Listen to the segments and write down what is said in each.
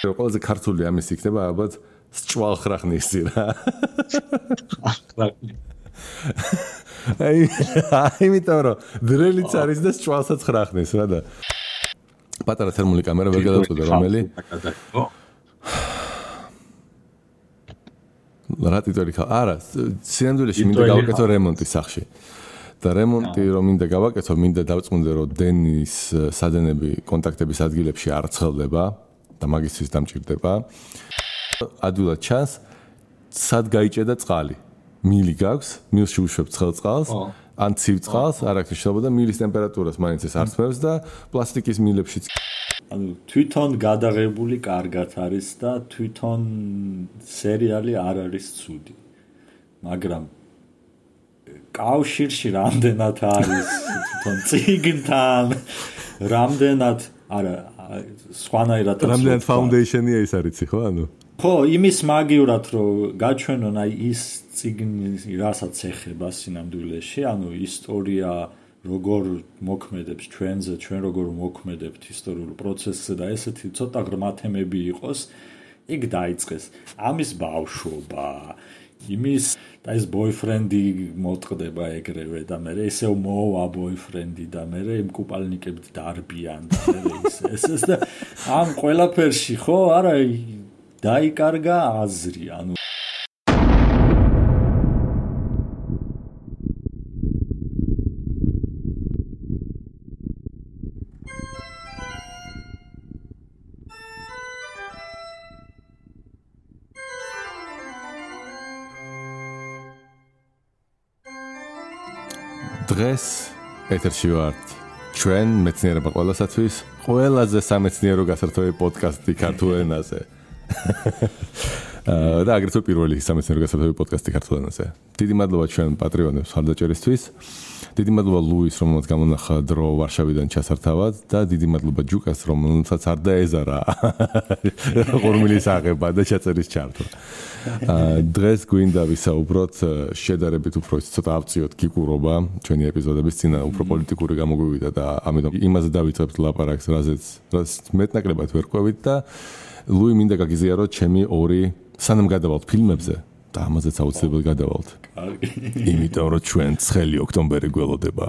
მაგრამ ყველაზე ქართული ამის იქნება ალბათ სჭვალხრახნისი რა. იმიტომ რომ დრელიც არის და სჭვალსაც ხრახნის რა და პატარა თერმული კამერა ვერ გადავწყვეტე რომელი. რა ტიტული ხა? არა, სინამდვილეში მინდა გავაკეთო რემონტი სახში. და რემონტი რომ მინდა გავაკეთო, მინდა დავწმუნდე რომ დენის სადენები კონტაქტების ადგილებში არ ცხელდება და მაგისთვის დამჭირდება. ადვილად ჩანს, სად გაიჭედა წყალი. მილი გაქვს, მილში უშვებ ცხელ წყალს, ან ცივ წყალს, არ აქვს მნიშვნელობა და მილის ტემპერატურას მაინც ეს არსმევს და პლასტიკის მილებშიც. ანუ თვითონ გადაღებული კარგად არის და თვითონ სერიალი არ არის ცუდი. მაგრამ კავშირში რამდენად არის თვითონ წიგნთან, რამდენად არა სხვანაირად რამდენად ფაუნდეიშენია ის არიცი ხო ანუ? ხო, იმის მაგივრად რომ გაჩვენონ აი ის წიგნი რასაც ეხება სინამდვილეში, ანუ ისტორია როგორ მოქმედებს ჩვენზე, ჩვენ როგორ მოქმედებთ ისტორიულ პროცესზე და ესეთი ცოტა ღრმა თემები იყოს, იქ დაიწყეს ამის ბავშვობა, იმის და ეს ბოიფრენდი მოტყდება ეგრევე და მე ესეო მოვა ბოიფრენდი და მე იმ კუპალნიკებით დარბიან და მე ეს და ამ ყველაფერში ხო არა დაიკარგა აზრი, ანუ დღეს ეთერში ვართ ჩვენ მეცნიერება ყველასათვის ყველაზე სამეცნიერო გასართობი პოდკასტი ქართულ ენაზე. და აგრეთვე პირველი სამეცნიერო გასართობი პოდკასტი ქართულ ენაზე. დიდი მადლობა ჩვენ პატრიონებს ხარდაჭერისთვის. დიდი მადლობა ლუის, რომელმაც გამონახა დრო ვარშავიდან ჩასართავად და დიდი მადლობა ჯუკას, რომელსაც არ დაეზარა ყურმილის აღება და ჩაწერის ჩართვა. დღეს გვინდა ვისაუბროთ შედარებით უფრო ცოტა ავწიოთ გიგურობა ჩვენი ეპიზოდების წინა უფრო პოლიტიკური გამოგვივიდა და ამიტომ იმაზე დავიწყებთ ლაპარაკს, რაზეც მეტნაკლებად ვერ ყვევით და ლუი მინდა გაგიზიაროთ ჩემი ორი სანამ გადავალთ ფილმებზე და ამაზეც აუცილებლად გადავალთ. იმიტომ რომ ჩვენ 9 ოქტომბერი გველოდება.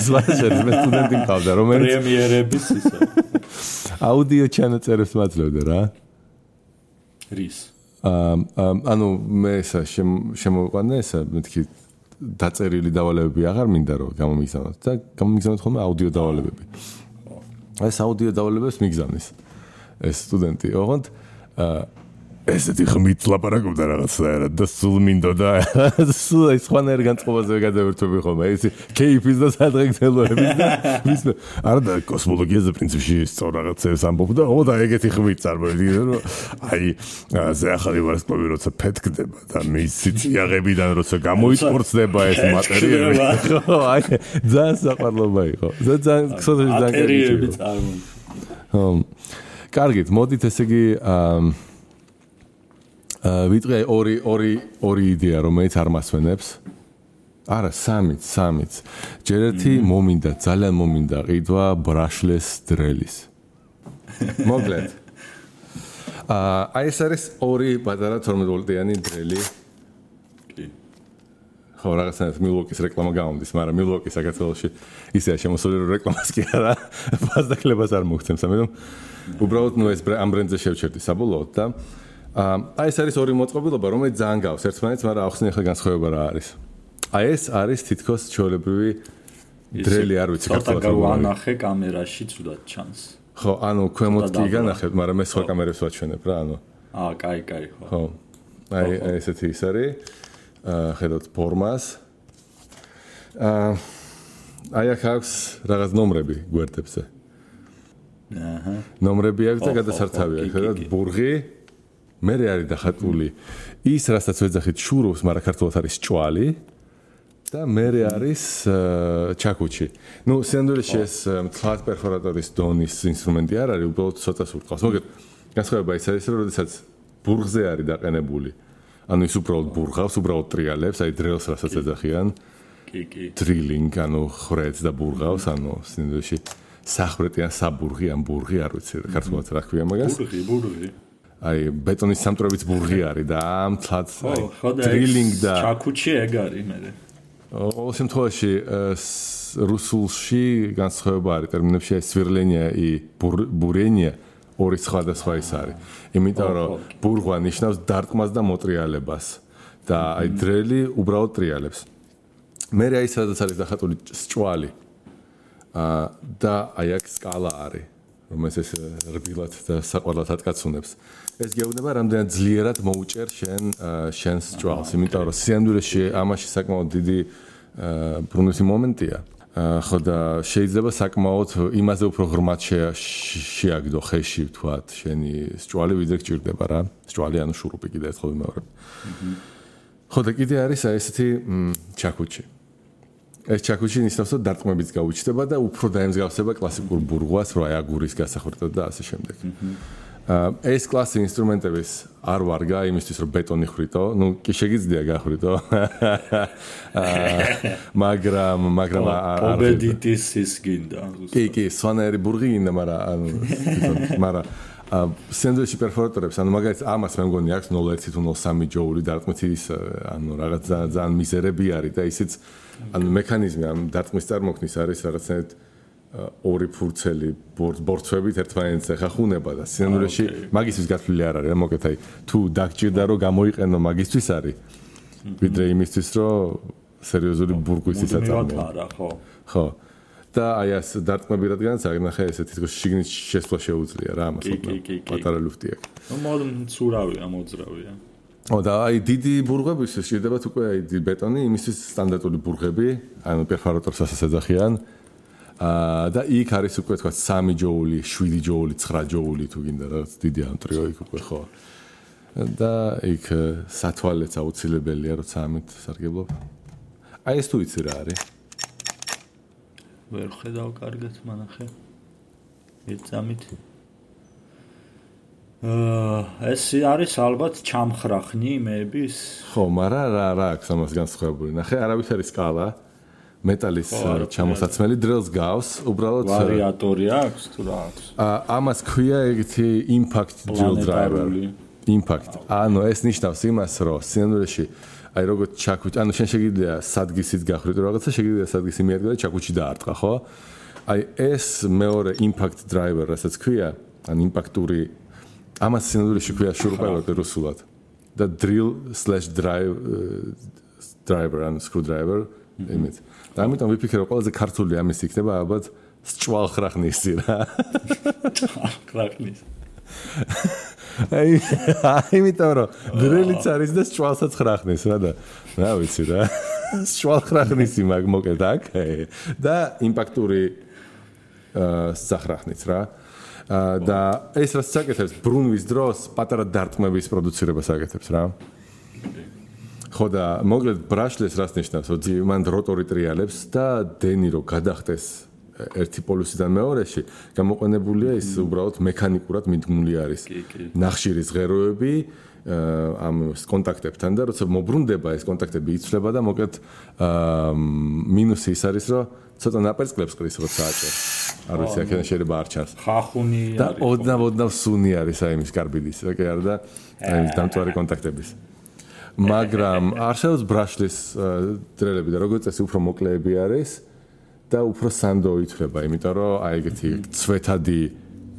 ზვაჟერ მე სტუდენტი მყავდა რომელიც პრემიერების ისა. აუდიო ჩანაწერებს მაძლევდა რა. რის? ანუ მე ესა შემოვიყვანე ესა მეთქი დაწერილი დავალებები აღარ მინდა რომ გამომიგზავნოთ და გამომიგზავნოთ ხოლმე აუდიო დავალებები. ეს აუდიო დავალებებს მიგზავნის ეს სტუდენტი. ოღონდ ესეთი ხმით ლაპარაკობდა რაღაცნაირად და სულ მინდოდა სულ ეს ხანერ განწყობაზე გადავერთვები ხოლმე ეს кейფის და სადღეგრძელოების და ვისმე არა და კოსმოლოგიაზე პრინციპში სწორ რაღაცებს ამბობდა და ეგეთი ხმით წარმოვიდგინე რომ აი ზე ახალი ვარსკვლავი როცა ფეთქდება და მის სიძიაღებიდან როცა გამოიწორცდება ეს მატერიები ხო აი ძალიან საყვარლობა იყო ძალიან ქსოთში მატერიები წარმოიდგინე კარგით მოდით ესე იგი ვიტყვი ორი იდეა რომელიც არ მასვენებს. არა, სამიც. ჯერ ერთი მომინდა, ძალიან მომინდა ყიდვა ბრაშლეს დრელის. მოკლედ. აი ეს არის ორი პატარა 12 ვოლტიანი დრელი. კი. ხო, რაღაცნაირად მილვოკის რეკლამა გამომდის, მაგრამ მილვოკი საქართველოში ისეა შემოსული რომ რეკლამას კი არა, ფასდაკლებას არ მოგცემს, ამიტომ უბრალოდ ნუ ეს ამ ბრენდზე შევჩერდი საბოლოოდ და აი ეს არის ორი მოწყობილობა, რომელიც ძალიან გავს ერთმანეთს, მაგრამ ახსნე ახლა განსხვავება რა არის. აი ეს არის თითქოს ჩვეულებრივი დრელი, არ ვიცი ქართულად გავანახე კამერაში ცუდად ჩანს. ხო, ანუ ქვემოთ კი განახეთ, მაგრამ მე სხვა კამერებს ვაჩვენებ რა, ანუ. კაი, ხო. ხო. აი ესეთი ის არის. ხედავთ ფორმას. აი აქ აქვს რაღაც ნომრები გვერდებზე. ნომრები აქვს და გადასართავი აქვს, ხედავთ ბურღი. მერე არის დახატული ის, რასაც ვეძახით შურობს, მაგრამ ქართულად არის ჭვალი და მერე არის ჩაკუჩი. ნუ სინამდვილეში ეს მთლად პერფორატორის დონის ინსტრუმენტი არ არის, უბრალოდ ცოტა სურთყავს. მაგრამ განსხვავება ის არის, რომ როდესაც ბურღზე არის დაყენებული, ანუ ის უბრალოდ ბურღავს, უბრალოდ ტრიალებს, აი დრელს რასაც ეძახიან. კი. დრილინგ, ანუ ხრეთს და ბურღავს, ანუ სინამდვილეში სახრეტი ან საბურღი ან ბურღი არ ვიცი ქართულად რა ქვია მაგას ბურღი აი ბეტონის სამტრობიც ბურღი არის და ამთლად დრილინგ და ჩაკუჩი ეგ არის მე ყოველ შემთხვევაში რუსულში განსხვავება არის ტერმინებში აი სვირლენია и буренья ორი სხვადასხვა ის არის იმიტომ რომ ბურღვა ნიშნავს დარტყმას და მოტრიალებას და აი დრელი უბრალოდ ტრიალებს მე აი სადაც არის დახატული სჭვალი და აი აქ სკალა არის რომელიც ეს რბილად და საყვარლად ატკაცუნებს ეს გეუბნება რამდენად ძლიერად მოუჭერ შენს სჭვალს იმიტომ რომ სიამდვილეში ამაში საკმაოდ დიდი ბრუნვის მომენტია ხო და შეიძლება საკმაოდ იმაზე უფრო ღრმად შეაგდო ხეში ვთქვათ შენი სჭვალი ვიდრე გჭირდება რა სჭვალი ანუ შურუპი კიდე ერთხელ ვიმეორებ ხო და კიდე არის აი ესეთი ჩაკუჩი ეს ჩაკუჩი ნიშნავს რომ დარტყმებიც გაუჩნდება და უფრო დაემსგავსება კლასიკურ ბურღვას რო აი აგურის გასახვერტად და ასე შემდეგ ეს კლასი ინსტრუმენტების არ ვარგა იმისთვის რომ ბეტონი ხრიტო ნუ კი შეგიძლია გახრიტო მაგრამ ობედიტის ის გინდა კი სვანაერი ბურღი გინდა მაგრამ სენდვიჩი პერფორატორებს ანუ მაგალითად ამას მე მგონი აქვს 0.1 თუ 0.3 ჯოული დარტყმით ის ანუ რაღაც ძალიან მიზერები არის და ისიც ანუ მექანიზმი ამ დარტყმის წარმოქმნის არის რაღაცნაირად ორი ფურცელი ბორცვებით ერთმანეთს ეხახუნება და სინამდვილეში მაგისთვის გათვლილი არ არის რა მოკეთ აი თუ დაგჭირდა რომ გამოიყენო მაგისთვის არის ვიდრე იმისთვის რომ სერიოზული ბურგვის იწარმოო ხო და აი ეს დარტყმები რადგანაც აღნახე ესე თითქოს შიგნით შესვლა შეუძლია რა ამას პატარა ლუფტი აქვს მცურავია მოძრავია და აი დიდი ბურღვებისთვის შეიძლება უკვე აი ბეტონი იმისთვის სტანდარტული ბურღები ანუ პერფორატორს ასაც ეძახიან და იქ არის უკვე თქვა 3 ჯოული, 7 ჯოული, 9 ჯოული თუ გინდა რაღაც დიდი ამტრიო იქ უკვე ხო. და იქ სათვალეც აუცილებელია როცა ამით სარგებლობ. აი ეს თუ იცი რა არის? ვერ ხედავ კარგად მანახე. ეცამით. ეს არის ალბათ ჩამხრახნი მეების. ხო, მაგრამ რა აქვს ამას განსხვავებული? ნახე, არავის არის სკალა. მეტალის ჩამოსაცმელი დრელს გავს, უბრალოდ ვარიატორი აქვს თუ რა აქვს? ამას ქვია ეგეთი impact drill driver. Impact. ანუ ეს ნიშნავს იმას, რომ სინამდვილეში აი როგორც ჩაკუჩი, ანუ შენ შეგიძლია სადგისით გახრიტო რაღაცა, შეგიძლია სადგისი მიადგა და ჩაკუჩი დაარტყა, ხო? აი ეს მეორე impact driver, რასაც ქვია, ან იმპაქტური ამას სინამდვილეში ქვია შურუპელოტი რუსულად. და drill/driver ან screwdriver იმით. და ამიტომ ვიფიქრე რომ ყველაზე ქართული ამის იქნება ალბათ სჭვალხრახნისი რა. სჭვალხრახნის. აი იმიტომ რომ დრელიც არის და სჭვალსაც ხრახნის რა და რა ვიცი რა. სჭვალხრახნისი მაგ მოკეთ აქ და იმპაქტური სახრახნიც რა. და ეს რაც საკეთებს ბრუნვის დროს პატარა დარტყმების პროდუცირებას აკეთებს რა. ხო და მოკლედ ბრაშლეს რას ნიშნავს, რომ მან როტორი ტრიალებს და დენი რო გადახტეს ერთი პოლუსიდან მეორეში, გამოყენებულია ის უბრალოდ მექანიკურად მიდგმული არის. ნახშირის ღეროები ამ კონტაქტებთან და როცა მობრუნდება ეს კონტაქტები იცვლება და მოკლედ მინუსი ის არის, რომ ცოტა ნაპერწკლებს ყრის როცა აჭერ. არ ვიცი, აქედან შეიძლება არ ჩანს. ხახუნი არის. და ოდნავ სუნი არის აი იმის კარბიდის, რა კი არა და აი დამწვარი კონტაქტების. მაგრამ არსებობს ბრაშლის დრელები და როგორც წესი უფრო მოკლეები არის და უფრო სანდო ითვლება, იმიტომ რომ აი ეგეთი ცვეთადი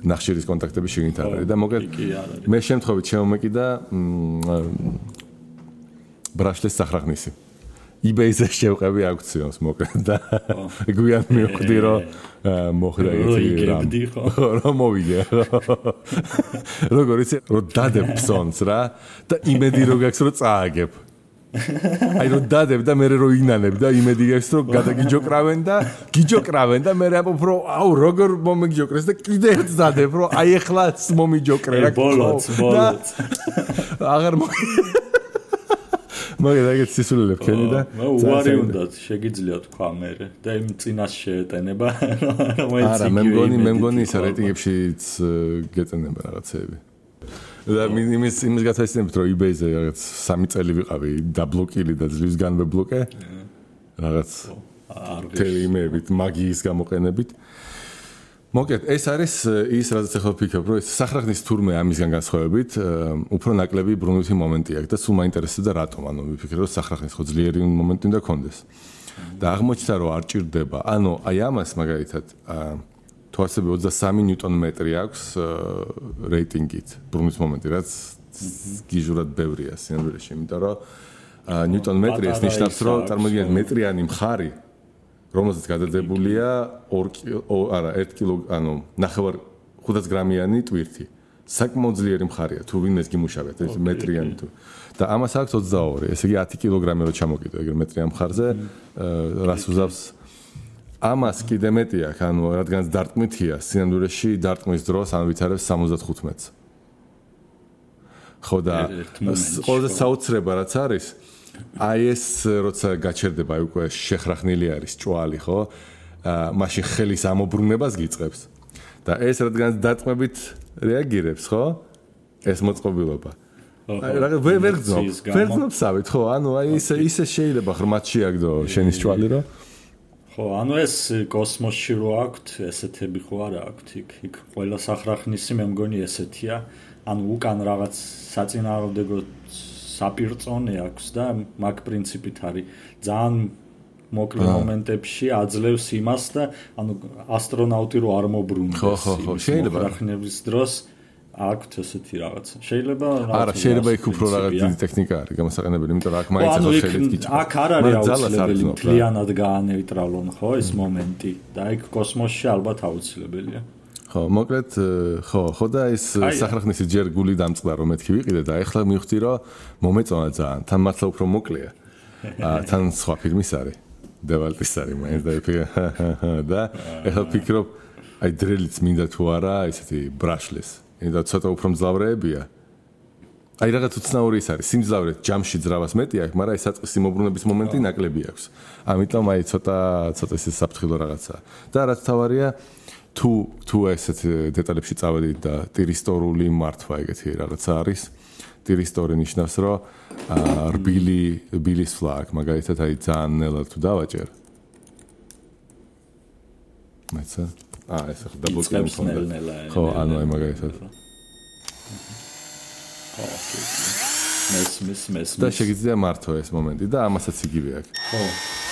ნახშირის კონტაქტები შეგინთ არ არის და მოკლედ მე შემთხვევით შემომეკიდა ბრაშლის სახრახნისი. eBay-ზე შევყევი აუქციონს მოკლედ და გვიან მივხვდი რომ მოხდა ეგეთი რომ მოვიგე. როგორ იცი რომ დადებ ფსონს რა და იმედი რო გაქვს რომ წააგებ. აი რომ დადებ და მე რო ინანებ და იმედი გაქვს რომ გადაგიჯოკრავენ და მე ამბობ რომ აუ როგორ მომიგიჯოკრეს და კიდე ერთ დადებ რომ აი ეხლაც მომიჯოკრე რა. ბოლოც. აღარ მაგას ეგეთ სისულელებ ქენი და უარი უნდა შეგიძლია თქვა მე და იმ წინას შეეტენება არა მე მგონი ის რეიტინგებშიც გეტენება რაღაცეები და იმის გათვალისწინებით რომ eBay-ზე რაღაც 3 წელი ვიყავი დაბლოკილი და ძლივს განვებლოკე რაღაც თელიმებით მაგიის გამოყენებით მოკეთ, ეს არის ის, რაზეც ახლა ვფიქრობ, რომ ეს სახრახნის თურმე ამისგან განსხვავებით, უფრო ნაკლები ბრუნვითი მომენტი აქვს და სულ მაინტერესებდა რატომ, ანუ ვიფიქრე, რომ სახრახნის ხო ძლიერი მომენტი უნდა კონდეს. და აღმოჩნდა, რომ არ ჭირდება. ანუ აი ამას მაგალითად თუ ასევე 23 ნიუტონ-მეტრი აქვს რეიტინგით, ბრუნვის მომენტი, რაც გიჟურად ბევრია სინამდვილეში, იმიტომ რომ ნიუტონ-მეტრი ეს ნიშნავს, რომ წარმოგიდგენთ მეტრიანი მხარი რომელზეც გადადებულია 1 კილო, ანუ 500 გრამიანი ტვირთი. საკმაოდ ძლიერი მხარია, თუ ვინმეს გიმუშავებთ, ეს მეტრიანი თუ. და ამას აქვს 22, ესე იგი 10 კილოგრამი რო ჩამოკიდო, ეგრე მეტრიან მხარზე, რას უზავს? ამას კიდე მეტი აქვს, ანუ რადგანაც დარტყმითია, სინამდვილეში დარტყმის დროს ან ვითარებს 75-ს. ხო და ყველაზე საოცრება რაც არის აი ეს როცა გაჩერდება აი უკვე შეხრახნილი არის ჭვალი ხო მაშინ ხელის ამობრუნებას გიწყებს და ეს რადგანაც დარტყმებით რეაგირებს ხო ეს მოწყობილობა აი ვერ გძნობსავით ხო ანუ აი ისე შეიძლება ღრმად შეაგდო შენის ჭვალი რო ხო ანუ ეს კოსმოსში რო აქვთ ესეთები ხო არა აქვთ იქ ყველა სახრახნისი მე მგონი ესეთია ანუ უკან რაღაც საწინააღმდეგო საპირწონე აქვს და მაგ პრინციპით არის ძალიან მოკლე მომენტებში აძლევს იმას და ანუ ასტრონავტი რო არ მობრუნდეს ხო შეიძლება სახრახნების დროს აქვთ ესეთი რაღაცა შეიძლება არა შეიძლება იქ უფრო რაღაც დიდი ტექნიკა არის გამოსაყენებელი იმიტომ რომ აქ მაინც ახლა ხელით გიჭირდება აქ არ არის აუცილებელი მთლიანად გაანეიტრალონ ხო ეს მომენტი და იქ კოსმოსში ალბათ აუცილებელია ხო, მოკლედ, ხო და ეს სახრახნისი ჯერ გული დამწყდა რომ მეთქი ვიყიდე და ეხლა მივხვდი რომ მომეწონა ძალიან. თან მართლა უფრო მოკლეა. თან სხვა ფილმის არის. დევალტის არის მაინც და ეხლა ვფიქრობ, აი დრელიც მინდა თუ არა, ესეთი ბრაშლეს. და ცოტა უფრო მძლავრეებია. აი რაღაც უცნაური ის არის. სიმძლავრე ჯამში ძრავას მეტი აქვს, მაგრამ ეს საწყისი მობრუნების მომენტი ნაკლები აქვს. ამიტომ აი ცოტა ისე საფრთხილო რაღაცაა. და რაც თავარია თუ ესეთ დეტალებში წავედით და ტირისტორული მართვა ეგეთი რაღაცა არის ტირისტორი ნიშნავს რომ რბილის ფლაკ მაგალითად აი ძალიან ნელად თუ დავაჭერ მეცა ეს ახლა დაბოჭებული ხო ანუ აი მაგალითად მეს და შეგიძლია მართო ეს მომენტი და ამასაც იგივე აქვს ხო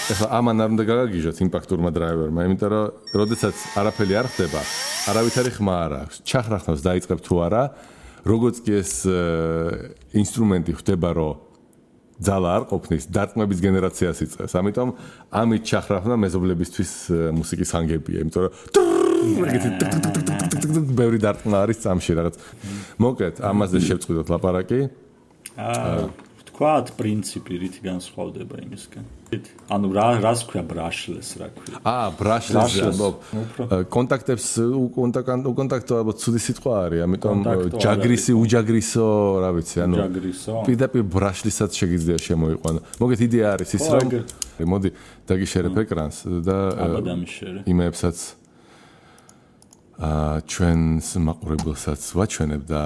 ეხლა ამან არ უნდა გაგაგიჟოთ იმპაქტურმა დრაივერმა, იმიტომ რომ როდესაც არაფერი არ ხდება, არავითარი ხმა არ აქვს. ჩახრახნავს დაიწყებ თუ არა, როგორც კი ეს ინსტრუმენტი ხდება, რომ ძალა არ ყოფნის, დარტყმების გენერაციას იწყებს. ამიტომ ამით ჩახრახნა მეზობლებისთვის მუსიკის ხანგებია, იმიტომ რომ ეგეთი ბევრი დარტყმა არის წამში რაღაც. მოკლედ, ამაზე შევწყვიტოთ ლაპარაკი. თქვათ პრინციპი რითი განსხვავდება იმისგან. ანუ რას ქვია ბრაშლეს რა ქვია? ბრაშლეს კონტაქტებს უკონტაქტო ალბათ ცუდი სიტყვა არის, ამიტომ ჯაგრისი, უჯაგრისო, რა ვიცი, ანუ პირდაპირ ბრაშლისაც შეგიძლია შემოიყვანო. მოგეთ იდეა არის ის რომ მოდი დაგიშერებ ეკრანს და იმეებსაც ჩვენს მაყურებელსაც ვაჩვენებ და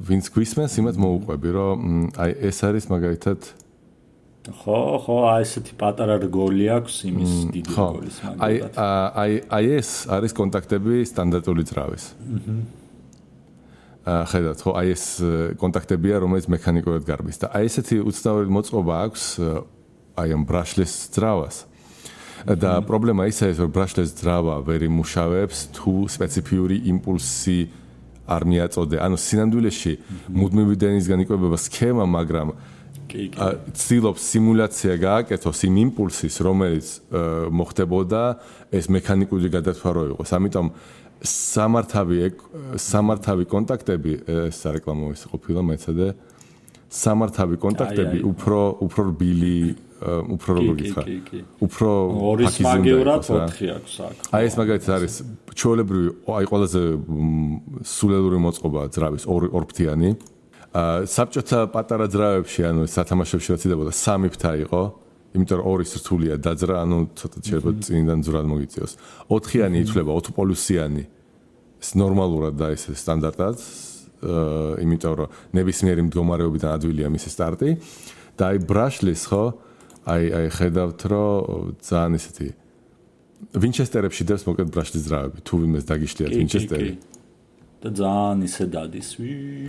ვინც გვისმენს იმათ მოუყვები რომ აი ეს არის მაგალითად ხო ესეთი პატარა რგოლი აქვს იმის დიდი რგოლის მაგალითად აი ეს არის კონტაქტები სტანდარტული ძრავის ხედავთ ხო აი ეს კონტაქტებია რომელიც მექანიკურად გარბის და აი ესეთი უცნაური მოწყობა აქვს აი ამ ბრაშლეს ძრავას და პრობლემა ისაა რომ ბრაშლეს ძრავა ვერ იმუშავებს თუ სპეციფიური იმპულსი არ მიაწოდე. ანუ სინამდვილეში მუდმივი დენისგან იკვებება სქემა, მაგრამ ცდილობს სიმულაცია გააკეთოს იმ იმპულსის, რომელიც მოხდებოდა ეს მექანიკური გადათვარო იყოს. ამიტომ სამართავი კონტაქტები ეს რეკლამა ის ყოფილა მეცადე სამართავი კონტაქტები უფრო რბილი უფრო როგორ გითხრა უფრო ორის მაგევრად 4 აქვს აქ აი ეს მაგალითად არის ჩვეულებრივი აი ყველაზე სულელური მოწყობა ძრავის ორფრთიანი საბჭოთა პატარა ძრავებში ანუ სათამაშოებში რაც იდებოდა 3 ფრთა იყო იმიტომ რომ ორი სრთულია დაძრა ანუ ცოტა შეიძლება წინიდან ძვრად მოგიწიოს 4-იანი ითვლება 4 პოლუსიანი ეს ნორმალურად და ეს სტანდარტად იმიტომ რომ ნებისმიერი მდგომარეობიდან ადვილია მისი სტარტი და აი ბრაშლის ხო აი ხედავთ რომ ძალიან ისეთი ვინჩესტერებში დევს მოკლედ ბრაშლის ძრავები, თუ ვინმეს დაგიშლიათ ვინჩესტერი. და ძალიან ისე დადის.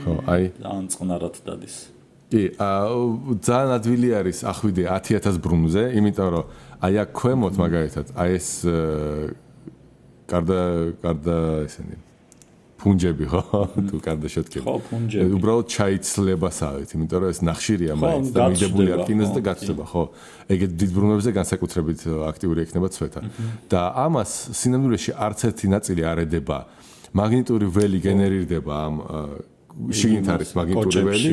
ხო, აი. ძალიან წყნარად დადის. კი, ძალიან ადვილი არის ახვიდე 10000 ბრუნზე, იმიტომ რომ აი აქ ქვემოთ მაგალითად, აი ეს გარდა ესენი ფუნჯები ხო? თუ გარდა შეტკები. ხო, ფუნჯები. უბრალოდ ჩაიცლებასავით, იმიტომ რომ ეს ნახშირია მაინც და მიდებული არ კინოზე და გაცდება, ხო? ეგეთ დიდ ბრუნვებზე განსაკუთრებით აქტიური ექნება ცვეთა. და ამას სინამდვილეში არც ერთი ნაწილი არ ედება. მაგნიტური ველი გენერირდება ამ შიგნით არის მაგნიტური ველი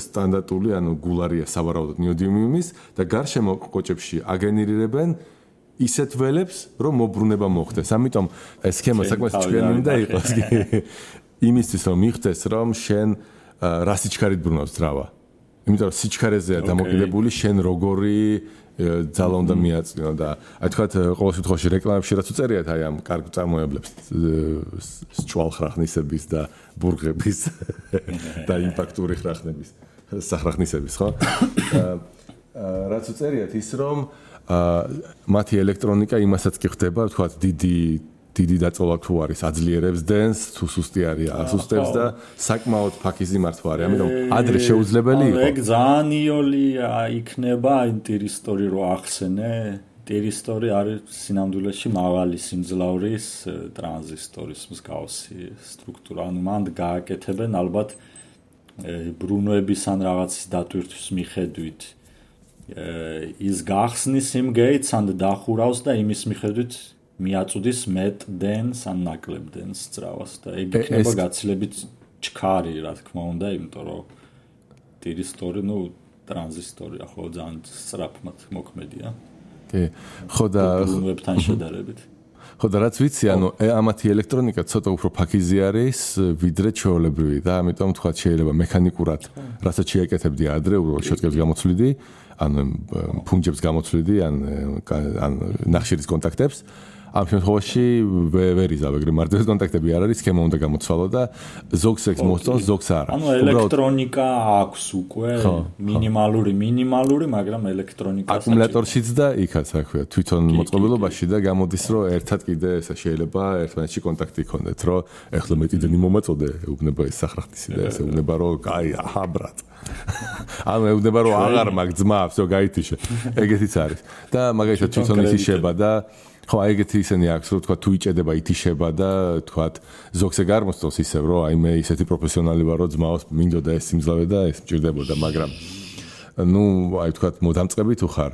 სტანდარტული ანუ გულარია სავარაუდოდ ნიოდიმის და გარშემო კოჭებში აგენერირებენ ისეთ ველებს რომ მოbrunება მოხდეს. ამიტომ ეს სქემა საკმაოდ ჭკვიანი უნდა იყოს იმისთვის რომ მიხდეს რომ შენ რა სიჩქარით ბრუნავს ძრავა. იმიტომ რომ სიჩქარეზეა დამოკიდებული შენ როგორი ძალა უნდა მიაწვინო და აი თქვათ ყოველ შემთხვევაში რეკლამებში რაც უწერიათ აი ამ კარგ წარმოებლებს ჭვალხრახნისების და ბურღების და იმპაქტური ხრახნების სახრახნისების ხო რაც უწერიათ ის რომ მათი ელექტრონიკა იმასაც კი ხდება თქვათ დიდი დაწოლა თუ არის აძლიერებს დენს თუ სუსტი არის ასუსტებს და საკმაოდ ფაქიზი მართვა არის ამიტომ ადრე შეუძლებელი იყო ეგ ძალიან იოლი იქნება ინტერისტორი რო ახსენე ინტერისტორი არის სინამდვილეში მაღალი სიმძლავრის ტრანზისტორის მსგავსი სტრუქტურა ანუ მანდ გააკეთებენ ალბათ ბრუნვების ან რაღაცის დატვირთვის მიხედვით ის გახსნის იმ გეიტს ან დახურავს და იმის მიხედვით მიაწუდის მეტ დენს ან ნაკლებ დენს ძრავას და ეგ იქნება გაცილებით ჩქარი რა თქმა უნდა იმიტომ რომ ტირისტორი ნუ ტრანზისტორია ხო ძალიან სწრაფად მოქმედია კი ხო და ბრუნვებთან შედარებით ხო და რაც ვიცი ანუ ამათი ელექტრონიკა ცოტა უფრო ფაქიზი არის ვიდრე ჩვეულებრივი და ამიტომ თქვა შეიძლება მექანიკურად რასაც შეაკეთებდი ადრე უბრალოდ შეტკებს გამოცვლიდი ან ფუნჯებს გამოცვლიდი ან ნახშირის კონტაქტებს ამ შემთხვევაში ვერ იზავეგრე მარტივი კონტაქტები არ არის სქემა უნდა გამოცვალო და ზოგს ექს მოსწონს ზოგს არა ანუ ელექტრონიკა აქვს უკვე მინიმალური მაგრამ ელექტრონიკა აკუმულატორშიც და იქაც რა ქვია თვითონ მოწყობილობაში და გამოდის რომ ერთად კიდე ესა შეიძლება ერთმანეთში კონტაქტი იქონდეთ რომ ეხლა მეტი დენი მომაწოდე ეუბნება ეს სახრახტისი და ესე ეუბნება რომ კაი აჰა ბრატ ანუ ეუბნება რომ აღარ მაგ ძმა всё გაითიშე ეგეთიც არის და მაგალითად თვითონ ითიშება და ხო აი ეგეთი ისენი აქვს რომ თქვა თუ იჭედება ითიშება და თქვა ზოგს ეგ არ მოსწონს ისევ რომ აი მე ისეთი პროფესიონალი ვარ რომ ძმაოს მინდოდა ეს სიმძლავე და ეს მჭირდებოდა მაგრამ ნუ აი თქვა მოდამწყები თუ ხარ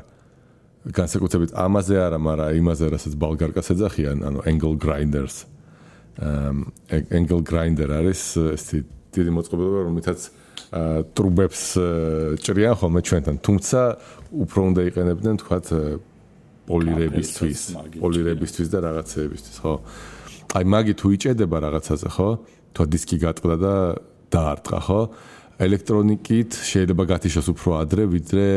განსაკუთრებით ამაზე არა მაგრამ იმაზე რასაც ბალგარკას ეძახიან ანუ angle grinders angle grinder არის ესეთი დიდი მოწყობილობა რომლითაც ტრუბებს ჭრიან ხოლმე ჩვენთან თუმცა უფრო უნდა იყენებდნენ თქვა პოლირებისთვის და რაღაცეებისთვის, ხო? აი მაგი თუ იჭედება რაღაცაზე, ხო? თუ დისკი გატყდა და დაარტყა, ხო? ელექტრონიკით შეიძლება გათიშოს უფრო ადრე, ვიდრე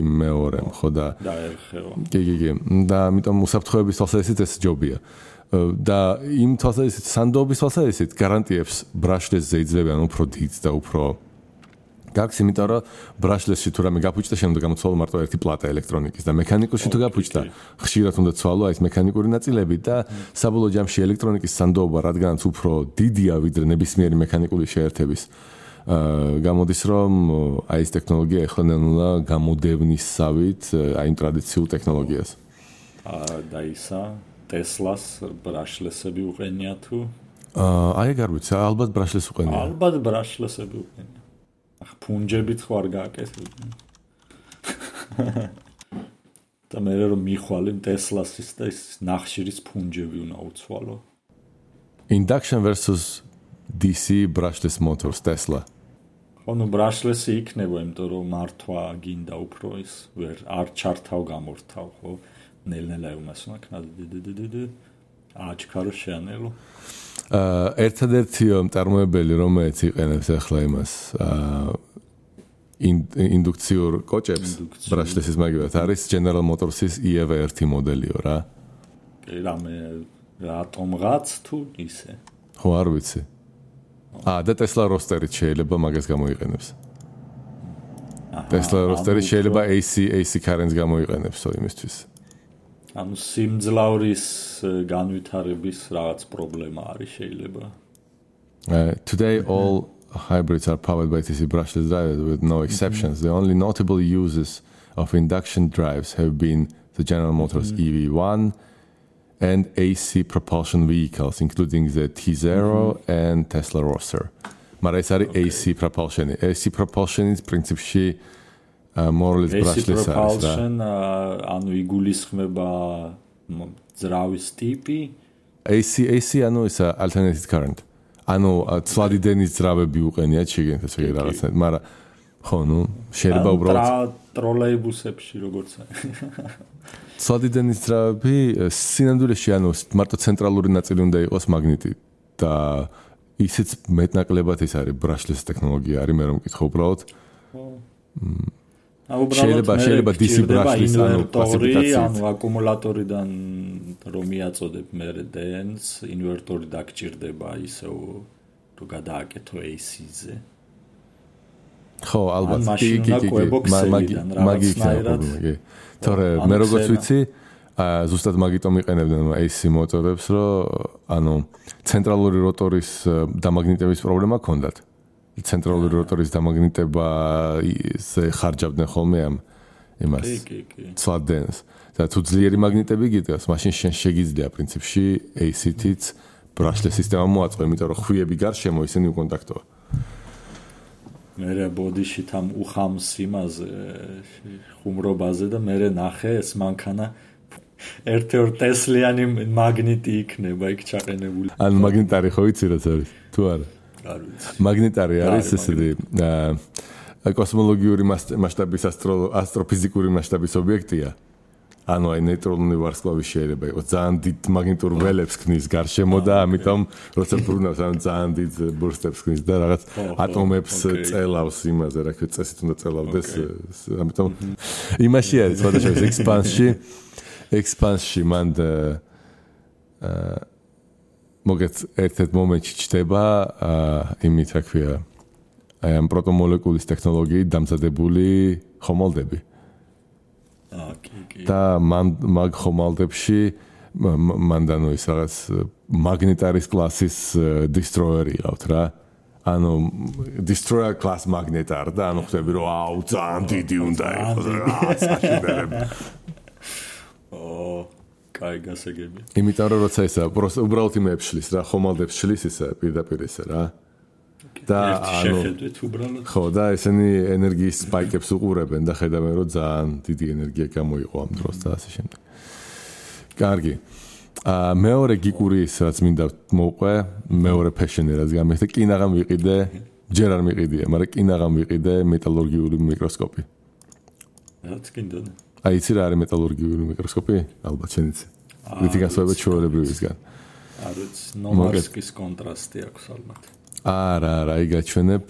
იმ მეორემ, ხო და დაერხევა. კი. და ამიტომ უსაფრთხოების თვალსაზრისით ეს ჯობია. და იმ თვალსაზრისით სანდოობის თვალსაზრისით გარანტიებს ბრაშლესზე იძლევიან უფრო დიდს და უფრო გაქს იმიტომ რომ ბრაშლესში თუ რამე გაფუჭდა შემდგომ გამოცვალო მარტო ერთი პლატა ელექტრონიკის და მექანიკურში თუ გაფუჭდა ხშირად უნდა ცვალო აი ეს მექანიკური ნაწილები და საბოლოო ჯამში ელექტრონიკის სანდოობა რადგანაც უფრო დიდია ვიდრე ნებისმიერი მექანიკური შეერთების გამოდის რომ აი ეს ტექნოლოგია ეხლა ნელა გამოდევნისავით აი იმ ტრადიციულ ტექნოლოგიას და ისა ტესლას ბრაშლესები უყენია თუ აი ეგ არ ვიცი ალბათ ბრაშლეს უყენია ალბათ ბრაშლესები უყენია ფუნჯებით ხო არ გააკეთებდნენ. და მე რომ მიხვალე ტესლასის და ის ნახშირის ფუნჯები უნდა უცვალო. Induction versus DC brushless motors Tesla. ანუ ბრაშლესი იქნება, იმიტომ რომ მართვა გინდა უფრო ის ვერ არ ჩართავ გამორთავ, ხო? ნელ-ნელა უმასუნა კნად აჩქარო შეანელო. ერთადერთი მწარმოებელი რომელიც იყენებს ახლა იმას ინდუქციურ კოჭებს ბრაშლესის მაგივად არის General Motors-ის EV1 მოდელიო რა. კი რამე რატომღაც თუ ისე. ხო არ ვიცი. და Tesla Roadster-ით შეიძლება მაგას გამოიყენებს. Tesla Roadster-ით შეიძლება AC currents გამოიყენებსო იმისთვის. ანუ სიმძლავრის განვითარების რაღაც პრობლემა არის შეიძლება. Today all hybrids are powered by DC brushless drivers with no exceptions. The only notable uses of induction drives have been the General Motors EV1 and AC propulsion vehicles, including the T0 and Tesla Roadster. მაგრამ ეს არის AC propulsion. AC propulsion is principally more or less brushless არის რა. ანუ იგულისხმება ძრავის ტიპი. AC ანუ ის alternating current. ანუ ცვლადი დენის ძრავები უყენიათ შეგენთეს ეგ რაღაცა, მაგრამ ხო, ნუ შეიძლება უბრალოდ ტროლეიბუსებში როგორც ცვლადი დენის ძრავები სინამდვილეში ანუ მარტო ცენტრალური ნაწილი უნდა იყოს მაგნიტი და ისიც მეტნაკლებად ის არის brushless ტექნოლოგია არის, მე რომ მკითხო უბრალოდ. შეიძლება DC brushless ანუ კლასიფიკაცია. ანუ აკუმულატორიდან რომ მიაწოდებ მე დენს, ინვერტორი დაგჭირდება ისევ რომ გადააკეთო AC-ზე. ხო, ალბათ. მაგი. თორე მე როგორც ვიცი, ზუსტად მაგიტომ იყენებდნენ AC მოტორებს, რომ ანუ ცენტრალური როტორის დამაგნიტების პრობლემა ჰქონდათ. ცენტრალური როტორის დამაგნიტება ხარჯავდნენ ხოლმე ამ იმას. ცვლადენს. და თუ ძლიერი მაგნიტები გიტყვას, მაშინ შენ შეგიძლია პრინციპში AC-თიც brushless სისტემა მოაწყო, იმიტომ რომ ხვიები გარშემო ისინი უკონტაქტოა. მერე ბოდიში თამ უხამს იმაზე ხუმრობაზე და მერე ნახე ეს მანქანა ერთ-ერთ ტესლიანი მაგნიტი იქნება იქ ჩაყენებული. ან მაგნიტარი ხო იცი რა არის? თუ არა? არ ვიცი. მაგნიტარი არის ესეთი კოსმოლოგიური მასშტაბის ასტროფიზიკური მასშტაბის ობიექტია. ანუ აი ნეიტრონული ვარსკვლავი შეიძლება იყოს ძალიან დიდ მაგნიტურ ველებს ქმნის გარშემო და ამიტომ როცა ბრუნავს ან ძალიან დიდ ბურსტებს ქმნის და რაღაც ატომებს წელავს იმაზე, რა ქვია, წესით უნდა წელავდეს, ამიტომ იმაში არის სხვადასხვა expansion მან მოგეთ ერთ-ერთ მომენტში ჩდება იმით, რა ქვია, აი ამ პროტომოლეკულის ტექნოლოგიით დამზადებული ხომალდები. და მაგ ხომალდებში მანდანო ის რაღაც მაგნეტარის კლასის destroyer იყავთ რა. ანუ destroyer class magnetar და ანუ ხვდები რომ აუ ძალიან დიდი უნდა იყოს რა საშინელები. კაი გასაგები. იმიტომ რომ როცა ისა უბრალოდ იმებს შლის რა, ხომალდებს შლის ისა პირდაპირ ისა რა. და ანუ ხო და ესენი ენერგიის სპაიკებს უყურებენ და ხედავენ რომ ძალიან დიდი ენერგია გამოიყო ამ დროს და ასე შემდეგ. კარგი. მეორე გიკური ის რაც მინდა მოვყვე, მეორე ფეშენი რაც გამიხდა, კინაღამ ვიყიდე, ჯერ არ მიყიდია, მაგრამ კინაღამ ვიყიდე მეტალურგიული მიკროსკოპი. რაც კიდე. აი იცი რა არის მეტალურგიული მიკროსკოპი? ალბათ შენ იცი. რითი განსხვავება ჩვეულებრივისგან? არ ვიცი, ნომარსკის კონტრასტი აქვს ალბათ. არა, აი გაჩვენებ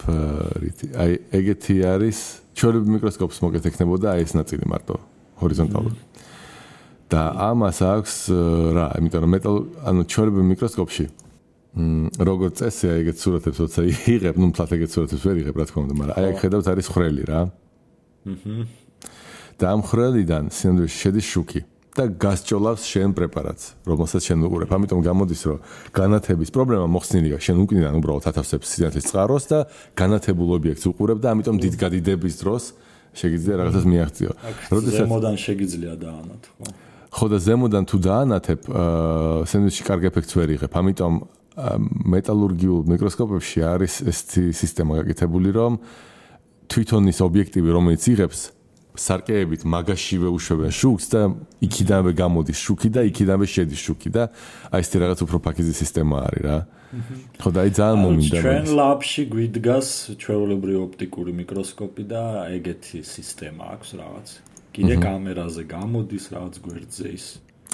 რითი. აი ეგეთი არის ჩვეულებრივ მიკროსკოპს მოგეთ ექნებოდა აი ეს ნაწილი მარტო ჰორიზონტალური. და ამას აქვს რა, იმიტომ რომ ანუ ჩვეულებრივ მიკროსკოპში როგორც წესია ეგეთ სურათებს როცა იღებ, ნუ მთლად ეგეთ სურათებს ვერ იღებ რა თქმა უნდა, მაგრამ აი აქ ხედავთ არის ხრელი რა. და ამ ხრელიდან სინამდვილეში შედის შუქი და გასჭოლავს შენ პრეპარატს, რომელსაც შენ უყურებ. ამიტომ გამოდის, რომ განათების პრობლემა მოხსნილია, შენ უკნიდან უბრალოდ ათავსებს სინათლის წყაროს და განათებულ ობიექტს უყურებ და ამიტომ დიდგადიდების დროს შეგიძლია რაღაცას მიაღწიო. როდესაც ზემოდან შეგიძლია დაანათო. ხო და ზემოდან თუ დაანათებ, სინამდვილეში კარგ ეფექტს ვერ იღებ. ამიტომ მეტალურგიულ მიკროსკოპებში არის ეს სისტემა გაკეთებული, რომ თვითონ ის ობიექტივი, რომელიც იღებს სარკეებით მაგაშივე უშვებენ შუქს და იქიდანვე გამოდის შუქი და იქიდანვე შედის შუქი და აი ეს რაღაც უფრო ფაქიზი სისტემა არის რა. ხო და აი ძალიან მომინდა. ჩვენ ლაბში გვიდგას ჩვეულებრივი ოპტიკური მიკროსკოპი და ეგეთი სისტემა აქვს რაღაც. კიდე კამერაზე გამოდის რაღაც გვერდზე ის.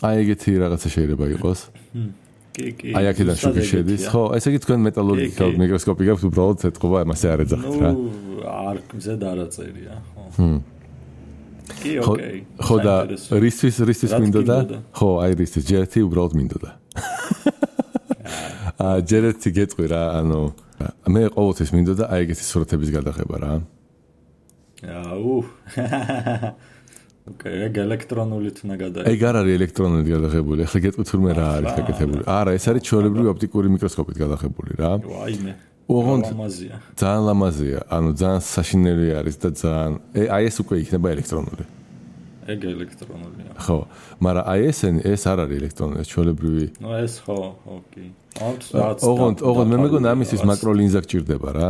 აი ეგეთი რაღაცა შეიძლება იყოს. კი. აი აქედან შუქი შედის. ხო, ესე იგი თქვენ მეტალურგიულ მიკროსკოპი გაქვთ, უბრალოდ ეთყობა, ამასე არ ეძახით რა. არ ზედ არაწერია, ხო. კი, ოკეი. ხო და რისთვის მინდოდა? ხო, აი რისთვის ჯერეთი უბრალოდ მინდოდა. ჯერეთი გეტყვი რა, ანუ მე ყოველთვის მინდოდა აი ეგეთი სურათების გადაღება რა. ოკეი, ეგ ელექტრონულით უნდა გადაიღო. ეგ არ არის ელექტრონულით გადაღებული. ახლა გეტყვით თურმე რა არის გაკეთებული. არა, ეს არის ჩვეულებრივი ოპტიკური მიკროსკოპით გადაღებული რა. ვაიმე. ოღონდ ლამაზია. ძალიან ლამაზია. ანუ ძალიან საშინელი არის და ძალიან აი ეს უკვე იქნება ელექტრონული. ეგ ელექტრონულია. ხო, მაგრამ აი ეს არ არის ელექტრონული, ეს ჩვეულებრივი. ნუ ეს ხო, ოკეი. ოღონდ მე მეგონა ამისთვის მაკროლინზა გჭირდება რა.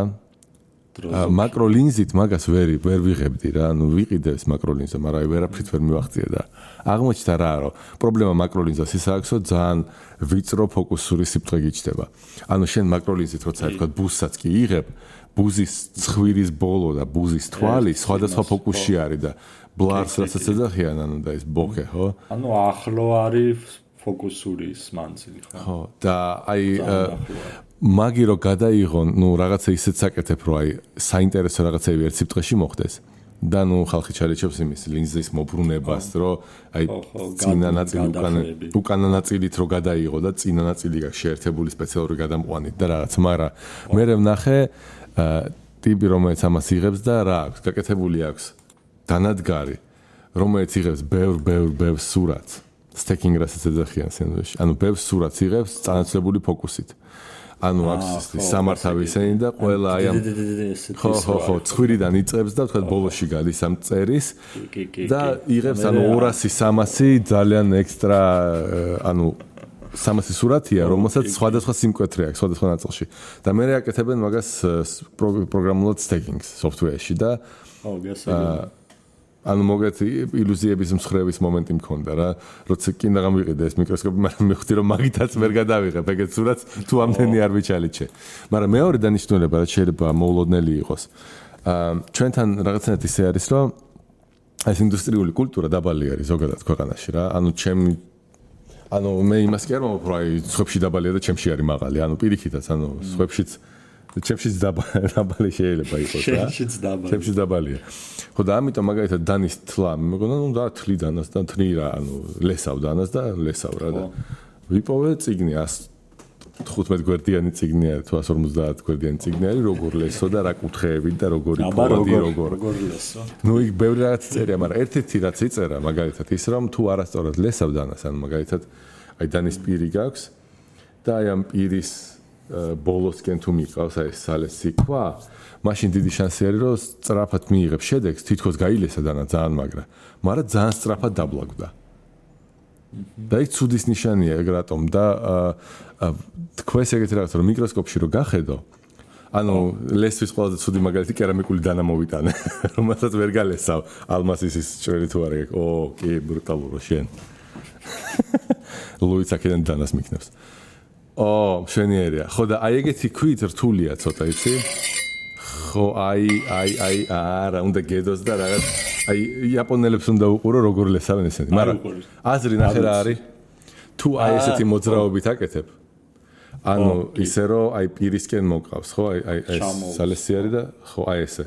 მაკროლინზით მაგას ვერ ვიღებდი რა, ანუ ვიყიდებს მაკროლინზა, მაგრამ აი ვერაფრით ვერ მივახციე და აღმოჩნდა რა, რომ პრობლემა მაკროლინზას ის აქვს, რომ ძალიან ვიწრო ფოკუსური სიბრტყე გიჩნდება. ანუ შენ მაკროლინზით როცა თქვა ბუზსაც კი იღებ, ბუზის ცხვირის ბოლო და ბუზის თვალი სხვადასხვა ფოკუსში არის და ბლარს რასაც ეძახიან, ანუ და ეს ბოქე, ხო? ანუ ახლო არის ფოკუსური მანძილი, ხო? ხო, და აი მაგი რო გადაიღონ, ნუ რაღაცა ისეთ საკეთებ, რომ აი საინტერესო რაღაცები ერთ სიბრტყეში მოხდეს. და ნუ ხალხი ჩარეჩებს იმის ლინზის მობრუნებას, რომ აი წინა ნაწილი უკანა ნაწილით რო გადაიღო და წინა ნაწილი გაქვს შეერთებული სპეციალური გადამყვანით და რაღაც, მაგრამ მე ვნახე ტიპი რომელიც ამას იღებს და რა აქვს, გაკეთებული აქვს დანადგარი, რომელიც იღებს ბევრ სურათს, სტეკინგ რასაც ეძახიან სენდვიჩში. ანუ ბევრ სურათს იღებს წანაცვლებული ფოკუსით. ანუ აქვს სამართავი ისენი და ყველა აი ამ ხო ცხვირიდან იწყებს და თქვა ბოლოში გადის ამ წერის და იღებს ანუ 200-300 ძალიან ექსტრა ანუ 300 სურათია, რომელსაც სხვადასხვა სიმკვეთრე აქვს სხვადასხვა ნაწილში. და მე აკეთებენ მაგას პროგრამულად სტეკინგს software-ში და ანუ მოგეთ ილუზიების მსხრევის მომენტი მქონდა რა, როცა კიდე გამიყიდე ეს მიკროსკოპი, მაგრამ მე ხვდი რომ მაგითაც ვერ გადავიღებ ეგეთ სურათს თუ ამდენი არ ვიჩალიჩე. მაგრამ მეორე დანიშნულება რაც შეიძლება მოულოდნელი იყოს. ჩვენთან რაღაცნაირად ისე არის რომ ეს ინდუსტრიული კულტურა დაბალი არის ზოგადად ქვეყანაში რა. ანუ მე იმას კი არ მომავალ რომ აი სხვებში დაბალია და ჩემში არის მაღალი. ანუ პირიქითაც ანუ სხვებშიც ჩემშიც დაბალი შეიძლება იყოს რა. ჩემშიც დაბალია. ხო და ამიტომ მაგალითად დანის თლა მეგონა ნუ და თლი დანას და თრი რა ანუ ლესავ დანას და ლესავ რა და ვიპოვე წიგნი 115 გვერდიანი წიგნი არის თუ 150 გვერდიანი წიგნი არის როგორ ლესო და რა კუთხეებით და როგორი ფონდი როგორ ლესო. ნუ იქ ბევრი რაღაც წერია, მაგრამ ერთ-ერთი რაც იწერა მაგალითად ის რომ თუ არასწორად ლესავ დანას ანუ მაგალითად აი დანის პირი გაქვს და აი ამ პირის ბოლოსკენ თუ მიყავს აი სალეს სიქვა მაშინ დიდი შანსი არის რომ სწრაფად მიიღებს შედეგს თითქოს გაილესა დანა ძალიან მაგრამ ძალიან სწრაფად დაბლაგდა და ის ცუდის ნიშანია ეგ რატომ და თქვენს ეგეთი რაღაცა რომ მიკროსკოპში რო გახედო ანუ ლესვის ყველაზე ცუდი მაგალითი კერამიკული დანა მოვიტანე რომელსაც ვერ გალესავ ალმასის ის ჭრელი თუ არა ო კი ბრუტალურო შენ ლუიც აქედან დანას მიქნებს მშვენიერია ხო და აი ეგეთი ქვით რთულია ცოტა იცი ხო აი არა უნდა გედოს და რაღაც აი იაპონელებს უნდა უყურო როგორ ლესავენ ესენი მაგრამ აზრი ნახე რა არის თუ აი ესეთი მოძრაობით აკეთებ ანუ ისე რომ აი პირისკენ მოკავს ხო აი სალესი არის და ხო აი ესე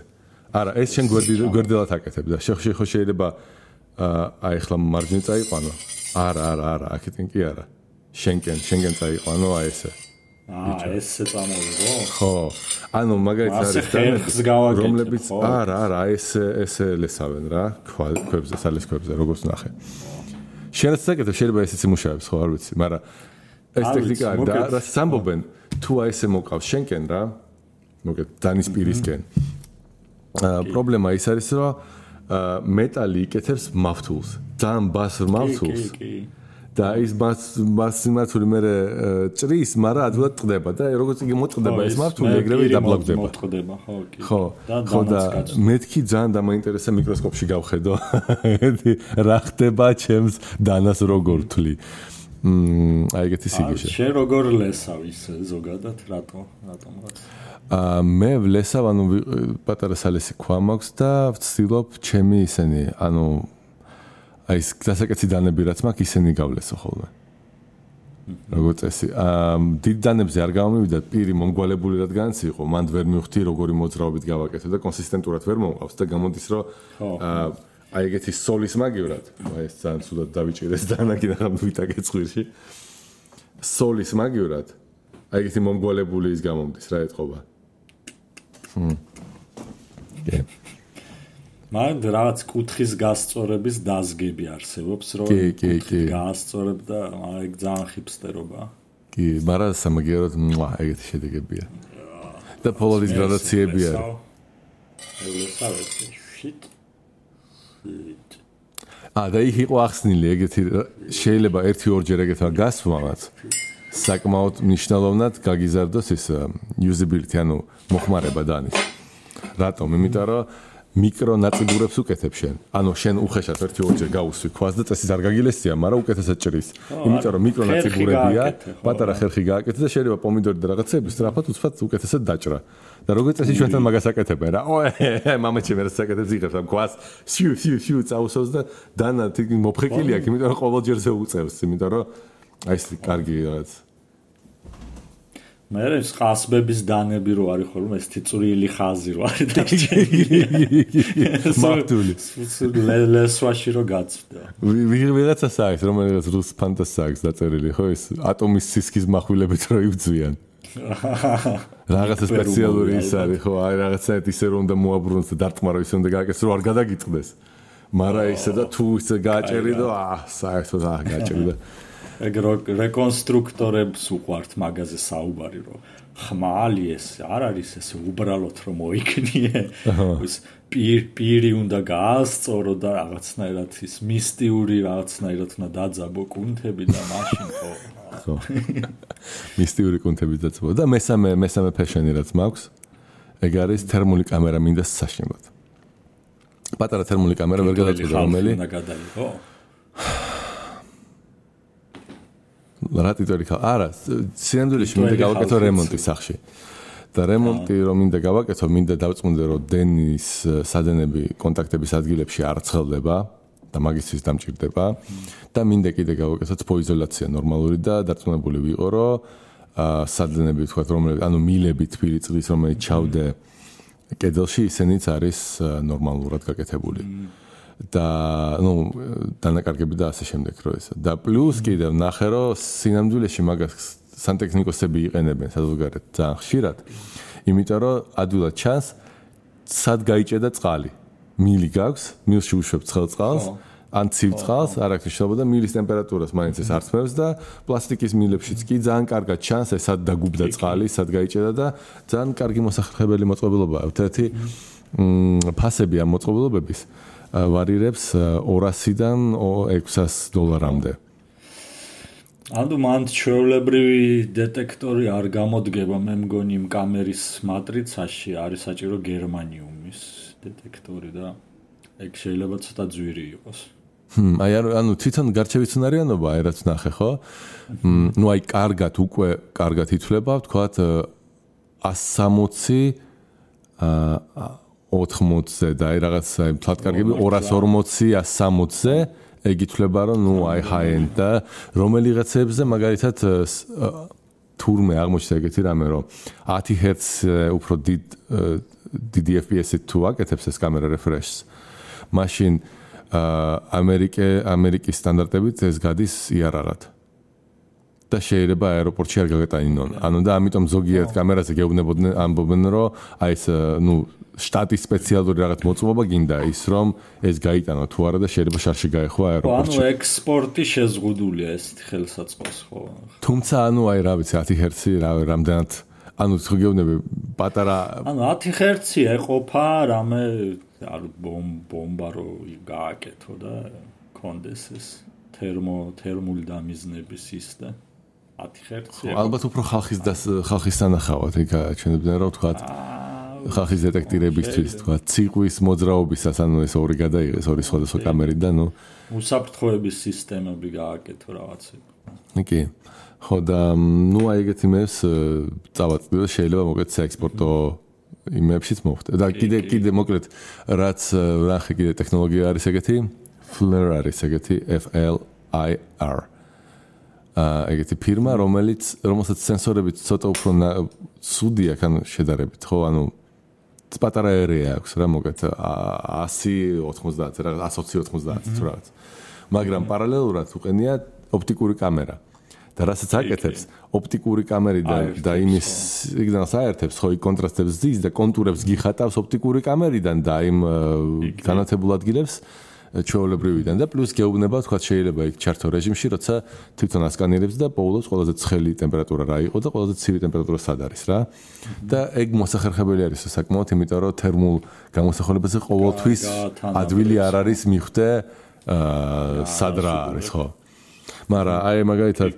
არა ეს შენ გვერდელად აკეთებ და ხო შეიძლება აი ახლა მარჯვნივ წაიყვანო არა აქეთენ კი არა შენკენ წაიყვანო აი ესე ესე წამოვიღო ხო ანუ მაგალითად არის რომლებიც არა ესე ლესავენ რა ქვებზე სალეს ქვებზე როგორც ნახე შენაც საკეთებ შეიძლება ესეც იმუშავებს ხო არ ვიცი მაგრამ ეს ტექნიკა არის და რა სამბობენ თუ აი ესე მოკავს შენკენ რა მოგეთ დანის პირისკენ პრობლემა ის არის რომ მეტალი იკეთებს მავთულს ძალიან ბასრ მავთულს და ის მასიმაცური მე ჭრის, მაგრამ ადვილად ტყდება და როგორც იგი მოტყდება ეს მავთული ეგრევე დაბლაგდება. მოტყდება, ხო. ხო და მეთქი ძალიან დამაინტერესა მიკროსკოპში გავხედო. რა ხდება ჩემს დანას როგორ თვლი. აი ეგეთი სიგიჟე. შენ როგორ ლესავ ის ზოგადად რატომღაც? მე ვლესავ ანუ პატარა სალესი ქვა მაქვს და ვცდილობ ჩემი ისენი ანუ აი ეს დასაკეთი დანები რაც მაქვს ისინი გავლესო ხოლმე. როგორც წესი, დიდ დანებზე არ გამომივიდა პირი მომგვალებული რადგანაც იყო, მან ვერ მივხვდი როგორი მოძრაობით გავაკეთე და კონსისტენტურად ვერ მომყავს და გამოდის რომ აი ეგეთი სოლის მაგივრად, აი ეს ძალიან ცუდად დავიჭირეს დანა კიდევ ვიტაკე წვირში. სოლის მაგივრად აი ეგეთი მომგვალებული ის გამომდის რა ეთყობა. მაგრამ რაღაც კუთხის გასწორების დაზგები არსებობს, რომ გაასწორებ და ეგ ძალიან ხიფსტერობაა. კი, მაგრამ სამაგიეროდ ეგეთი შედეგებია. და პოლოდის გრადაციები არის. და იქ იყო ახსნილი ეგეთი შეიძლება 1-2 ეგეთმა გასვლამაც საკმაოდ მნიშვნელოვნად გაგიზარდოს ის usability, ანუ მოხმარება დანის. რატომ? იმიტომ რომ მიკრო ნაწიბურებს უკეთებ შენ. ანუ შენ უხეშად 1-2 გაუსვი ქვას და წესის არ გაგილესია, მაგრამ უკეთესად ჭრის. იმიტომ რომ მიკრო ნაწიბურებია, პატარა ხერხი გააკეთე და შეიძლება პომიდორი და რაღაცები სწრაფად უცბად უკეთესად დაჭრა. და როგორც წესი ჩვენთან მაგას აკეთებენ რა. მამაჩემ რა საკეთებს იღებს ამ ქვას, შიუ წაუსავს და დანა თითქმის მოფხეკილი აქვს, იმიტომ რომ ყოველჯერზე უწევს, იმიტომ რომ აი ეს კარგი რაღაც მე ეს ყასბების დანები რო არის ხოლმე ეს თიწვრილი ხაზი რო არის დაგჭირილი მარტული ლესვაში რო გაწვდა ვიღაცა საერთოდ რომელიღაც რუს ფანტასია აქვს დაწერილი ხო ეს ატომის სისქის מחვილებით რო ივძვიან რაღაცა სპეციალური ის არის ხო აი რაღაცა ისე რომ უნდა მოაბრუნოს და დარტყმარო ისე უნდა გააკეთოს რომ არ გადაგიწყდეს მაგრამ ისე და თუ ისე გააჭერი და საერთოდ გააჭერი და ეგ რეკონსტრუქტორებს უყვართ მაგაზე საუბარი რომ ხმალი ეს არ არის ეს უბრალოდ რომ მოიქნიე ის პირი უნდა გაასწორო და რაღაცნაირად ის მისტიური რაღაცნაირად უნდა დაძაბო კუნთები და მაშინ ხო მისტიური კუნთები დაძაბო და მესამე ფეშენი რაც მაქვს ეგ არის თერმული კამერა მინდა საშინლად პატარა თერმული კამერა ვერ გადაწყვეტა რომელი უნდა გადაიღო რა ტიტული ხა არა სინამდვილეში მინდა გავაკეთო რემონტი სახში და რემონტი რომ მინდა გავაკეთო მინდა დავწმუნდე რომ დენის სადენები კონტაქტების ადგილებში არ ცხელდება და მაგისთვის დამჭირდება და მინდა კიდე გავაკეთო თბოიზოლაცია ნორმალური და დარწმუნებული ვიყო რომ სადენები თქვა რომელი ანუ მილები თბილი წყლის რომელიც ჩავდე კედელში ისენიც არის ნორმალურად გაკეთებული და ნუ დანაკარგები და ასე შემდეგ რო ესა და პლუს კიდევ ნახე რომ სინამდვილეში მაგას სანტექნიკოსები იყენებენ საზოგადოებრივად ძალიან ხშირად იმიტომ რომ ადვილად ჩანს სად გაიჭედა წყალი მილი გაქვს მილში უშვებ ცხელ წყალს ან ცივ წყალს არ აქვს მნიშვნელობა და მილის ტემპერატურას მაინც ეს არწმევს და პლასტიკის მილებშიც კი ძალიან კარგად ჩანს ეს სად დაგუბდა წყალი სად გაიჭედა და ძალიან კარგი მოსახლებელი მოწყობილობაა ერთ-ერთი ფასები ამ მოწყობილობების ვარირებს $200-დან $600-მდე. ანუ მან ჩვეულებრივი დეტექტორი არ გამოდგება, მე მგონი იმ კამერის მატრიცაში არის საჭირო გერმანიუმის დეტექტორი და ეგ შეიძლება ცოტა ძვირი იყოს. აი ანუ თვითონ გარჩევის უნარიანობა აი რაც ნახე ხო? ნუ აი კარგად ითვლება, ვთქვათ 160 80-ზე და აი რაღაც აი ფლატკარგები 240, 160-ზე ეგ ითვლება რომ ნუ აი high-end და რომელიღაცებზე მაგალითად თურმე აღმოჩნდა ეგეთი რამე რომ 10 Hz უფრო დიდი FPS-ით თუ აკეთებს ეს კამერა refresh-ს მაშინ ამერიკის სტანდარტებით ეს გადის იარაღად და შეიძლება აეროპორტში არ გაგეტანინონ. ანუ და ამიტომ ზოგიერთ კამერაზე გეუბნებოდნენ ამბობენ რომ აი ეს ნუ შტატის სპეციალური რაღაც მოწყობა გინდა ის რომ ეს გაიტანო თუ არა და შეიძლება შარში გაეხო აეროპორტში. ანუ ექსპორტი შეზღუდულია ესეთი ხელსაწყოს ხო? თუმცა ანუ აი რა ვიცი 10 Hz რამდენად ანუ თუ გეუბნები პატარა ანუ 10 Hz ეყოფა რამე არ ბომბა რო გააკეთო და კონდეს ეს თერმული დამიზნების ის და 10 Hz ალბათ უფრო ხალხის სანახავად ეგ აჩვენებდნენ რომ თქვა ხალხის დეტექტირებისთვის თქვა ციყვის მოძრაობისას ანუ ეს ორი გადაიღეს ორი სხვადასხვა კამერით და ნუ უსაფრთხოების სისტემები გააკეთო რაღაცები. კი. ხო და ნუ აი ეგეთი მეს წავაწყდი და შეიძლება მოკეთ საექსპორტო იმებშიც მოვხდე. და კიდე მოკლედ რაც ნახე კიდე ტექნოლოგია არის ეგეთი FLIR არის ეგეთი FLIR. ეგეთი ფირმა რომელსაც სენსორები ცოტა უფრო ცუდი აქვს ანუ შედარებით ხო ანუ პატარა ერია აქვს რა მოგეთ 100-90 რა 120-90 თუ რაღაც მაგრამ პარალელურად უყენია ოპტიკური კამერა და რასაც აკეთებს ოპტიკური კამერიდან და იმის სიგნალს აერთებს, ხო, კონტრასტებს ზის და კონტურებს გიხატავს ოპტიკური კამერიდან და იმ განათებულ ადგილებს ჩვეულებრივიდან და პლუს გეუბნება, თქვა შეიძლება იქ ჩართო რეჟიმში, როცა თვითონ ასკანირებს და პოულობს ყველაზე ცხელი ტემპერატურა რა იყო და ყველაზე ცივი ტემპერატურა სად არის რა. და ეგ მოსახერხებელი არის საკმაოდ, იმიტომ რომ თერმულ გამოსახულებაზე ყოველთვის ადვილი არ არის მიხვდე სად რა არის, ხო. მაგრამ აი მაგალითად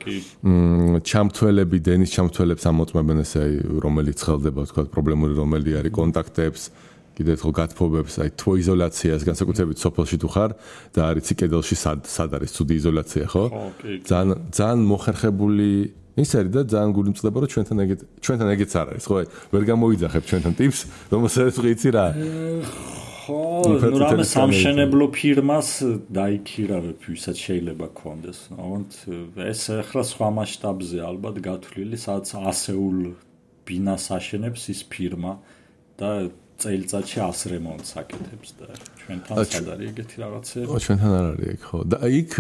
ჩამთველები, დენის ჩამთველებს ამოწმებენ ესე რომელიც ხელდება, თქვა პრობლემური რომელი არის კონტაქტებს კიდე ერთხელ გათბობებს, აი თვო იზოლაციას, განსაკუთრებით სოფელში თუ ხარ და არიცი კედელში სად არის ცუდი იზოლაცია, ხო? ძალიან მოხერხებული ის არის და ძალიან გული მწყდება, რომ ჩვენთან ეგეც არ არის, ხო? ვერ გამოვიძახებ ჩვენთან ტიპს, რომელსაც ვიცი რა. ხო, ნუ რამე სამშენებლო ფირმას დაიქირავებ, ვისაც შეიძლება გქონდეს. ამიტომ ეს ახლა სხვა მასშტაბზე ალბათ გათვლილი, სადაც ასეულ ბინას აშენებს ის ფირმა და წელიწადში 100 რემონტს აკეთებს და ჩვენთან სად არის ეგეთი რაღაცები? ჩვენთან არ არის ეგ, ხო. და იქ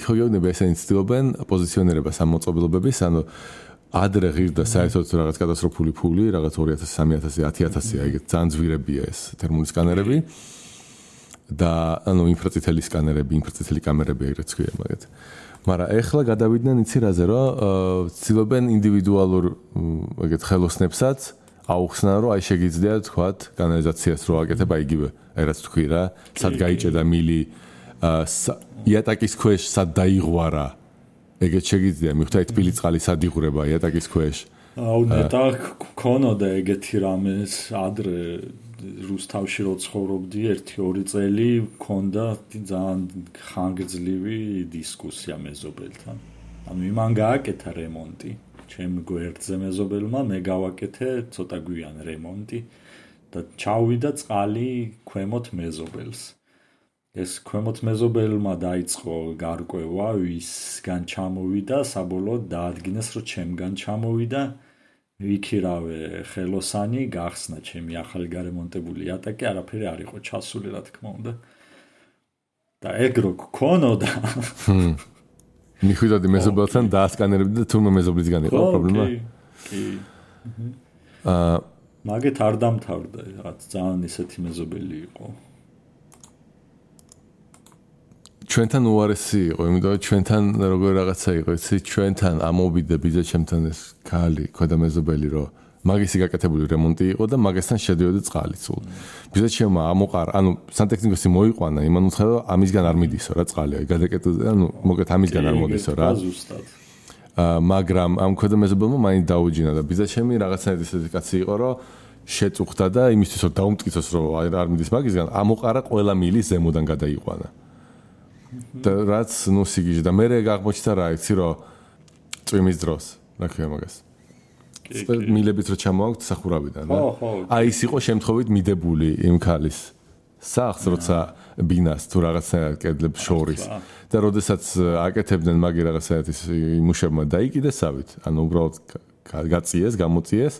ხო გეუბნება ესენი ცდილობენ პოზიციონირებას ამ მოწყობილობების, ანუ ადრე ღირდა საერთოდ რაღაც კატასტროფული ფული, რაღაც 2000, 3000, 10000, ეგეთ ძალიან ძვირებია ეს თერმული სკანერები და ანუ ინფრაწითელი სკანერები, ინფრაწითელი კამერები ეგრეთ ქვია მაგათ. მაგრამ ეხლა გადავიდნენ იცი რაზე, რომ ცდილობენ ინდივიდუალურ ეგეთ ხელოსნებსაც აუხსნა, რომ აი შეგიძლია თქვათ კანალიზაციას რო აკეთებ, აი იგივე, აი რაც თქვი რა, სად გაიჭედა მილი, იატაკის ქვეშ სად დაიღვარა. ეგეთ შეგიძლია, მიხვდა თბილი წყალი სად იღვრება იატაკის ქვეშ. აუ ნეტა ქონოდა ეგეთი რამეს ადრე რუსთავში რო ცხოვრობდი 1-2 წელი ქონდა ძალიან ხანგრძლივი დისკუსია მეზობელთან. ანუ იმან გააკეთა რემონტი. ჩემ გვერდზე მეზობელმა მე გავაკეთე ცოტა გვიან რემონტი და ჩავიდა წყალი ქვემოთ მეზობელს. ეს ქვემოთ მეზობელმა დაიწყო გარკვევა, ვისგან ჩამოვიდა, საბოლოოდ დაადგინეს, რომ ჩემგან ჩამოვიდა. ვიქირავე ხელოსანი, გახსნა ჩემი ახალი გარემონტებული იატაკი, არაფერი არ იყო ჩასული, რა თქმა უნდა. და ეგ რო გქონოდა მიხვიდოდი მეზობელთან დაასკანერებდი და თურმე მეზობლისგან იყო პრობლემა? კი. მაგეთ არ დამთავრდა, რაღაც ძალიან ისეთი მეზობელი იყო. ჩვენთან უარესი იყო, იმიტომ რომ ჩვენთან როგორ რაღაცა იყო, იცი, ჩვენთან ამოვიდა ბიძაჩემთან ეს ქალი, ქვედა მეზობელი, რომ მაგისი გაკეთებული რემონტი იყო და მაგასთან შედიოდა წყალი სულ. ბიძაჩემმა ამოყარა, ანუ სანტექნიკოსი მოიყვანა, იმან უთხრა, რომ ამისგან არ მიდისო რა წყალი, აი გადაკეთდა, ანუ მოკეთ ამისგან არ მოდისო რა. მაგრამ ამ ქვედა მეზობელმა მაინც დაუჯინა და ბიძაჩემი რაღაცნაირად ისეთი კაცი იყო, რომ შეწუხდა და იმისთვის რომ დაუმტკიცოს, რომ არ მიდის მაგისგან, ამოყარა ყველა მილი ზემოდან გადაიყვანა. და რაც ნუ სიგიჟე და მე აღმოჩნდა რა იცი რომ წვიმის დროს რა ქვია მაგას მილებიც რო ჩამოაქვთ სახურავიდან რა აი ის იყო შემთხვევით მიდებული იმ ქალის სახს როცა ბინას თუ რაღაცნაირად კედლებს შორის და როდესაც აკეთებდნენ მაგი რაღაცნაირად ის იმუშებმა დაიკიდესავით ანუ უბრალოდ გაწიეს გამოწიეს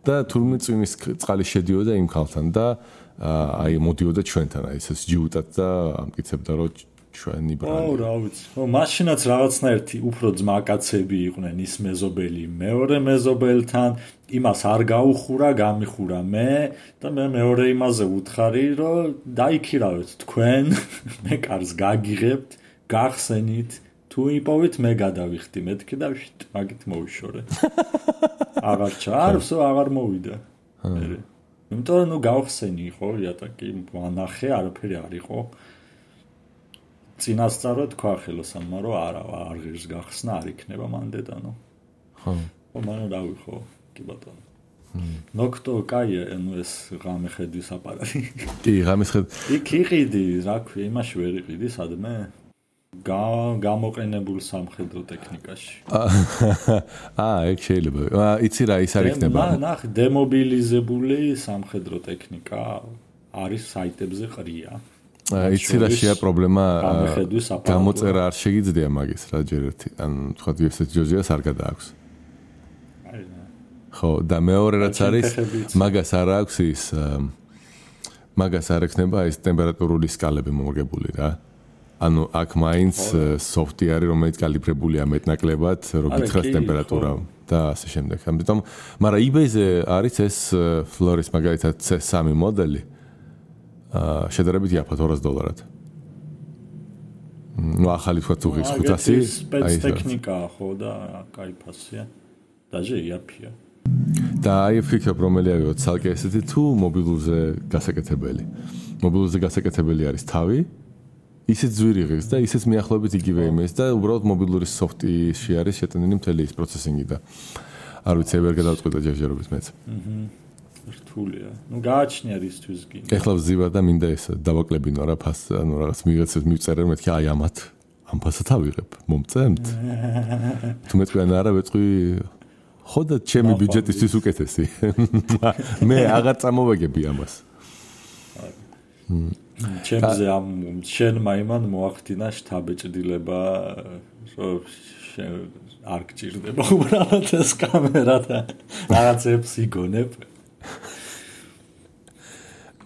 და თურმე წვიმის წყალი შედიოდა იმ ქალთან და აი მოდიოდა ჩვენთან აი ეს ჯიუტად და ამკიცებდა რომ ჩვენი ბრალი. აუ რა ვიცი. მაშინაც რაღაცნაირად უფრო ძმაკაცები იყვნენ ის მეზობელი მეორე მეზობელთან, იმას არ გაუხურა, გამიხურა მე და მე მეორე იმაზე ვუთხარი, რომ დაიქირავეთ თქვენ, მე კარს გაგიღებთ, გახსენით, თუ იპოვეთ მე გადავიხდი მეთქი და მაგით მოვიშორე. აღარ ჩარსო, აღარ მოვიდა. იმიტომ რომ ნუ გავხსენი ხო, იატაკი ვანახე, არაფერი არ იყო. წინასწარ თქვა ხელოსანმა რომ არ ღირს გახსნა არ იქნება მან დედანო. ხო. მანო რავი ხო, კი ბატონო. ნოქტო კაია, ანუ ეს ღამე ხედვის აპარატი. კი, ღამის ხედ. იქ იყიდი, რა ქვია, იმაში ვერ იყიდი, სადმე? გამოყენებულ სამხედრო ტექნიკაში. ეგ შეიძლება. იცი რა ის არ იქნება. ნახ, დემობილიზებული სამხედრო ტექნიკა არის საიტებზე ყრია. იცი რა შეა პრობლემა გამოწერა არ შეგიძლია მაგის რა ჯერ ერთი ან თქვა ვებსაიტ ჯოჯიას არ გადააქვს ხო და მეორე რაც არის მაგას არ აქვს ის მაგას არ ექნება ის ტემპერატურული სკალები მოგებული რა ანუ აქ მაინც სოფტი არის, რომელიც კალიბრებულია მეტნაკლებად, რო გითხრას ტემპერატურა და ასე შემდეგ. ამიტომ, მაგრამ eBay-ზე არის ეს ფლორის მაგალითად C3 მოდელი. შედარებით იაფად $200. ნუ ახალი თქვა თუ ღირს 500, აი ტექნიკაა ხო და кайფასია. დაჟე იაფია. და აი ფიქრობ რომელი ავიღოთ ცალკე ესეთი თუ მობილურზე გასაკეთებელი. მობილურზე გასაკეთებელი არის თავი, ისიც ძვირი ღირს და ისიც მიახლოებით იგივე იმის და უბრალოდ მობილური სოფტში არის შეტანილი მთელი ის პროცესინგი და არ ვიცი ვერ გადავწყვიტე ჯერჯერობით მეც. რთულია. ნუ გააჩნია რისთვის კი. ეხლა ვზივარ და მინდა ეს დავაკლებინო რა ფას, ანუ რაღაც მიღეცეს მივწერე მეთქი აი ამათ ამ ფასად ავიღებ. მომწემთ? თუ მეთქვი არა ვეწყვი ხო და ჩემი ბიუჯეტისთვის უკეთესი. მე აღარ წამოვაგები ამას. ჩემზე ამ შენმა იმან მოახდინა შთაბეჭდილება არ გჭირდება უბრალოდ ეს კამერა და რაღაცებს იგონებ.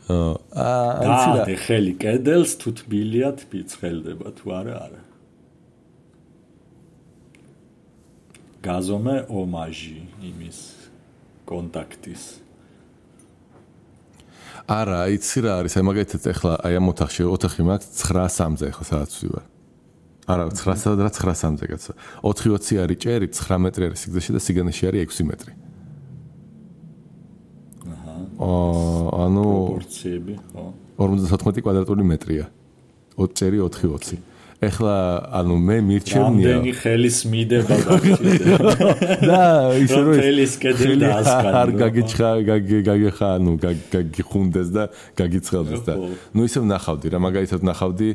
და ხელი კედელს თუ თბილია თბიცხელდება თუ არა. გაზომე ომაჟი იმის კონტაქტის. არა, იცი რა არის, აი მაგალითად ეხლა აი ამ ოთახი მაქვს 9:03-ზე ეხლა სადაც ვარ. არა, 9:00-ზე და 9:03-ზე კაცო. 4:20 არის ჭერი, 9 მეტრი არის სიგრძეში და სიგანეში არის 6 მეტრი. ანუ პროპორციები, ხო. 54 კვადრატული მეტრია. 20 ჭერი 4:20. ეხლა ანუ მე მირჩევნია რამდენი ხელის მიდება და ისე რომ ხელის კედელი დაასკანო არ გაგიხა ანუ გაგიხუნდეს და გაგიცხელდეს და ნუ ისევ ნახავდი რა მაგალითად ნახავდი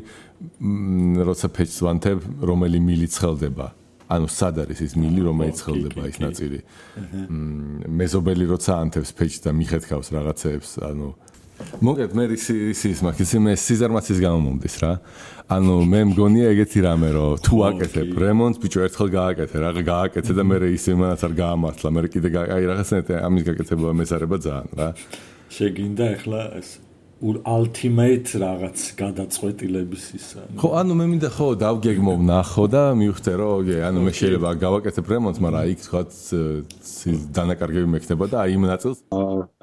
როცა ფეჩს ვანთებ რომელი მილი ცხელდება ანუ სად არის ის მილი რომელიც ცხელდება ის ნაწილი მეზობელი როცა ანთებს ფეჩს და მიხეთქავს რაღაცეებს ანუ მოგეთ მე ის მაგის მე სიზარმაცის გამომდის რა ანუ მე მგონია ეგეთი რამე რომ თუ აკეთებ რემონტს ბიჭო ერთხელ გააკეთე რა გააკეთე და მე ის იმანაც არ გაამართლა მე კიდე აი რაღაცნაირად ამის გაკეთება მესარება ძალიან რა შეგინდა ახლა ეს ultimate რაღაც გადაწყვეტილების ისა ხო ანუ მე მინდა ხო დავგეგმო ნახო და მივხვდე რომ ანუ მე შეიძლება გავაკეთებ რემონტს მაგრამ იქ თქვა დანაკარგები მექნება და აი იმ ნაწილს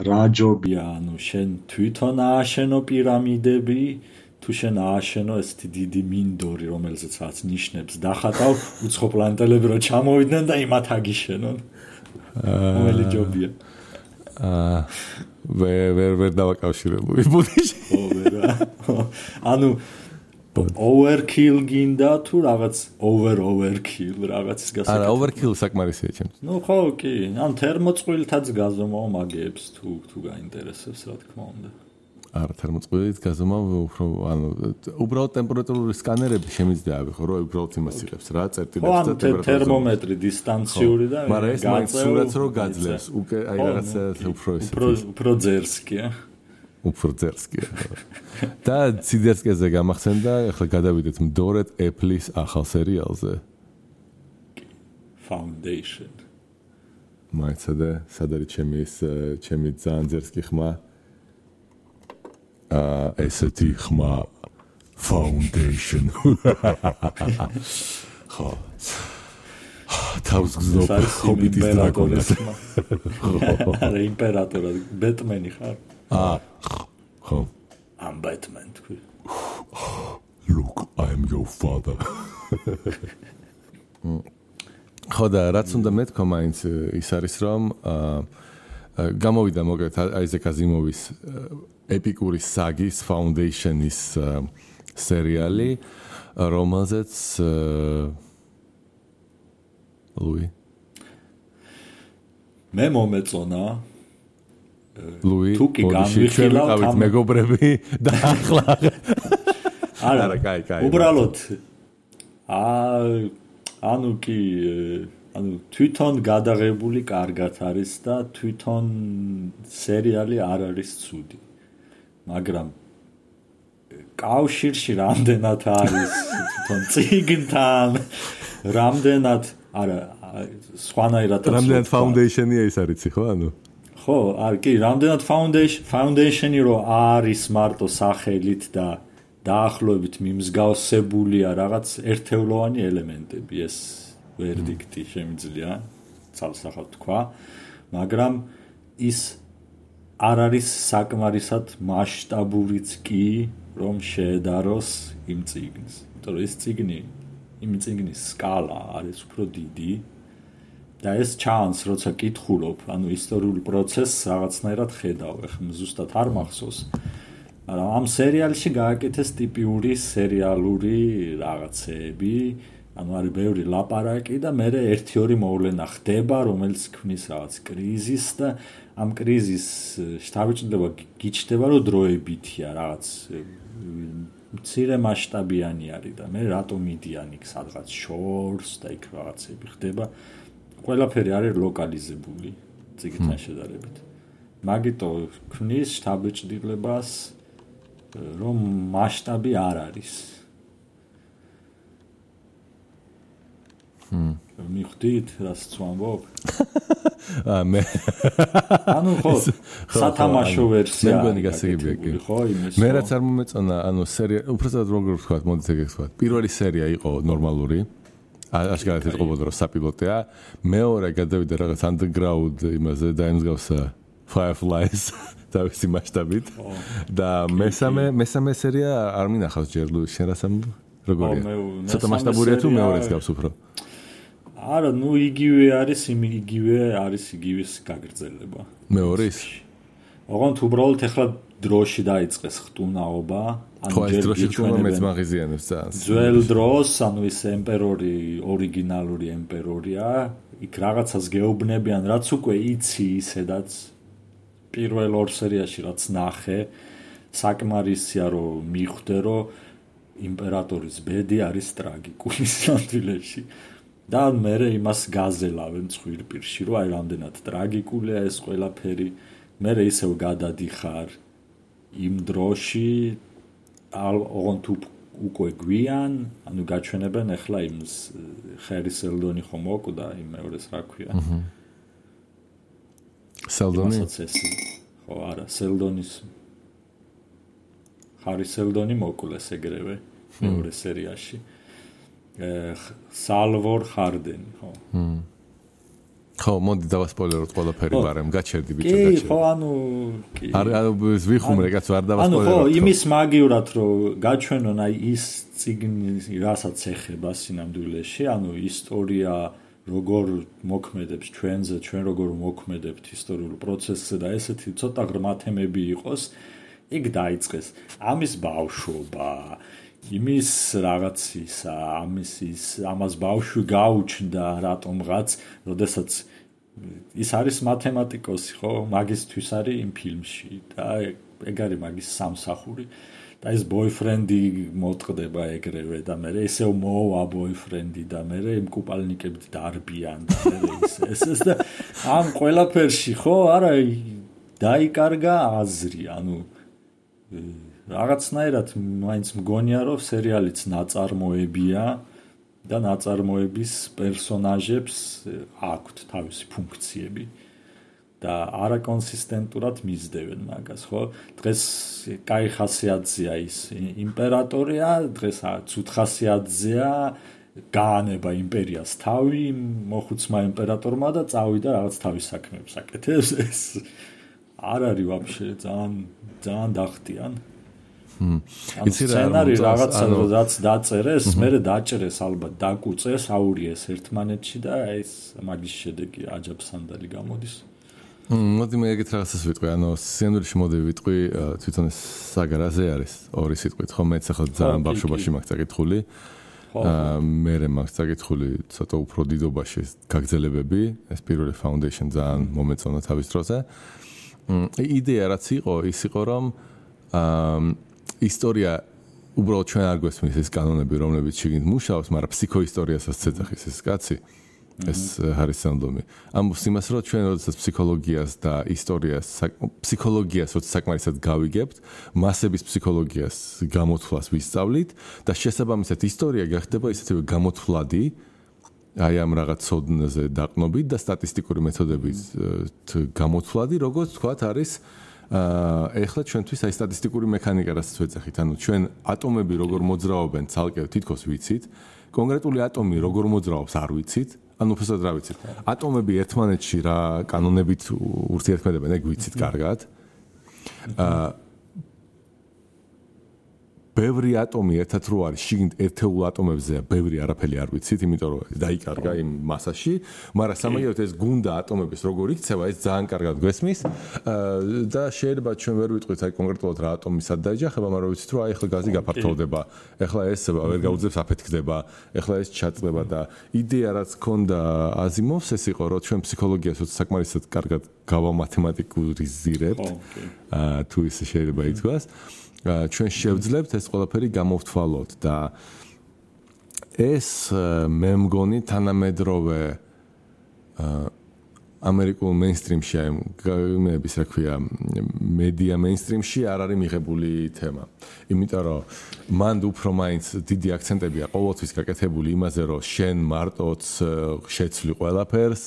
რა ჯობია ანუ შენ თვითონ ააშენო პირამიდები თუ შენ ააშენო ესეთი დიდი მინდორი რომელზეც რაც ნიშნებს დახატავ უცხო პლანეტელები რომ ჩამოვიდნენ და იმათ აგიშენონ რომელი ჯობია ვერ დავაკავშირებუი ბუდიში ხო ვერა ანუ overkill გინდა თუ რაღაც overkill რაღაცის გასაკეთება არა overkill საკმარისია ჩემთვის ნუ ხო კი ან თერმოწყვილთაც გაზომავ მაგეებს თუ გაინტერესებს რა თქმა უნდა არა თერმოწყვილით გაზომავ უფრო ანუ უბრალოდ ტემპერატურული სკანერები შემიძლია ავიღო რომ უბრალოდ იმას იღებს რა წერტილებს და ტემპერატურას თერმომეტრი დისტანციური და მაგრამ ეს მაინც სურათს რო გაძლევს უკვე აი რაღაცა უფრო ძერსკია უფრო ძერსკია და ციდერსკეზე გამახსენდა ახლა გადავიდეთ მდორედ Apple-ის ახალ სერიალზე Foundation მაიცადე სად არის ჩემი ძალიან ძერსკი ხმა ესეთი ხმა Foundation ხო თავს გზნობ ჰობიტის დრაკონს არა იმპერატორად ბეტმენი ხარ ხო I'm Batman თქვი Look I'm your father ხო და რაც უნდა მეთქვა მაინც ის არის რომ გამოვიდა მოგეთ აიზეკ აზიმოვის ეპიკური საგის Foundation-ის სერიალი რომელზეც ლუი მე მომეწონა ლუი თუ კი გამიხილავთ მეგობრები და ახლა არა კაი უბრალოდ ანუ კი ანუ თვითონ გადაღებული კარგად არის და თვითონ სერიალი არ არის ცუდი მაგრამ კავშირში რამდენად არის თვითონ წიგნთან რამდენად არა სხვანაირად რამდენად Foundation-ია ის არიცი ხო ანუ ხო არ კი რამდენად Foundation-ი რო არის მარტო სახელით და დაახლოებით მიმსგავსებულია რაღაც ერთეულოვანი ელემენტები ეს ვერდიქტი შემიძლია ცალსახად თქვა მაგრამ ის არ არის საკმარისად მასშტაბურიც კი რომ შეედაროს იმ წიგნს იმიტომ რომ ეს წიგნი იმ წიგნის სკალა არის უფრო დიდი და ეს ჩანს როცა კითხულობ ანუ ისტორიული პროცესს რაღაცნაირად ხედავ ეხლა ზუსტად არ მახსოვს მაგრამ ამ სერიალში გააკეთეს ტიპიური სერიალური რაღაცეები ანუ არის ბევრი ლაპარაკი და მე 1-2 მოვლენა ხდება რომელიც ქმნის რაღაც კრიზისს და ამ კრიზისს შთაბეჭდილება გიჩნდება რომ დროებითია რაღაც მცირე მასშტაბიანი არის და მე რატო მიდიან იქ სადღაც შორს და იქ რაღაცები ხდება ყველაფერი არის ლოკალიზებული წიგნთან შედარებით მაგიტო ქმნის შთაბეჭდილებას რომ მასშტაბი არ არის მიხვდით რას ვამბობ მე ანუ ხო სათამაშო ვერსია მე მგონი გასაგებია კი ხო იმის მე რაც არ მომეწონა ანუ სერია უბრალოდ როგორ ვთქვათ მოდით ეგ ვთქვათ პირველი სერია იყო ნორმალური აშკარად ეთყობოდა რომ საპილოტია მეორე გადავიდა რაღაც underground იმაზე და იმსგავსა Fireflies თავისი მასშტაბით და მესამე სერია არ მინახავს ჯერ შენ რას ამბობ როგორია ცოტა მასშტაბურია თუ მეორეც გავს უფრო არა ნუ იგივე არის იგივეს გაგრძელება მეორის ოღონდ უბრალოდ ეხლა დროში დაიწყეს ხტუნაობა ანუ ჯერ გიჩვენებენ მეც მაღიზიანებს ძალიან ძველ დროს ანუ ის ემპერორი ორიგინალური ემპერორია იქ რაღაცას გეუბნებიან რაც უკვე იცი ისედაც პირველ ორ სერიაში რაც ნახე საკმარისია რომ მიხვდე რომ იმპერატორის ბედი არის ტრაგიკული სამდვილეში და მე იმას გაზელავენ ცხვირპირში რომ აი რამდენად ტრაგიკულია ეს ყველაფერი მე ისევ გადადიხარ იმ დროში ოღონდ უკვე გვიან ანუ გაჩვენებენ ახლა იმ ხერი სელდონი ხომ მოკვდა იმ მეორეს რა ქვია სელდონი ხო არა სელდონის ხარი სელდონი მოკლეს ეგრევე მეორე სერიაში სალვორ ხარდენი ხო ხო მოდი დავასპოილეროთ ყველაფერი ბარემ გაჩერდი ბიჭო გაჩერდი კი ხო ანუ კი არა ვიხუმრე კაც არ დავასპოილეროთ ანუ ხო იმის მაგივრად რომ გაჩვენონ აი ის წიგნი რასაც ეხება სინამდვილეში ანუ ისტორია როგორ მოქმედებს ჩვენზე ჩვენ როგორ მოქმედებთ ისტორიულ პროცესზე და ესეთი ცოტა ღრმა თემები იყოს იქ დაიწყეს ამის ბავშვობა იმის რაღაცისა ამას ბავშვი გაუჩნდა რატომღაც როდესაც ის არის მათემატიკოსი ხო მაგისთვის არის იმ ფილმში და ეგ არის მაგის სამსახური და ეს ბოიფრენდი მოტყდება ეგრევე და მე ისევ მოვა ბოიფრენდი და მე იმ კუპალნიკებით დარბიან და ეს და ამ ყველაფერში ხო არა დაიკარგა აზრი ანუ რაღაცნაირად მაინც მგონია რომ სერიალიც ნაწარმოებია და ნაწარმოების პერსონაჟებს აქვთ თავისი ფუნქციები და არაკონსისტენტურად მისდევენ მაგას ხო დღეს კაი ხასიათზეა ის იმპერატორია დღეს ცუდ ხასიათზეა გაანება იმპერიას თავი მოხუცმა იმპერატორმა და წავიდა რაღაც თავის საქმეებს აკეთებს ეს არ არის ვაფშე ძალიან დახტიან იცი რა რაღაცა რაც დაწერეს მე დაჭერეს ალბათ დაკუწეს აურიეს ერთმანეთში და ეს მაგის შედეგი აჯაბსანდალი გამოდის მოდი მე ეგეთ რაღაცას ვიტყვი ანუ სცენარში მოდი ვიტყვი თვითონ ეს საგარაზე არის ორი სიტყვით ხო მეც ახლა ძალიან ბავშვობაში მაქვს წაკითხული მე მაქვს წაკითხული ცოტა უფრო დიდობაში გაგრძელებები ეს პირველი foundation ძალიან მომეწონა თავის დროზე იდეა რაც იყო ის იყო რომ ისტორია უბრალოდ ჩვენ არ გვესმის ეს კანონები რომლებიც შიგნით მუშაობს მაგრამ ფსიქოისტორიასაც ცეცხლის ეს კაცი ეს ჰარის სელდონი ამბობს იმას რომ ჩვენ როდესაც ფსიქოლოგიას და ისტორიას ფსიქოლოგიას როცა საკმარისად გავიგებთ მასების ფსიქოლოგიას გამოთვლას ვისწავლით და შესაბამისად ისტორია გახდება ისეთივე გამოთვლადი აი ამ რაღაც ცოდნაზე დაყნობით და სტატისტიკური მეთოდებით გამოთვლადი როგორც თქვათ არის ეხლა ჩვენთვის აი სტატისტიკური მექანიკა რასაც ვეძახით, ანუ ჩვენ ატომები როგორ მოძრაობენ ცალკე თითქოს ვიცით, კონკრეტული ატომი როგორ მოძრაობს არ ვიცით, ანუ უბრალოდ რა ვიცით. ატომები ერთმანეთში რა კანონებით ურთიერთქმედებენ, ეგ ვიცით კარგად. ბევრი ატომი ერთად რო არის, შიგნით ერთეულ ატომებზეა, ბევრი არაფერი არ ვიცით, იმიტომ რომ დაიკარგა იმ მასაში, მაგრამ სამაგიეროდ ეს გუნდა ატომების როგორ იქცევა, ეს ძალიან კარგად გვესმის და შეიძლება ჩვენ ვერ ვიტყვით აი კონკრეტულად რა ატომი სად დაეჯახება, მაგრამ ვიცით რომ აი ახლა გაზი გაფართოვდება, ახლა ეს ვერ გაუძლებს აფეთქდება, ახლა ეს ჩაწყდება და იდეა რაც ქონდა აზიმოვს ეს იყო, რომ ჩვენ ფსიქოლოგიას საკმარისად კარგად გავამათემატიკურიზირებთ, თუ ისე შეიძლება ითქვას. ჩვენ შევძლებთ ეს ყველაფერი გამოვთვალოთ და ეს მე მგონი თანამედროვე ამერიკულ მეინსტრიმში აი მეების რა ქვია მედია მეინსტრიმში არ არის მიღებული თემა. იმიტომ რომ მან უფრო მაინც დიდი აქცენტებია ყოველთვის გაკეთებული იმაზე რომ შენ მარტოც შეცვლი ყველაფერს,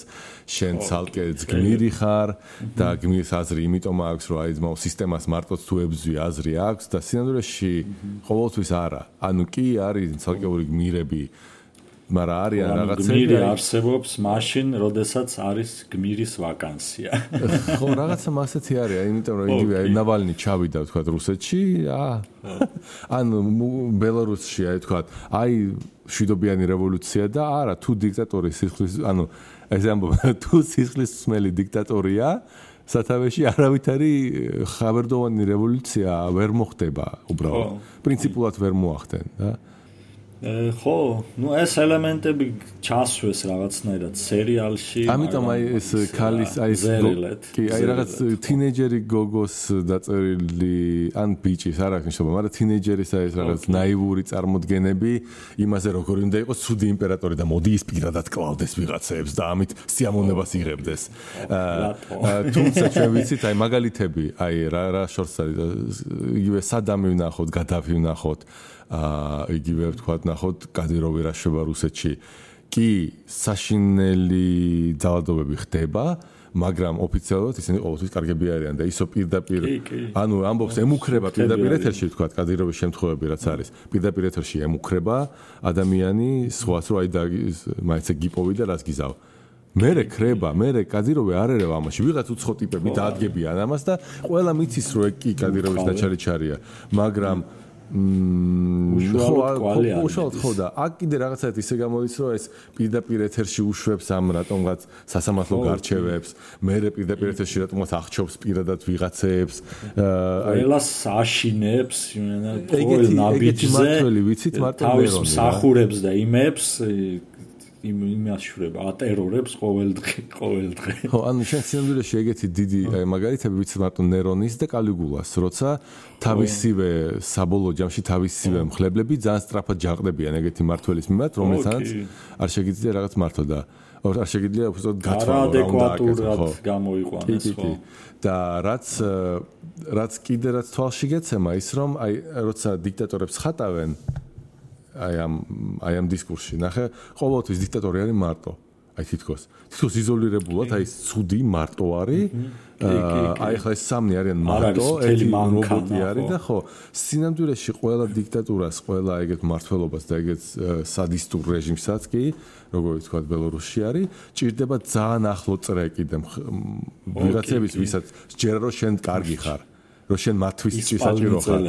შენ ცალკე გმირი ხარ და გმირს აზრი იმიტომ აქვს რომ აი ძმაო სისტემას მარტოც თუ ებძვი აზრი აქვს და სინამდვილეში ყოველთვის არა. ანუ კი არის ცალკეული გმირები მაგრამ არიან რაღაცები გმირი არსებობს მაშინ, როდესაც არის გმირის ვაკანსია. ხო, რაღაცა მასეთი არის, იმიტომ რომ იგივე ნავალნი ჩავიდა თქვა რუსეთში, ანუ ბელარუსში აი თქვა, აი შვიდობიანი რევოლუცია და არა, თუ დიქტატორი სისხლის, ანუ ეს ამბობ, თუ სისხლისმელი დიქტატორია, სათავეში არავითარი ხაბერდოვანი რევოლუცია ვერ მოხდება უბრალოდ. პრინციპულად ვერ მოახდენ და ხო, ну ეს ელემენტები ჩასვეს რაღაცნაირად სერიალში. ამიტომ აი ეს ქალის აი ეს კი აი რაღაც თინეიჯერი გოგოს დაწერილი ან ბიჭის არ აქვს მნიშვნელობა, მაგრამ თინეიჯერის აი ეს რაღაც ნაივური წარმოდგენები იმაზე როგორ უნდა იყოს ცუდი იმპერატორი და მოდი ის პირადად კლავდეს ვიღაცებს და ამით სიამოვნებას იღებდეს. თუმცა ჩვენ ვიცით აი მაგალითები, აი რა შორს არის იგივე სადამი ვნახოთ, გადაფი ვნახოთ. იგივე ვთქვათ, ნახოთ, კადიროვი რა შვება რუსეთში. კი, საშინელი ძალადობები ხდება, მაგრამ ოფიციალურად ისინი ყოველთვის კარგები არიან და ისო პირდაპირ, ანუ ამბობს ემუქრება პირდაპირ ეთერში, ვთქვათ, კადიროვის შემთხვევები რაც არის. პირდაპირ ეთერში ემუქრება ადამიანი, სხვაც რო აი და მაინც გიპოვი და რაც გიზავ. მერე ხრება, მერე კადიროვი არ ერევა ამაში. ვიღაც უცხო ტიპები დაადგებიან ამას და ყველა მიცის რომ ეგ კი კადიროვის დაჩარიჩარია, მაგრამ უშუალოდ ხო და აქ კიდე რაღაცაით ისე გამოდის რომ ეს პირდაპირ ეთერში უშვებს ამ რატომღაც სასამართლო გარჩევებს, მერე პირდაპირ ეთერში რატომღაც აღჩობს პირადად ვიღაცებს, ყველას აშინებს, ყოველ ნაბიჯზე ვიცით მარტო თავის მსახურებს და იმებს იმაშურება, ატერორებს ყოველ დღე. ხო, ანუ შენ სინამდვილეში ეგეთი დიდი მაგალითები ვიცით მარტო ნერონის და კალიგულას, როცა თავისივე საბოლოო ჯამში თავისივე მხლებლები ძალიან სწრაფად ჯაყდებიან ეგეთი მართველის მიმართ, რომელთანაც არ შეგიძლია რაღაც მართო და არ შეგიძლია უბრალოდ გათვალო რა უნდა აკეთო გამოიყვანოს ხო. და რაც კიდე რაც თვალში გეცემა ის რომ აი როცა დიქტატორებს ხატავენ აი ამ დისკურსში ნახე ყოველთვის დიქტატორი არის მარტო აი თითქოს იზოლირებულად აი ცუდი მარტო არის აი ხა ეს სამნი არიან მარტო ერთი რობოტი არის და ხო სინამდვილეში ყველა დიქტატურას ყველა ეგეთ მართლობას და ეგეთ სადისტურ რეჟიმსაც კი როგორ ვთქვათ ბელარუსში არის ჭირდება ძალიან ახლო წრე კიდე ვიღაცების ვისაც ჯერა რომ შენ კარგი ხარ რომ შენ მათთვის საჭირო ხარ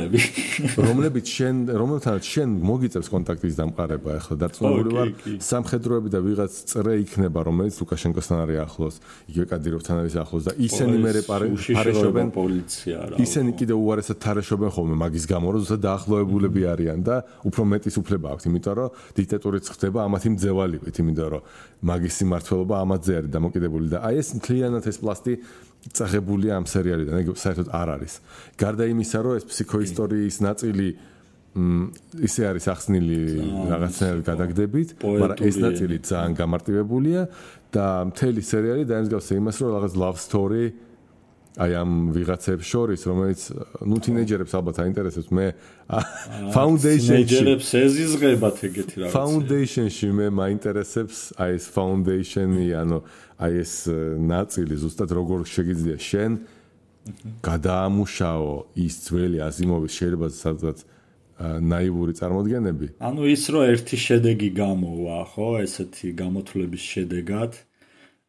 რომლებიც რომელთანაც შენ მოგიწევს კონტაქტის დამყარება ახლა დარწმუნებული ვარ სამხედროები და ვიღაც წრე იქნება რომელიც ლუკაშენკოსთან არის ახლოს იგივე კადიროვთან არის ახლოს და ისინი მერე პარეშობენ პოლიცია რა ისინი კიდე უარესად თარეშობენ ხოლმე მაგის გამო რომ ზუსტად დაახლოებულები არიან და უფრო მეტის უფლება აქვთ იმიტომ რომ დიქტატორიც ხდება ამათი მძევალივით იმიტომ რომ მაგის სიმმართველობა ამაზე არის დამოკიდებული და აი ეს მთლიანად ეს პლასტი წაღებულია ამ სერიალიდან, ეგ საერთოდ არ არის. გარდა იმისა, რომ ეს ფსიქოისტორიის ნაწილი ისე არის ახსნილი რაღაცნაირად გადაგდებით, მაგრამ ეს ნაწილი ძალიან გამარტივებულია და მთელი სერიალი დაემსგავსა იმას, რომ რაღაც love story აი ამ ვიღაცებს შორის, რომელიც ნუ თინეიჯერებს ალბათ აინტერესებს, მე foundation-ში ეზიზღებათ ეგეთი რაღაცა. Foundation-ში მე მაინტერესებს აი ეს foundation-ი, ანუ აი ეს ნაწილი ზუსტად როგორ შეგიძლია შენ გადაამუშაო ის ძველი აზიმოვის შეიძლება სადღაც ნაივური წარმოდგენები. ანუ ის რომ ერთი შედეგი გამოვა, ხო, ესეთი გამოთვლების შედეგად,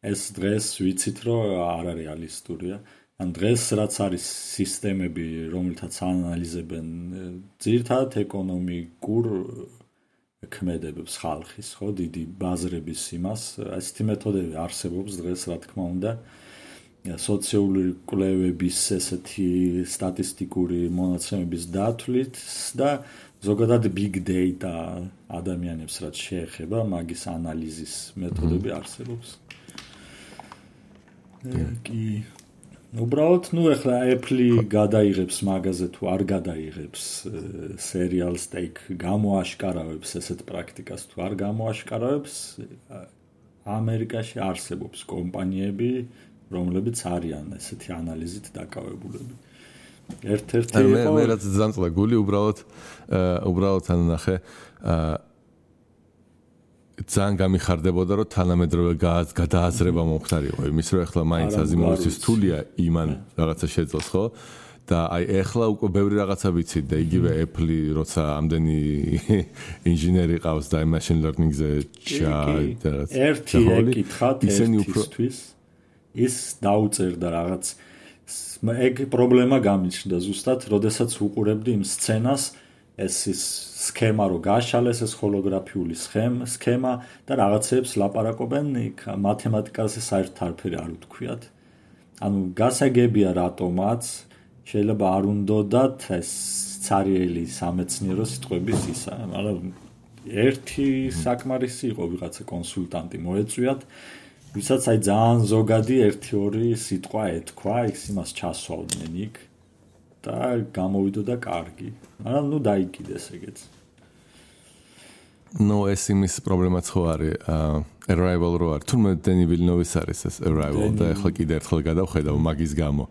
ეს დღეს ვიცით რომ არ არის რეალისტურია. ან დღეს რაც არის სისტემები, რომელთაც ანალიზებენ ძირთად ეკონომიკურ ქმედებებს ხალხის, ხო, დიდი ბაზრების იმას, ესეთი მეთოდები არსებობს დღეს, რა თქმა უნდა. სოციალური კვლევების ესეთი სტატისტიკური მონაცემების დათვლით და ზოგადად big data ადამიანებს რაც შეეხება, მაგის ანალიზის მეთოდები არსებობს. კი უბრალოდ, ეხლა Apple გადაიღებს მაგაზე თუ არ გადაიღებს serial stake გამოაშკარავებს ესეთ პრაქტიკას თუ არ გამოაშკარავებს, ამერიკაში არსებობს კომპანიები, რომლებიც არიან ესეთი ანალიზით დაკავებულები. ერთ-ერთი მე რაც ძანწლა გული უბრალოდ ან ნახე ძალიან გამიხარდებოდა რომ თანამედროვე გადააზრება მომხდარიყო იმის რომ ეხლა მაინც აზიმოვისთვის თულია იმან რაღაცა შეძლოს ხო და აი ეხლა უკვე ბევრი რაღაცა ვიცით და იგივე Apple როცა ამდენი ინჟინერი ყავს და machine learning-ზე ერთი ეკითხათ ერთისთვის ის დაუწერდა რაღაც ეგ პრობლემა გამიჩნდა ზუსტად როდესაც უყურებდი იმ სცენას ეს ის სქემა რო გაშალეს ეს ჰოლოგრაფიული სქემა და რაღაცებს ლაპარაკობენ იქ მათემატიკაზე საერთოდ არაფერი არ უთქვიათ ანუ გასაგებია რატომაც შეიძლება არ უნდათ ეს ცარიელი სამეცნიერო სიტყვების ისა მაგრამ ერთი საკმარისი იყო ვიღაცა კონსულტანტი მოეწვიათ ვისაც აი ძალიან ზოგადი 1-2 სიტყვა ეთქვა ის იმას ჩასვავდნენ იქ და გამოვიდოდა კარგი. მაგრამ ნუ დაიკიდეს ეგეც. ეს იმის პრობლემაც ხო არის Arrival რო არის. თუმცა Denis Villeneuve-ის არის ეს Arrival და ახლა კიდე ერთხელ გადავხედავ მაგის გამო.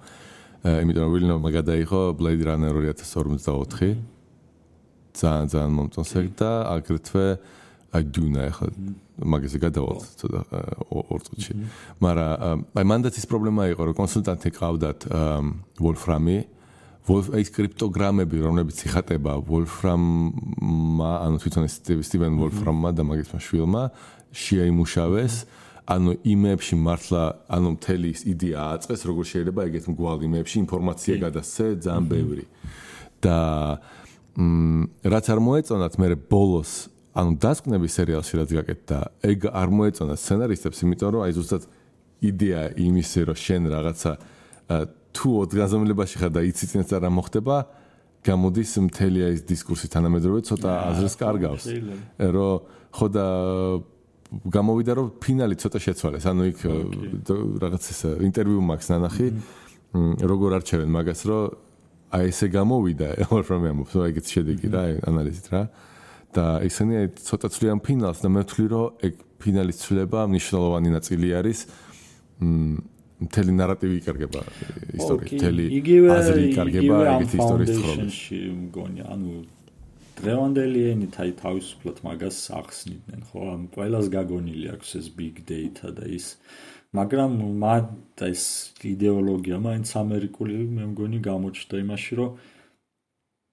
იმიტომ რომ Villeneuve გადაიღო Blade Runner 2044. ძალიან მომწონს ეგ და აგრეთვე Dune ახლა მაგაზე გადავალ ცოტა 2 წუთში. მაგრამ აი მანდაც ის პრობლემა იყო რომ კონსულტანტი ყავდათ Wolfram-ი ეს კრიპტოგრამები, რომლებიც იხატება Wolfram-მა, ანუ თვითონ Steven Wolfram-მა და მაგის შვილმა შეაიმუშავეს, ანუ იმებში მართლა, ანუ მთელი ის იდეა აწყეს, როგორ შეიძლება ეგეთ მგვალ იმებში ინფორმაცია გადასცე ძალიან ბევრი. და რაც არ მოეწონათ მე ბოლოს, ანუ დასკვნების სერიალში რაც გაკეთდა, ეგ არ მოეწონათ სცენარისტებს, იმიტომ რომ აი ზუსტად იდეა იმისი, რომ შენ რაღაცა თუ ოთხგანზომილებაში ხარ და იცი წინაც რა მოხდება, გამოდის მთელი ის დისკურსი თანამედროვე ცოტა აზრს კარგავს. რომ ხო და გამოვიდა რომ ფინალი ცოტა შეცვალეს. ანუ იქ რაღაც ეს ინტერვიუ მაქვს ნანახი, როგორ არჩევენ მაგას, რომ აი ესე გამოვიდა, Wolfram-ი ამბობს, რომ ეგეც შედეგი რა, ანალიზით რა. და ისინი ცოტა ცვლიან ფინალს და მე ვთვლი რომ ეგ ფინალის ცვლილება მნიშვნელოვანი ნაწილი არის. მთელი ნარატივი იკარგება ისტორიის, მთელი აზრი იკარგება ეგეთი ისტორიის თხრობაში. მგონი, ანუ დღევანდელი ენით აი თავისუფლად მაგას ახსნიდნენ, ხო? ამ ყველას გაგონილი აქვს ეს big data და ის, მაგრამ ეს იდეოლოგია მაინც ამერიკული მე მგონი გამოჩნდა იმაში, რომ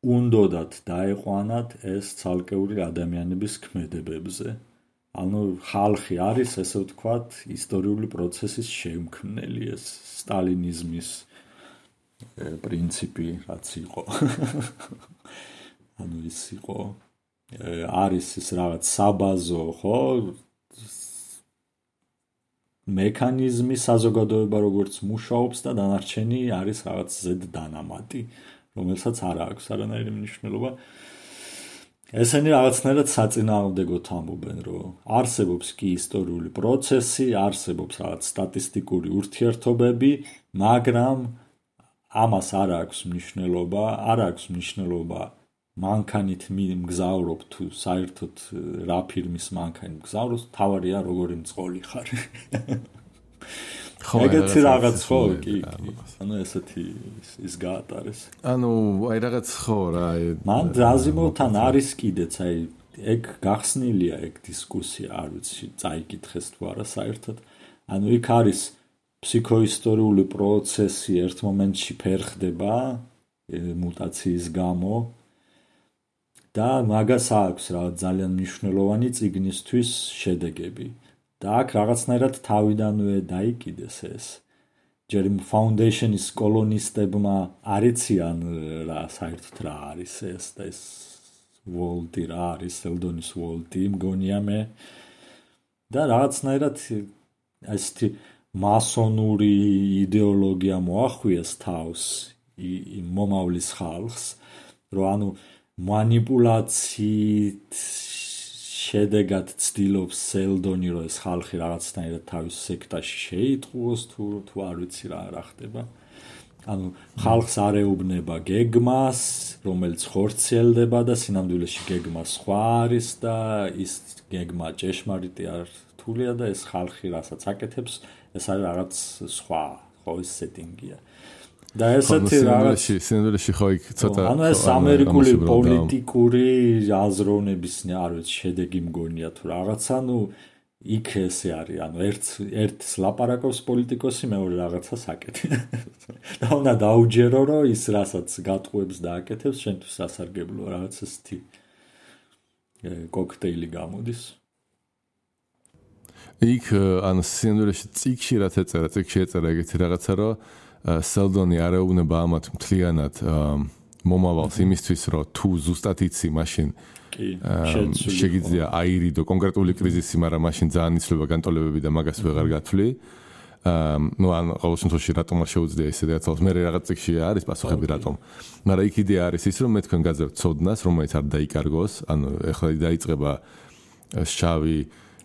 უნდათ დაეყვანათ ეს ცალკეული ადამიანების ქმედებებზე. ანუ ხალხი არის, ესე ვთქვათ, ისტორიული პროცესის შემქმნელი, ეს სტალინიზმის პრინციპი რაც იყო. ანუ ის იყო არის ეს რაღაც საბაზო, ხო? მექანიზმი საზოგადოება როგორც მუშაობს და დანარჩენი არის რაღაც ზედდანამატი, რომელსაც არ აქვს არანაირი მნიშვნელობა. ესენი რაღაცნაირად საწინააღმდეგოდ ამბობენ, რომ არსებობს კი ისტორიული პროცესი, არსებობს რაღაც სტატისტიკური ურთიერთობები, მაგრამ ამას არ აქვს მნიშვნელობა მანქანით მგზავრობ თუ საერთოდ რა ფირმის მანქანი მგზავრობს, თავარია როგორი მწყოლი ხარ. ეგეთი რაღაც ხო კი ანუ ესეთი ის გაატარეს ანუ აი რაღაც ხო რა მან აზიმოვთან არის კიდეც აი ეგ გახსნილია ეგ დისკუსია არ ვიცი წაიკითხეს თუ არა საერთოდ ანუ იქ არის ფსიქოისტორიული პროცესი ერთ მომენტში ფერხდება მუტაციის გამო და მაგას აქვს ძალიან მნიშვნელოვანი წიგნისთვის შედეგები. და აქ რაღაცნაირად თავიდანვე დაიკიდეს ეს. ჯერ Foundation-ის კოლონისტებმა არიციან რა საერთოდ რა არის ეს და ეს ვოლტი რა არის, სელდონის ვოლტი, მგონია მე. და რაღაცნაირად ესეთი მასონური იდეოლოგია მოახვიეს თავს მომავლის ხალხს, რომ ანუ манипуляციით შედეგად ცდილობს სელდონი, რომ ეს ხალხი რაღაცნაირად თავის სექტაში შეიტყუოს თუ არ ვიცი რა ხდება. ანუ ხალხს არ ეუბნება გეგმას, რომელიც ხორციელდება და სინამდვილეში გეგმა სხვა არის და ის გეგმა ჭეშმარიტი არ რთულია და ეს ხალხი რასაც აკეთებს, ეს არის რაღაც სხვა, ხო ეს სეტინგია. და ესეთი რაღაც სინამდვილეში ხო იქ ცოტა ანუ ეს ამერიკული პოლიტიკური აზროვნების არ ვიცი შედეგი მგონია თუ რაღაცა, ну იქ ესე არის, ანუ ერთს ლაპარაკობს პოლიტიკოსი, მეორე რაღაცას აკეთებს. და უნდა დაუჯერო, რომ ის რასაც გატყუებს და აკეთებს, შენთვის სასარგებლოა, რაღაც ესეთი კოქტეილი გამოდის. იქ ანუ სინამდვილეში წიგში რაც ეწერა, წიგში ეწერა ეგეთი რაღაცა, რომ სელდონი არ ეუბნება ამათ მთლიანად მომავალს იმისთვის, რომ თუ ზუსტად იცი, მაშინ შეგიძლია აირიდო კონკრეტული კრიზისი, მაგრამ მაშინ ძალიან იცვლება განტოლებები და მაგას ვეღარ გათვლი. ну ან ყოველ შემთხვევაში რატომ არ შეუძლია ისე რაღაცას მე რაღაც წიგში არის პასუხები რატომ. მაგრამ იქ იდეა არის ის, რომ მე თქვენ გაძებთ ცოდნას, რომელიც არ დაიკარგოს, ანუ ეხლა დაიწყება შავი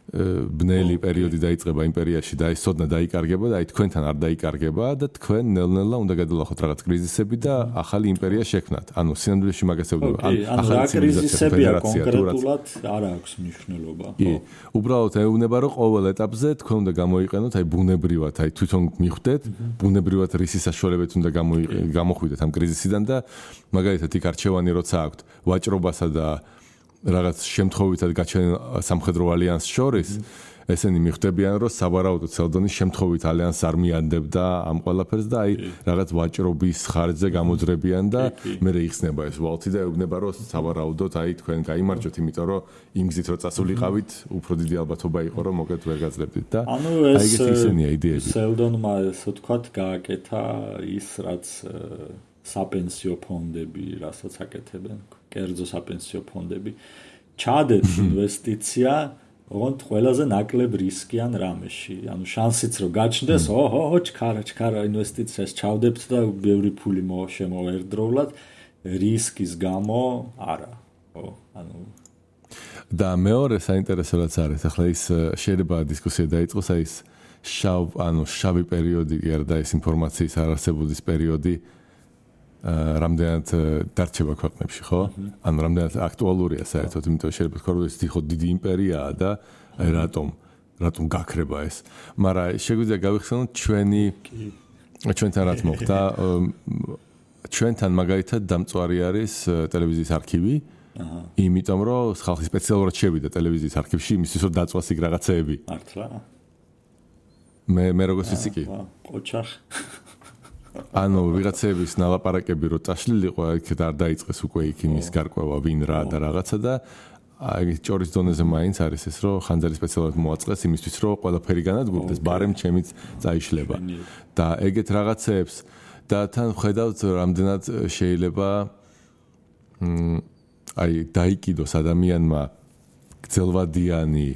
ბნელი პერიოდი დაიწყება იმპერიაში და ეს ცოდნა დაიკარგება და აი თქვენთან არ დაიკარგება და თქვენ ნელ-ნელა უნდა გადალახოთ რაღაც კრიზისები და ახალი იმპერია შექმნათ. ანუ სინამდვილეში მაგას ევდობა. ანუ რა კრიზისებია კონკრეტულად არ აქვს მნიშვნელობა. კი, უბრალოდ ეუბნება, რომ ყოველ ეტაპზე თქვენ უნდა გამოიყენოთ აი ბუნებრივად, აი თვითონ მიხვდეთ, ბუნებრივად რისი საშუალებებით უნდა გამოხვიდეთ ამ კრიზისიდან და მაგალითად იქ არჩევანი როცა აქვთ ვაჭრობასა და რაღაც შემთხვევითად გაჩენილ სამხედრო ალიანსს შორის ესენი მიხვდებიან, რომ საბარაუდოდ სელდონის შემთხვევით ალიანსს არ მიანდებდა ამ ყველაფერს და აი რაღაც ვაჭრობის ხარჯზე გამოძრებიან და მე იხსნება ეს ვალტი და ეუბნება, რომ საბარაუდოდ აი თქვენ გაიმარჯვეთ, იმიტომ რომ იმ გზით რომ წასულიყავით, უფრო დიდი ალბათობა იყო, რომ მოკეთ ვერ გაძლებდით და აი ეგეთი ისენია იდეები. სელდონმა ასე ვთქვათ, გააკეთა ის რაც საპენსიო ფონდები, რასაც აკეთებენ, კერძო საპენსიო ფონდები, ჩადეთ ინვესტიცია, ოღონდ ყველაზე ნაკლებ რისკიან რამეში. ანუ შანსიც რომ გაჩნდეს, ჩქარა ინვესტიციას ჩავდებთ და ბევრი ფული შემოვერდროვლად, რისკის გამო არა. ანუ და მეორე საინტერესო რაც არის, ახლა ის შეიძლება დისკუსია დაიწყოს, აი ეს შავი პერიოდი, და ეს ინფორმაციის არარსებობის პერიოდი რამდენად დარჩება ქვეყნებში, ხო? ანუ რამდენად აქტუალურია საერთოდ, იმიტომ შეიძლება თქვა, რომ ეს დიდი იმპერიაა და აი რატომ გაქრება ეს. მაგრამ შეგვიძლია გავიხსენოთ ჩვენთან რაც მოხდა. ჩვენთან მაგალითად დამწვარი არის ტელევიზიის არქივი. იმიტომ რომ ხალხი სპეციალურად შევიდა ტელევიზიის არქივში იმისთვის, რომ დაწვას იქ რაღაცეები. მართლა? მე როგორც ვიცი კი. ოჩახ ანუ ვიღაცების ნალაპარაკები რო წაშლილიყო, იქ არ დაიწყეს უკვე იქ იმის გარკვევა ვინ რა და რაღაცა და აი ჭორის დონეზე მაინც არის ეს, რომ ხანძარი სპეციალურად მოაწყეს იმისთვის, რომ ყველაფერი განადგურდეს, ბარემ ჩემიც წაიშლება. და ეგეთ რაღაცეებს და თან ხედავთ რამდენად შეიძლება აი დაიკიდოს ადამიანმა გრძელვადიანი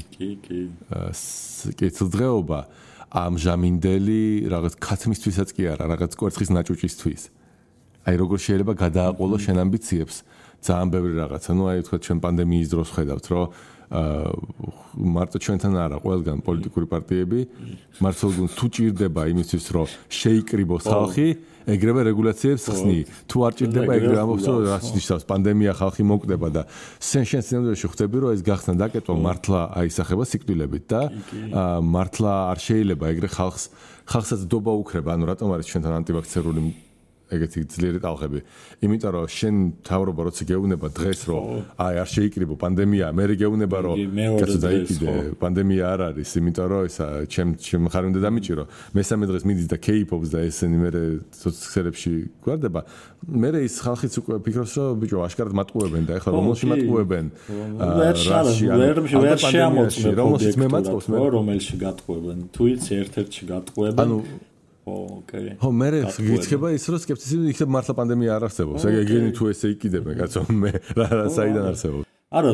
კეთილდღეობა ამჟამინდელი რაღაც ქათმისთვისაც კი არა, რაღაც კვერცხის ნაჭუჭისთვის. აი როგორ შეიძლება გადააყოლოს შენ ამბიციებს ძალიან ბევრი რაღაცა. ნუ აი თქვა ჩვენ პანდემიის დროს ხედავთ, რომ მარტო ჩვენთან არა, ყველგან პოლიტიკური პარტიები მართლგუნდს თუ ჭირდება იმისთვის, რომ შეიკრიბოს ხალხი, ეგრევე რეგულაციებს ხსნი. თუ არ ჭირდება, ეგრევე ამბობს, რომ რაც ნიშნავს პანდემია ხალხი მოკვდება და შენ სინამდვილეში ხვდები, რომ ეს გახსნა დაკეტვა მართლა აისახება სიკვდილებით და მართლა არ შეიძლება ეგრე ხალხსაც დობა უქრება. ანუ რატომ არის ჩვენთან ანტივაქცერული ეგეთი ძლიერი ტალღები. იმიტომ რომ შენ თავრობა როცა გეუბნება დღეს რომ აი არ შეიკრიბო პანდემია, მე გეუბნება რომ კაცო დაიკიდე, პანდემია არ არის, იმიტომ რომ ისა ჩემ ხარ უნდა დამიჭირო. მესამე დღეს მიდის და кейპობს და ესენი მე სოციალებში გვარდება. მე ის ხალხიც უკვე ფიქრობს რომ ბიჭო აშკარად მატყუებენ და ეხლა რომელში მატყუებენ? ვერ შეამოწმებ რომელშიც მე მატყობს მე რომელში გატყუებენ. თუ იცი ერთ-ერთში გატყუებენ. ოკეი. ხო, მე გიქცება ის რომ სკეპტიციზმი იქნებ მართლა პანდემია არ არსებობს. ეგენი თუ ესე იყიდებენ, კაცო, მე რა საიდან არსებობს? არა,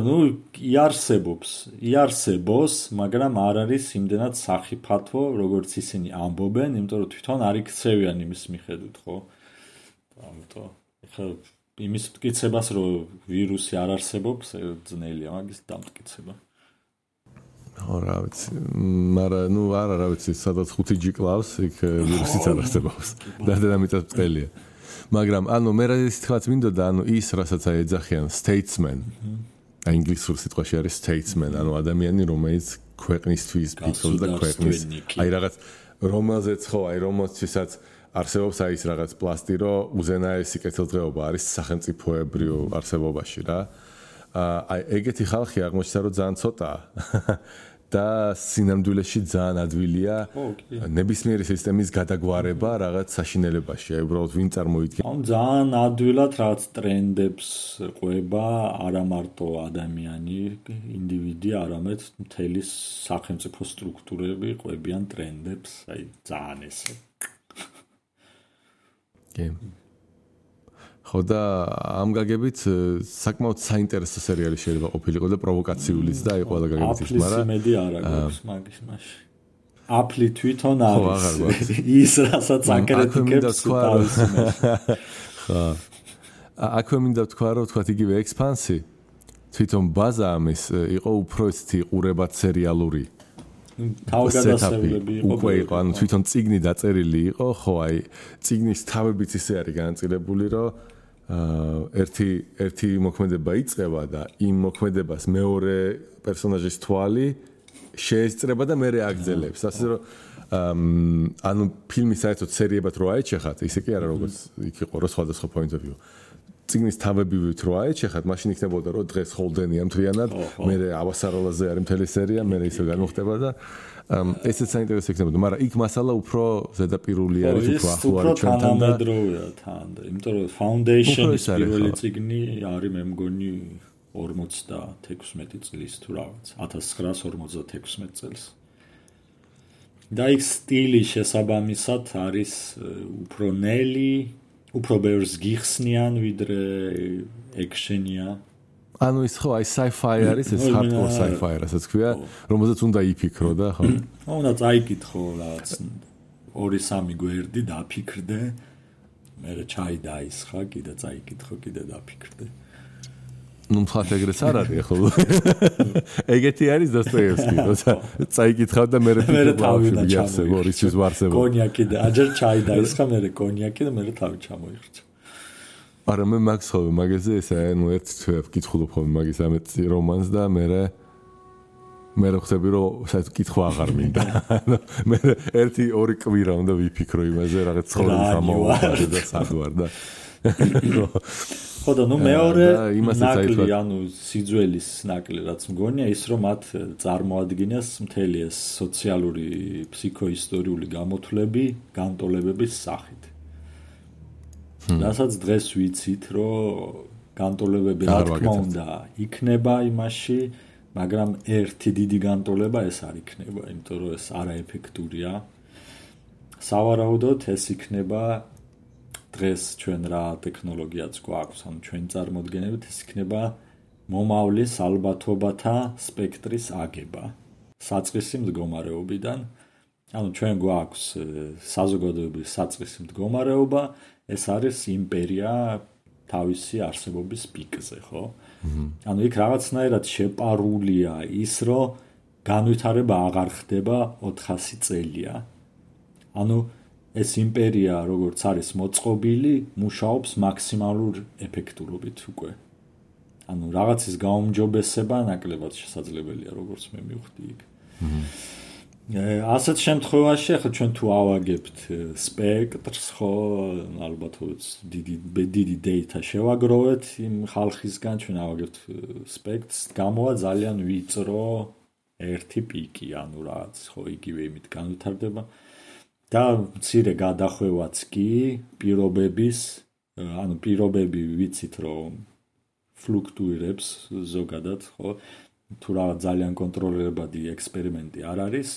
იარსებოს, მაგრამ არ არის იმდენად სახიფათო, როგორც ისინი ამბობენ, იმიტომ რომ თვითონ არ იქცევიან იმის მიხედვით, ხო? ამიტომ ეხლა იმის მტკიცებას, რომ ვირუსი არ არსებობს, ძნელია მაგის დამტკიცება. ხო, რა ვიცი, მაგრამ რა ვიცი, სადაც 5G კლავს, იქ ვირუსიც არ არსებობს. და მიწას ბრტყელია. მაგრამ მე რა ის თქვაც მინდოდა, ის რასაც ეძახიან statesman. ინგლისურ სიტყვაში არის statesman, ადამიანი, რომელიც ქვეყნისთვის ფიქრობს და ქვეყნის, აი რაღაც რომელზეც ხო, აი რომელსაც არსებობს აი ის რაღაც პლასტი, რომ უზენაესი კეთილდღეობა არის სახელმწიფოებრივ არსებობაში რა. აი ეგეთი ხალხი აღმოჩნდა რომ ძალიან ცოტაა და სინამდვილეში ძალიან ადვილია ნებისმიერი სისტემის გადაგვარება რაღაც საშინელებაში. აი უბრალოდ ვინ წარმოიდგება? ძალიან ადვილად რაღაც ტრენდებს ყვება არა მარტო ადამიანი, ინდივიდი, არამედ მთელი სახელმწიფო სტრუქტურები ყვებიან ტრენდებს, აი ძალიან ესე. ხო და ამ გაგებით საკმაოდ საინტერესო სერიალი შეიძლება ყოფილიყო და პროვოკაციულიც და აი ყველა გაგებით ის, მაგრამ აფლის არა გვაქვს მაგის მაშინ. აფლი თვითონ არის ის რასაც აკრიტიკებს თავის იმაში. ხო. აქვე მინდა ვთქვა რომ თქვათ იგივე ექსპანსი თვითონ ბაზა ამის იყო უფრო ისეთი ყურებად სერიალური. თავგადასავლები იყო, თვითონ წიგნი დაწერილი იყო, ხო, აი წიგნის თავებიც ისე არის განაწილებული, რომ ერთი მოქმედება იწყება და იმ მოქმედებას მეორე პერსონაჟის თვალი შეესწრება და მეორე აგრძელებს. ასე რომ ფილმი საერთოდ სერიებად რო აეჩეხათ, ისე კი არა როგორც იქ იყო რო სხვადასხვა point of view. წიგნის თავებივით რო აეჩეხათ, მაშინ იქნებოდა რომ დღეს ჰოლდენია მთლიანად, მეორე ავასაროლაზე არის მთელი სერია, მეორე ისე განუხდება და ესეც საინტერესო იქნებოდა, მაგრამ იქ მასალა უფრო ზედაპირული არის, უფრო ახლო არის ჩვენთან და თანამედროვეა თან, იმიტომ რომ Foundation-ის პირველი წიგნი არის მე მგონი 56 წლის თუ რაღაც, 1956 წელს. და იქ სტილი შესაბამისად არის უფრო ნელი, უფრო ბევრს გიხსნიან ვიდრე ექშენია. ის ხო, აი sci-fi არის, ეს hardcore sci-fi რასაც ქვია, რომელზეც უნდა იფიქრო და ხო. უნდა წაიკითხო რაღაც 2-3 გვერდი დაფიქრდე, მერე ჩაი დაისხა, კიდე წაიკითხო, კიდე დაფიქრდე. მხოლოდ ეგრეც არ არის ხო? ეგეთი არის დოსტოევსკი, როცა წაიკითხავ და მერე თავი დაჩამო, რისთვის ვარსებო. კონიაკი და აჯერ ჩაი დაისხა, მერე კონიაკი და მერე თავი ჩამოიხრჩა. არა მე მაგს ხოვე მაგაზე ესა ერთ თვე ვკითხულობ ხოლმე მაგის ამეთ რომანს და მე ხვდები რომ საერთოდ კითხვა აღარ მინდა. მე 1-2 კვირა უნდა ვიფიქრო იმაზე რაღაც ცხოვრების ამაოყარე და სადوار და ხო და მეორე ნაკლი სიძველის ნაკლი რაც მგონია ის რომ მათ წარმოადგენს მთელი ეს სოციალური ფსიქოისტორიული გამოთვლები განტოლებების სახით. რასაც დღეს ვიცით, რომ განტოლებები რა თქმა უნდა იქნება იმაში, მაგრამ ერთი დიდი განტოლება ეს არ იქნება, იმიტომ რომ ეს არაეფექტურია. სავარაუდოდ ეს იქნება დღეს ჩვენ რა ტექნოლოგიაც გვაქვს, ანუ ჩვენ წარმოადგენებით ეს იქნება მომავლის ალბათობათა სპექტრის აგება. საწყისი მდგომარეობიდან, ანუ ჩვენ გვაქვს საზოგადოების საწყისი მდგომარეობა, ეს არის იმპერია თავისი არსებობის პიკზე, ხო? ანუ იქ რაღაცნაირად შეპარულია ის, რომ განვითარება აღარ ხდება 400 წელია. ანუ ეს იმპერია, როგორც არის მოწყობილი, მუშაობს მაქსიმალურ ეფექტურობით უკვე. ანუ რაღაცის გაუმჯობესება ნაკლებად შესაძლებელია, როგორც მე მივხვდი იქ. ასეთ შემთხვევაში ახლა ჩვენ თუ ავაგებთ სპექტრს, ხო, ალბათ დიდი data შევაგროვეთ იმ ხალხისგან, ჩვენ ავაგებთ სპექტრს, გამოვა ძალიან ვიწრო ერთი პიკი, ანუ რაც, ხო, იგივე იმით განვითარდება და მცირე გადახვევაც კი პირობების, ანუ პირობები ვიცით, რომ ფლუქტუირებს ზოგადად, ხო, თუ რაღაც ძალიან კონტროლირებადი ექსპერიმენტი არ არის,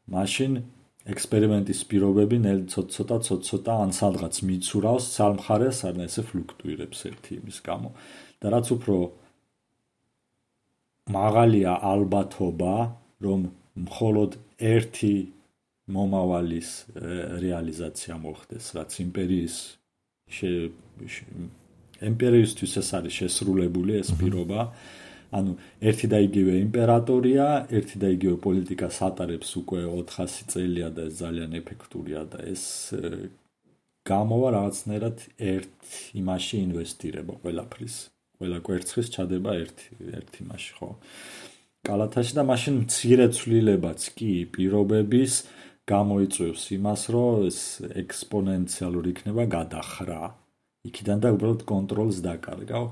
მაშინ ექსპერიმენტის პირობები ცოტა ან სადღაც მიცურავს ცალმხარეს, ან ესე ფლუქტუირებს ერთი იმის გამო. და რაც უფრო მაღალია ალბათობა, რომ მხოლოდ ერთი მომავალის რეალიზაცია მოხდეს, რაც იმპერიისთვის ეს არის შესრულებული ეს პირობა, ანუ ერთი და იგივე იმპერატორია, ერთი და იგივე პოლიტიკას ატარებს უკვე 400 წელია და ეს ძალიან ეფექტურია და ეს გამოვა რაღაცნაირად ერთ იმაში ინვესტირება ყველაფრის, ყველა კვერცხის ჩადება ერთ იმაში, ხო? კალათაში და მაშინ მცირე ცვლილებაც კი პირობების გამოიწვევს იმას, რომ ეს ექსპონენციალური იქნება გადახრა. იქიდან და უბრალოდ კონტროლს დაკარგავ.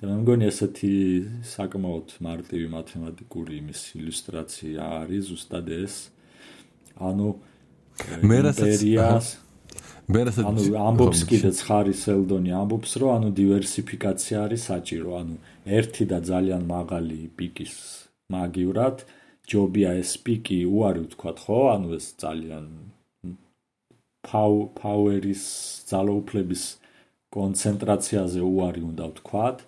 და მე მგონი ესეთი საკმაოდ მარტივი მათემატიკური იმის ილუსტრაცია არის ზუსტად ეს. ანუ იმპერიას ანუ ამბობს კიდეც ხარის ელდონი ამბობს, რომ ანუ დივერსიფიკაცია არის საჭირო, ანუ ერთი და ძალიან მაღალი პიკის მაგივრად ჯობია ეს პიკი უარი ვთქვათ, ხო? ანუ ეს ძალიან power-ის ძალაუფლების კონცენტრაციაზე უარი უნდა ვთქვათ,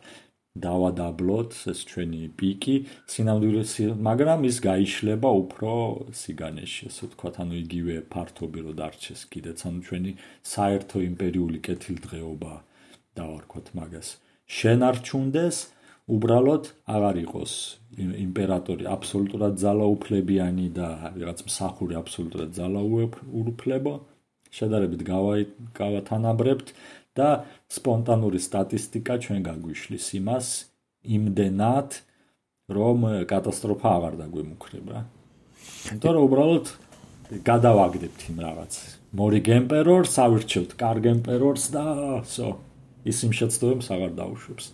დავადაბლოთ ეს ჩვენი პიკი, სინამდვილეში, მაგრამ ის გაიშლება უფრო სიგანეში, ესე ვთქვათ, ანუ იგივე ფართობი რო დარჩეს კიდეც, ანუ ჩვენი საერთო იმპერიული კეთილდღეობა დავარქვათ მაგას. შენარჩუნდეს, უბრალოდ აღარ იყოს იმპერატორი აბსოლუტურად ძალაუფლებიანი და რაღაც მსახური აბსოლუტურად ძალაუფლებო, შედარებით გავათანაბრებთ და სპონტანური სტატისტიკა ჩვენ გაგვიშლის იმას იმდენად, რომ კატასტროფა აღარ დაგვემუქრება. იმიტომ რომ უბრალოდ გადავაგდებთ იმ რაღაც. მორიგ ემპერორს ავირჩევთ კარგ ემპერორს და ის იმ შეცდომებს აღარ დაუშვებს.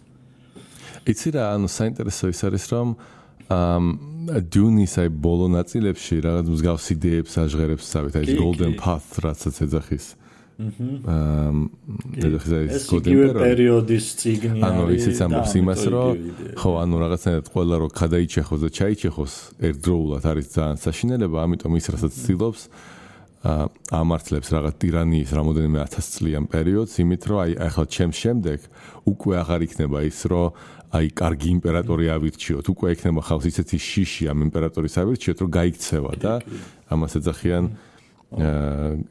იცი რა, ანუ საინტერესო ის არის, რომ დუნის აი ბოლო ნაწილებში რაღაც მსგავს იდეებს აჟღერებს savით, აი golden path რაცაც ეძახის. ეს იგივე პერიოდის წიგნი არის. ანუ ისიც ამბობს იმას, რომ ხო, ანუ რაღაცნაირად ყველა რო გადაიჩეხოს და ჩაიჩეხოს ერთდროულად არის ძალიან საშინელება, ამიტომ ის რასაც ცდილობს ამართლებს რაღაც ტირანიის რამოდენიმე 1000 წლიან პერიოდს, იმით რომ აი ახლა ჩემს შემდეგ უკვე აღარ იქნება ის, რომ აი კარგი იმპერატორი ავირჩიოთ, უკვე იქნება ხალხს ისეთი შიში ამ იმპერატორის ავირჩიოთ, რომ გაიქცევა და ამას ეძახიან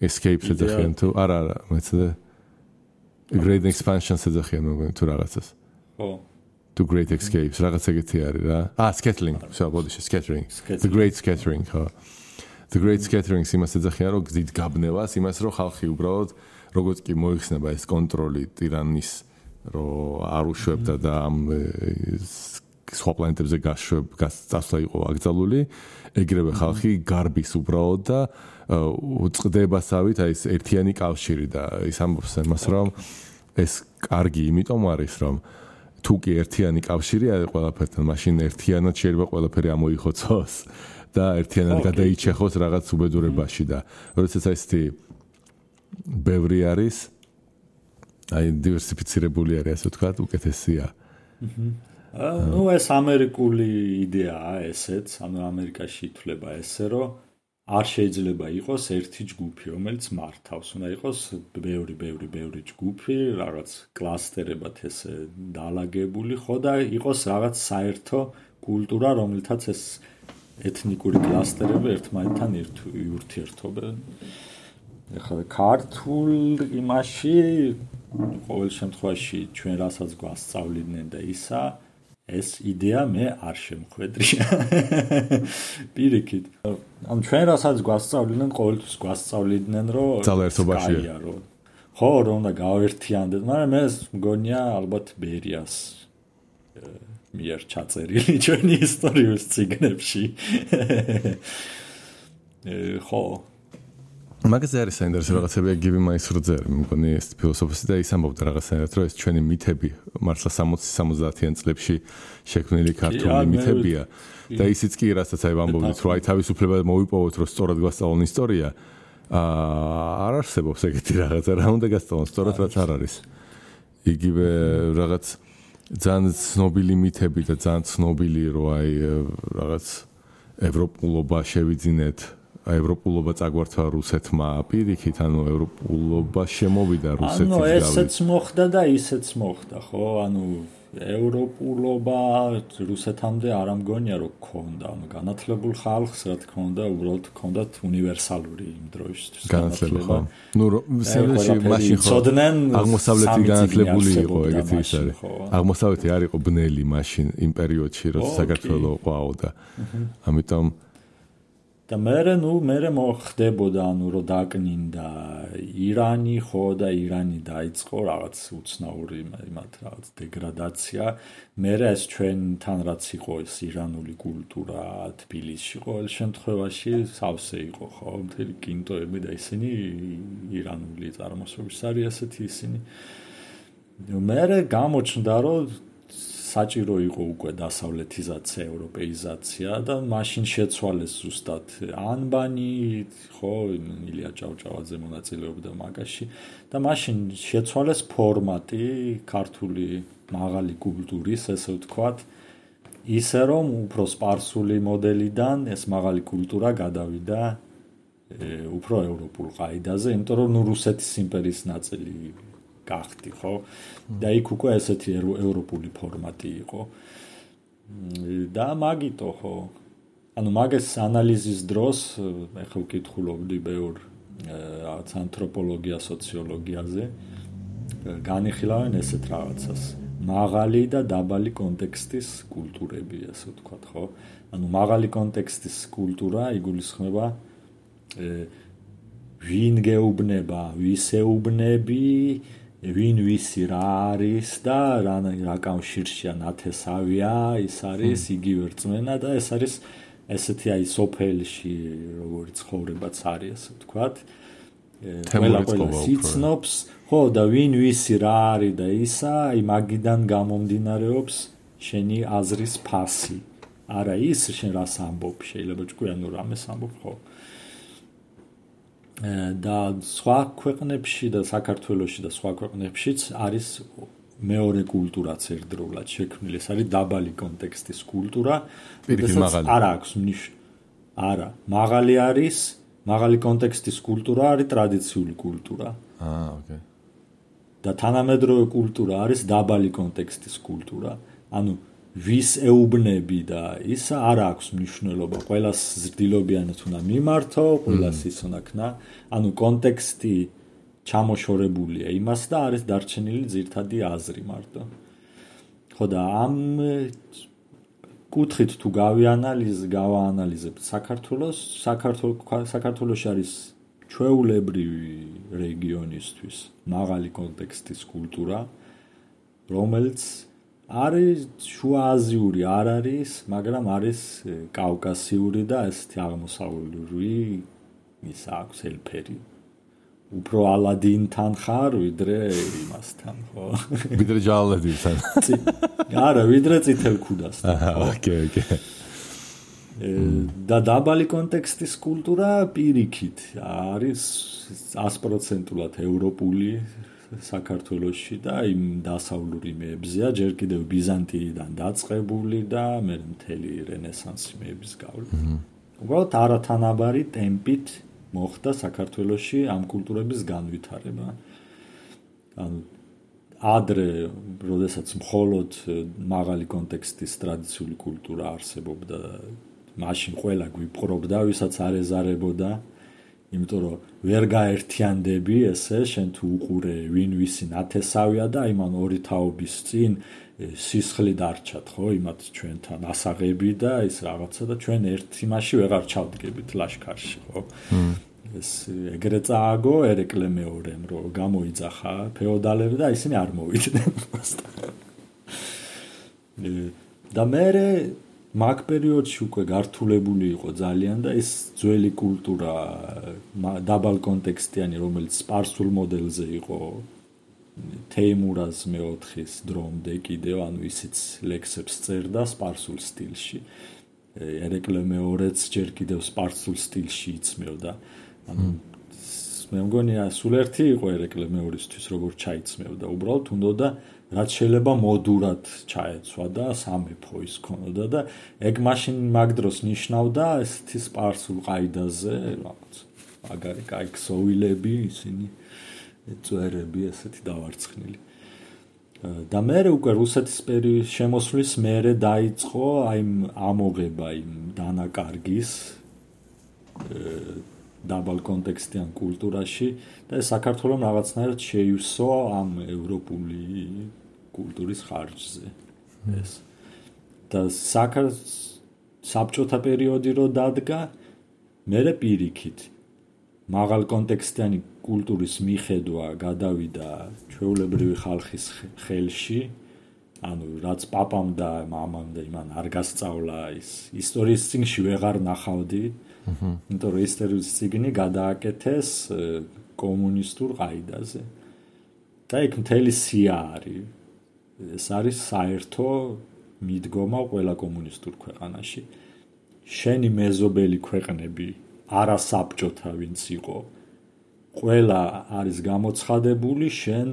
escape ეძახიან თუ არა, მეცადე great expansion ეძახიან მოგონი თუ რაღაცას. ხო. To great escapes, რაღაც ეგეთი არის რა. Scattering, scattering. The great scattering, ხო. The great scattering იმას ეძახიან, რომ გზით გაბნევას, იმას რომ ხალხი უბრალოდ როგორც კი მოიხსნება ეს კონტროლი ტირანის, რომ არ უშვებდა და ამ სხვა პლანეტებზე გასწავლა იყო აკრძალული, ეგრევე ხალხი გარბის უბრალოდ და უწყდებასავით აი ეს ერთიანი კავშირი და ის ამბობს იმას, რომ ეს კარგი იმიტომ არის, რომ თუ კი ერთიანი კავშირი არის ყველაფერთან, მაშინ ერთიანად შეიძლება ყველაფერი ამოიხოცოს. და ერთიანად გადაიჩეხოს რაღაც უბედურებაში და როდესაც ესეთი ბევრი არის აი დივერსიფიცირებული არის ასე ვთქვათ უკეთესია. ნუ ეს ამერიკული იდეაა ესეც, ანუ ამერიკაში ითვლება ესე, რომ არ შეიძლება იყოს ერთი ჯგუფი, რომელიც მართავს, უნდა იყოს ბევრი ჯგუფი, რაღაც კლასტერებად ესე დაალაგებული, ხო და იყოს რაღაც საერთო კულტურა, რომელთაც ეს ეთნიკური კლასტერები ერთმანეთთან ურთიერთობენ. ეხლა ქართულ იმაში ყოველ შემთხვევაში ჩვენ რასაც გვასწავლიდნენ და ისა, ეს იდეა მე არ შემხვედრია. პირიქით. ანუ ჩვენ რასაც გვასწავლიდნენ, ყოველთვის გვასწავლიდნენ, რომ ძალაერთობაშია. ხო, რომ უნდა გავერთიანდეთ, მაგრამ ეს მგონია ალბათ ბერიას მიერ ჩაწერილი ჩვენი ისტორიულ წიგნებში. ხო მაგაზე არის საინტერესო რაღაცები გივი მაისროძე მე მგონი ეს ფილოსოფოსი და ის ამბობდა რაღაცნაირად რომ ეს ჩვენი მითები მართლა 60-70-იან წლებში შექმნილი ქართული მითებია და ისიც კი რასაც აი ვამბობდით რომ აი თავისუფლება მოვიპოვოთ რომ სწორად გვასწავლონ ისტორია არ არსებობს ეგეთი რაღაცა რა უნდა გასწავლონ სწორად რაც არ არის იგივე რაღაც ძალიან ცნობილი მითები და ძალიან ცნობილი რომ აი რაღაც ევროპულობა შევიძინეთ ევროპულობა წაგვართა რუსეთმა პირიქით ანუ ევროპულობა შემოვიდა რუსეთის ანუ ესეც მოხდა და ისეც მოხდა ხო ანუ ევროპულობა რუსეთამდე არ ამგონია რომ ქონდა ანუ განათლებულ ხალხს რა თქმა უნდა უბრალოდ ქონდათ უნივერსალური იმ დროისთვის განათლება ნუ მაშინ ხო აღმოსავლეთი განათლებული იყო ეგეთი ის არის აღმოსავლეთი არ იყო ბნელი მაშინ იმ პერიოდში როცა საქართველო ყვაო და ამიტომ და მე მოხდებოდა ანუ რომ დაკნინდა ირანი ხო და ირანი დაიწყო რაღაც უცნაური იმათ რაღაც დეგრადაცია მე ეს ჩვენთან რაც იყო ეს ირანული კულტურა თბილისში ყოველ შემთხვევაში სავსე იყო ხო მთელი კინტოები და ისინი ირანული წარმოშობის არის ასეთი ისინი მე გამოჩნდა რომ საჭირო იყო უკვე დასავლეთიზაცია, ევროპეიზაცია და მაშინ შეცვალეს ზუსტად ანბანი, ხო, ილია ჭავჭავაძე მონაწილეობდა მაგაში და მაშინ შეცვალეს ფორმატი ქართული მაღალი კულტურის, ესე ვთქვათ, ისე რომ უფრო სპარსული მოდელიდან ეს მაღალი კულტურა გადავიდა უფრო ევროპულ ყაიდაზე, იმიტომ რომ რუსეთის იმპერიის ნაწილი გახდი, ხო? და იქ უკვე ესეთი ევროპული ფორმატი იყო. და მაგიტო, ხო? ანუ მაგის ანალიზის დროს ეხლა ვკითხულობდი ბევრ რაღაც ანთროპოლოგია, სოციოლოგიაზე. განიხილავენ ესეთ რაღაცას. მაღალი და დაბალი კონტექსტის კულტურები, ასე ვთქვათ, ხო? ანუ მაღალი კონტექსტის კულტურა იგულისხმება ვინ გეუბნება, ვის ეუბნები, ვინ ვისი რა არის და რა კავშირშია ნათესავია, ის არის იგივე რწმენა და ეს არის ესეთი აი სოფელში როგორი ცხოვრებაც არის, ასე ვთქვათ. ყველა სიცნობს, ხო და ვინ ვისი რა არის და ისა, აი მაგიდან გამომდინარეობს შენი აზრის ფასი. არა ის შენ რას ამბობ, შეიძლება ჭკვიანო რამეს ამბობ, ხო? და სხვა ქვეყნებში და საქართველოში და სხვა ქვეყნებშიც არის მეორე კულტურაც ერთდროულად შექმნილი. ეს არის დაბალი კონტექსტის კულტურა. არ აქვს არა, მაღალი არის, მაღალი კონტექსტის კულტურა არის ტრადიციული კულტურა. ოკეი. და თანამედროვე კულტურა არის დაბალი კონტექსტის კულტურა. ანუ ვის ეუბნები და ისა არ აქვს მნიშვნელობა. ყველას ზრდილობიანად უნდა მიმართო, ყველას ის უნდა ქნა. ანუ კონტექსტი ჩამოშორებულია იმას და არის დარჩენილი ძირთადი აზრი მარტო. ხო და ამ კუთხით თუ გავაანალიზებთ საქართველოში არის ჩვეულებრივი რეგიონისთვის მაღალი კონტექსტის კულტურა, რომელიც არის შუააზიური არ არის, მაგრამ არის კავკასიური და ესეთი აღმოსავლური ის აქვს ელფერი. უფრო ალადინთან ხარ, ვიდრე იმასთან, ხო? ვიდრე ჯალალედინთან. არა, ვიდრე წითელ ქუდასთან. ოკეი. და დაბალი კონტექსტის კულტურა პირიქით არის 100%-ულად ევროპული საქართველოში და იმ დასავლური მეებზეა, ჯერ კიდევ ბიზანტიიდან დაწყებული და მე მთელი რენესანსი მეების გავლით. უბრალოდ არათანაბარი ტემპით მოხდა საქართველოში ამ კულტურების განვითარება. ანუ ადრე, როდესაც მხოლოდ მაღალი კონტექსტის ტრადიციული კულტურა არსებობდა, მაშინ ყველა გვიპყრობდა, ვისაც არ ეზარებოდა. იმიტომ რომ ვერ გაერთიანდები ესე შენ თუ უყურე ვინ ვისი ნათესავია და იმან ორი თაობის წინ სისხლი დარჩათ ხო იმათ ჩვენთან ასაღები და ის რაღაცა და ჩვენ ერთ იმაში ვეღარ ჩავდგებით ლაშქარში ხო ეს ეგრე წააგო ერეკლე მეორემ რომ გამოიძახა ფეოდალები და ისინი არ მოვიდნენ და მე მაგ პერიოდში უკვე გართულებული იყო ძალიან და ეს ძველი კულტურა დაბალ კონტექსტიანი, რომელიც სპარსულ მოდელზე იყო თეიმურაზ მეოთხის დრომდე კიდევ, ანუ ისიც ლექსებს წერდა სპარსულ სტილში. ერეკლე მეორეც ჯერ კიდევ სპარსულ სტილში იცმევდა. ანუ მე მგონი სულ ერთი იყო ერეკლე მეორისთვის როგორ ჩაიცმევდა. უბრალოდ უნდოდა რაც შეიძლება მოდურად ჩაეცვა და სამეფო ის ქონოდა და ეგ მაშინ მაგ დროს ნიშნავდა ესეთი სპარსულ ყაიდაზე რაღაც მაგარი კაი ქსოვილები ისინი წვერები ესეთი დავარცხნილი. და მე უკვე რუსეთის შემოსვლის მერე დაიწყო აი ამოღება იმ დანაკარგის დაბალ კონტექსტიან კულტურაში და საქართველოს რაღაცნაირად შეივსო ამ ევროპული კულტურის ხარჯზე ეს და საბჭოთა პერიოდი რო დადგა მერე პირიქით მაღალ კონტექსტიანი კულტურის მიხედვა გადავიდა ჩვეულებრივი ხალხის ხელში ანუ რაც პაპამ და მამამ და იმან არ გასწავლა ის ისტორიის წიგნში ვეღარ ნახავდი იმიტომ რომ ისტორიის წიგნი გადააკეთეს კომუნისტურ ყაიდაზე და იქ მთელი სია არის ეს არის საერთო მიდგომა ყველა კომუნისტურ ქვეყანაში შენი მეზობელი ქვეყნები არასაბჭოთა ვინც იყო ყველა არის გამოცხადებული შენ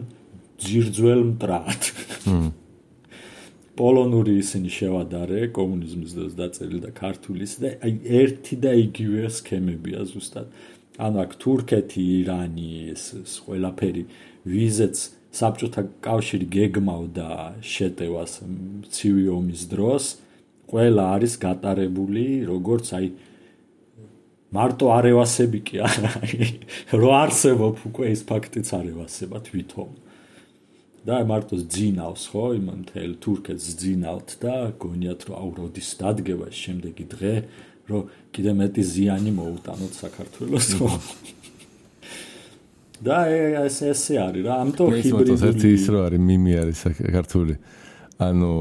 ძირძველ მტრად პოლონური ისინი შევადარე კომუნიზმის დროს დაწერილი და ქართულის და აი ერთი და იგივე სქემებია ზუსტად ანუ აქ თურქეთი ირანი ეს ყველაფერი ვიზეც საბჭოთა კავშირი გეგმავდა შეტევას ცივი ომის დროს ყველა არის გატარებული როგორც აი მარტო არევასები კი არა რო არსებობ უკვე ის ფაქტიც არევასება თვითონ და მარტო ძინავს ხო იმან თელ თურქეთს ძინავთ და გონიათ რომ აუ როდის დადგება შემდეგი დღე რომ კიდე მეტი ზიანი მოუტანოთ საქართველოს ხო და ესე არის რა ამიტომ ჰიბრიდული ის რო არის მიმი არის საქართველოს ანუ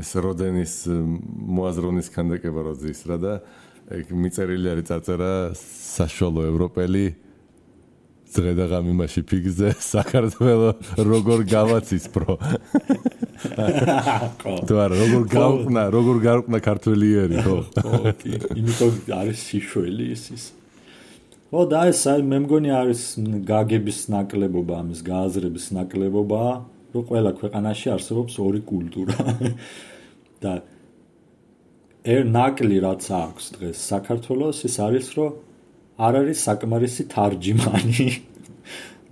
ეს როდენის მოაზროვნის ქანდაკება როდის რა და ეგ მიწერილი არის წარწერა საშუალო ევროპელი დღე და ღამე იმაში ფიგზე საქართველოს როგორ გავაცის პრო თუ არა როგორ გარკვნა ქართველიერი ხო იმიტომ არის სიშველი ის ხო და ეს მე მგონი არის გაგების ნაკლებობა ამის გააზრების ნაკლებობა რომ ყველა ქვეყანაში არსებობს ორი კულტურა და ნაკლი რაც აქვს დღეს საქართველოს ის არის რომ არ არის საკმარისი თარჯიმანი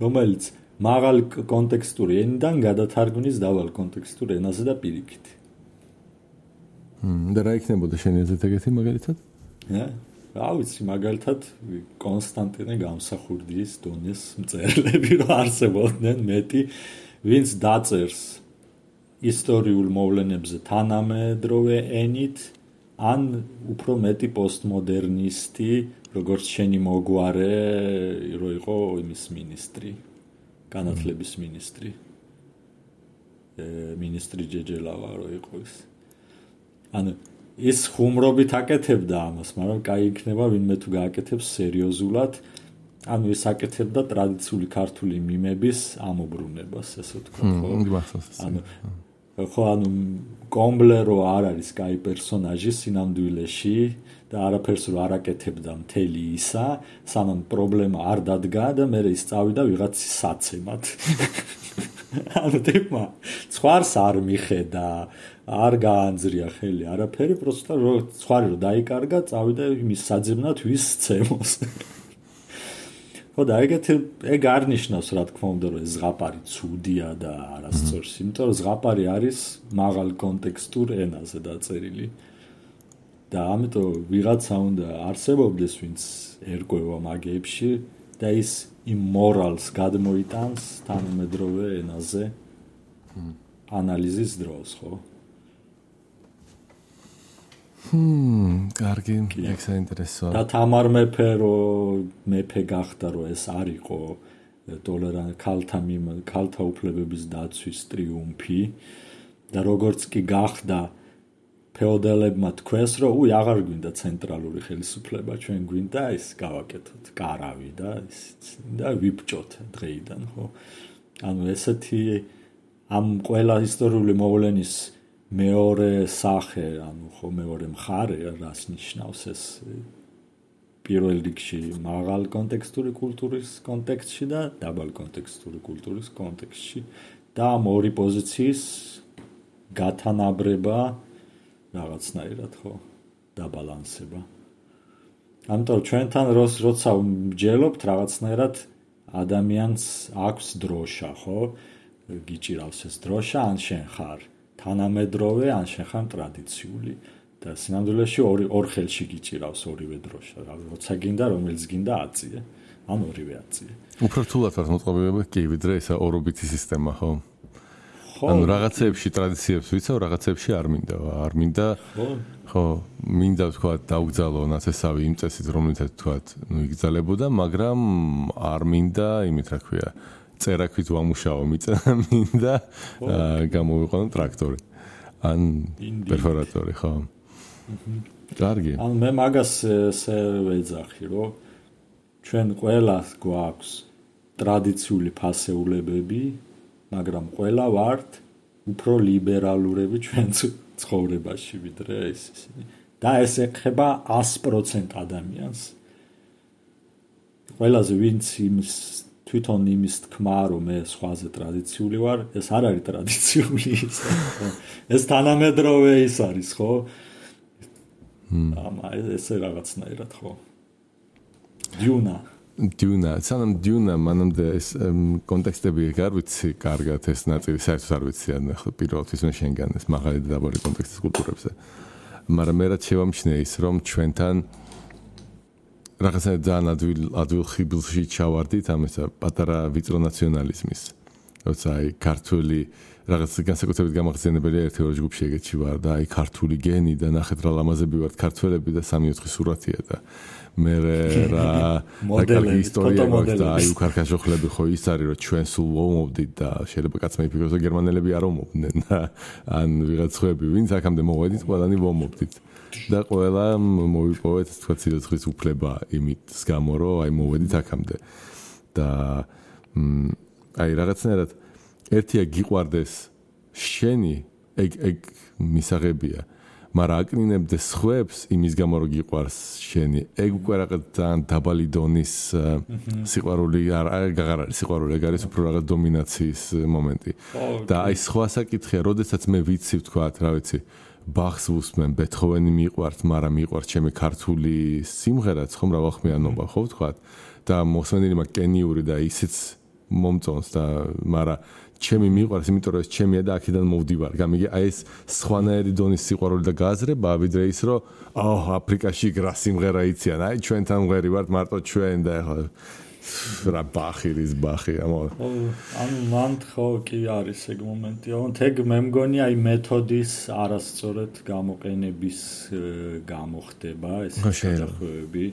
რომელიც მაღალ კონტექსტური ენიდან გადათარგმნის დაბალ კონტექსტურ ენაზე და პირიქით და რა იქნებოდა შენი აზრით ეგეთი მაგალითად რა ვიცი მაგალითად კონსტანტინე გამსახურდიის დონეს მწერლები რომ არსებობდნენ მეტი ვინც დაწერს ისტორიულ მოვლენებზე თანამედროვე ენით ან უფრო მეტი პოსტმოდერნისტი როგორც შენი მოგვარე რო იყო იმის მინისტრი განათლების მინისტრი მინისტრი ჯეჯელავა რო იყო ის ანუ ის ხუმრობით აკეთებდა ამას მაგრამ კაი იქნება ვინმე თუ გააკეთებს სერიოზულად ანუ ის აკეთებდა ტრადიციული ქართული მიმების ამობრუნებას ესე ვთქვა ხო ანუ კომბლერო არ არის კაი პერსონაჟი სინამდვილეში და არაფერს რო არ აკეთებდა მთელი ისა სანამ პრობლემა არ დადგა და მე ის წავიდა ვიღაცის საცემად ანუ თქმა ცხვარს არ მიხედა არ გაანძრია ხელი არაფერი პროსტა რო ცხვარი რო დაიკარგა წავიდა იმის საძებნად ვის ცემოს ხო და ეგ არ ნიშნავს რა თქმა უნდა რომ ეს ზღაპარი ცუდია და არასწორს იმიტომ რომ ზღაპარი არის მაღალ კონტექსტურ ენაზე დაწერილი და ამიტომ ვიღაცა უნდა არსებობდეს ვინც ერკვევა მაგებში და ის იმ მორალს გადმოიტანს თანამედროვე ენაზე ანალიზის დროს ხო კარგი, ეგ საინტერესოა. და თამარ მეფე გახდა რომ ეს არ იყო ქალთა უფლებების დაცვის ტრიუმფი და როგორც კი გახდა ფეოდალებმა თქვეს, რომ უი აღარ გვინდა ცენტრალური ხელისუფლება, ჩვენ გვინდა ეს გავაკეთოთ კარავი და ვიბჭოთ დღეიდან, ხო? ანუ ესეთი ამ ყველა ისტორიული მოვლენის მეორე სახე, ანუ ხო მეორე მხარე, რას ნიშნავს ეს პირველ რიგში მაღალ კონტექსტური კულტურის კონტექსტში და დაბალ კონტექსტური კულტურის კონტექსტში და ამ ორი პოზიციის გათანაბრება რაღაცნაირად ხო დაბალანსება. ამიტომ ჩვენთან როცა ვმჯელობთ რაღაცნაირად ადამიანს აქვს დროშა, ხო? გიჭირავს ეს დროშა, ან შენ ხარ თანამედროვე, ან შენ ხარ ტრადიციული. და სინამდვილეში ორ ხელში გიჭირავს ორივე დროშა. როცა გინდა, რომელიც გინდა აწიე, ან ორივე აწიე. უფრო რთულად ვარ მოწყობილება კი, ვიდრე ესა ორობითი სისტემა, ხო? ანუ რაღაცეებში ტრადიციებს ვიცავ, რაღაცეებში არ მინდა. არ მინდა. ხო, მინდა თქვა დაუგზავნო ნაცესავი იმ წესით, რომელიცაც თქვა, იგზალებოდა, მაგრამ არ მინდა, იმით რა ქვია, წერაქვით ვამუშაო მინდა გამოვიყვანო ტრაქტორი. ან პერფორატორი, ხო? კარგი. ან მე მაგას ესე ვეძახი, რომ ჩვენ ყველას გვაქვს ტრადიციული ფასეულებები, მაგრამ ყველა ვართ უფრო ლიბერალურები ჩვენ ცხოვრებაში ვიდრე ისინი. და ეს ეხება 100% ადამიანს. ყველაზე ვინც თვითონ იმის თქმა, რომ მე სხვაზე ტრადიციული ვარ, ეს არ არის ტრადიციული ის. ეს თანამედროვე ის არის, ხო? ესე რაღაცნაირად ხო. დიუნა, სანამ დიუნა მანამდე ეს კონტექსტები არ ვიცი კარგად ეს ნაწილი საერთოდ არ ვიცი ან პირველთვის მე შენგან ეს მაღალი და დაბალი კონტექსტის კულტურებზე. მაგრამ მე რაც შევამჩნია ის რომ ჩვენთან რაღაცა ძალიან ადვილ ხიბლში ჩავარდით ამ ესა პატარა ვიწრო ნაციონალიზმის. როცა აი ქართული რაღაც განსაკუთრებით გამახსენებელია ერთი ორი ჯგუფში ეგეთში ვარ და აი ქართული გენი და ნახეთ რა ლამაზები ვართ ქართველები და 3-4 სურათია და მე რა კარგი ისტორია გვაქვს და აი უკარქაშოხლები ხო ის არის რომ ჩვენ სულ ვომობდით და შეიძლება კაცმა იფიქროს რომ გერმანელები არ ომობდნენ და ან ვიღაც ხვები ვინც აქამდე მოვედით ყველანი ვომობდით და ყველა მოვიპოვეთ თქვა ცილცხლის უფლება იმის გამო რომ აი მოვედით აქამდე და აი რაღაცნაირად ერთია გიყვარდეს შენი ეგ მისაღებია მაგრამ აკნინებდეს ხვებს იმის გამო რომ გიყვარს შენი ეგ უკვე რაღაც ძალიან დაბალი დონის სიყვარული არ არის სიყვარული ეგ არის უფრო რაღაც დომინაციის მომენტი და აი სხვა საკითხია როდესაც მე ვიცი ვთქვა რა ვიცი ბახს ვუსმენ ბეთჰოვენი მიყვართ მაგრამ მიყვართ ჩემი ქართული სიმღერაც ხომ რავალხმიანობა ხო ვთქვა და მოსმენილი მაგ კენიური და ისიც მომწონს და მაგრამ ჩემი მიყვარს, იმიტომ რომ ეს ჩემია და აქედან მოვდივარ. გამიგე, აი ეს სხვანაირი დონის სიყვარული და გააზრება, ვიდრე ის რომ აფრიკაში გრა სიმღერა იციან. აი ჩვენთან მღერი ვართ მარტო ჩვენ და ეხლა რა ბახირის ბახი ამო. ანუ მან ხო კი არის ეგ მომენტი. ეგ მე მგონი აი მეთოდის არასწორად გამოყენების გამოხდება ეს შეხედვები.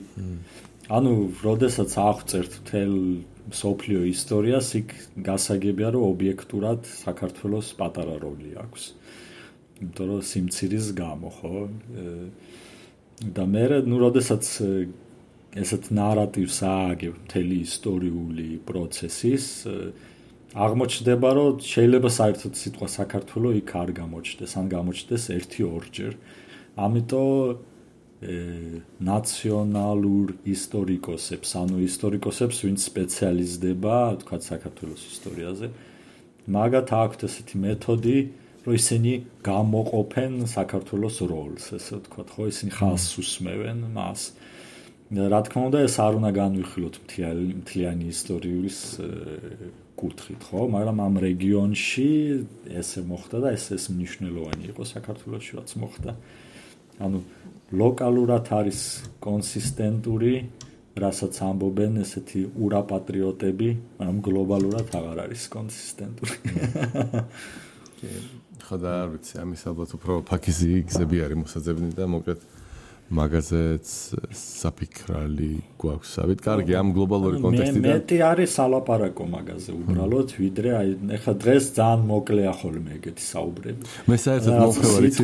ანუ როდესაც აღწერთ თელ სოფლიო ისტორიას იქ გასაგებია რომ ობიექტურად საქართველოს პატარა როლი აქვს. იმიტომ რომ სიმცირის გამო ხო და მე როდესაც ესეთ ნარატივს ააგებ მთელი ისტორიული პროცესის აღმოჩნდება რომ შეიძლება საერთოდ სიტყვა საქართველო იქ არ გამოჩნდეს ან გამოჩნდეს 1-2 ამიტომ ნაციონალურ ისტორიკოსებს, ანუ ისტორიკოსებს, ვინც სპეციალიზდება, თქვა საქართველოს ისტორიაზე, მაგათ აქვთ ესეთი მეთოდი, რომ ისინი გამოყოფენ საქართველოს როლს, ესე ვთქვათ, ხო, ისინი ხაზს უსმევენ მას. რა თქმა უნდა, ეს არ უნდა განვიხილოთ მთლიანი ისტორიის კუთხით, ხო, მაგრამ ამ რეგიონში ესე მოხდა და ეს მნიშვნელოვანი იყო საქართველოში, რაც მოხდა. ანუ ლოკალურად არის კონსისტენტური, რასაც ამბობენ ესეთი ურაპატრიოტები, მაგრამ გლობალურად აღარ არის კონსისტენტური. ხო და არ ვიცი, ამის ალბათ უფრო ფაქიზი გზები არის მოსაძებნი და მოკლედ მაგაზეც საფიქრალი გვაქვს. ავით კარგი ამ გლობალური კონტექსტიდან. მეტი არის სალაპარაკო მაგაზე უბრალოდ, ვიდრე აი ეხლა დღეს ძალიან მოკლეა ხოლმე ეგეთი საუბრები. მე საერთოდ მომხევარ იცი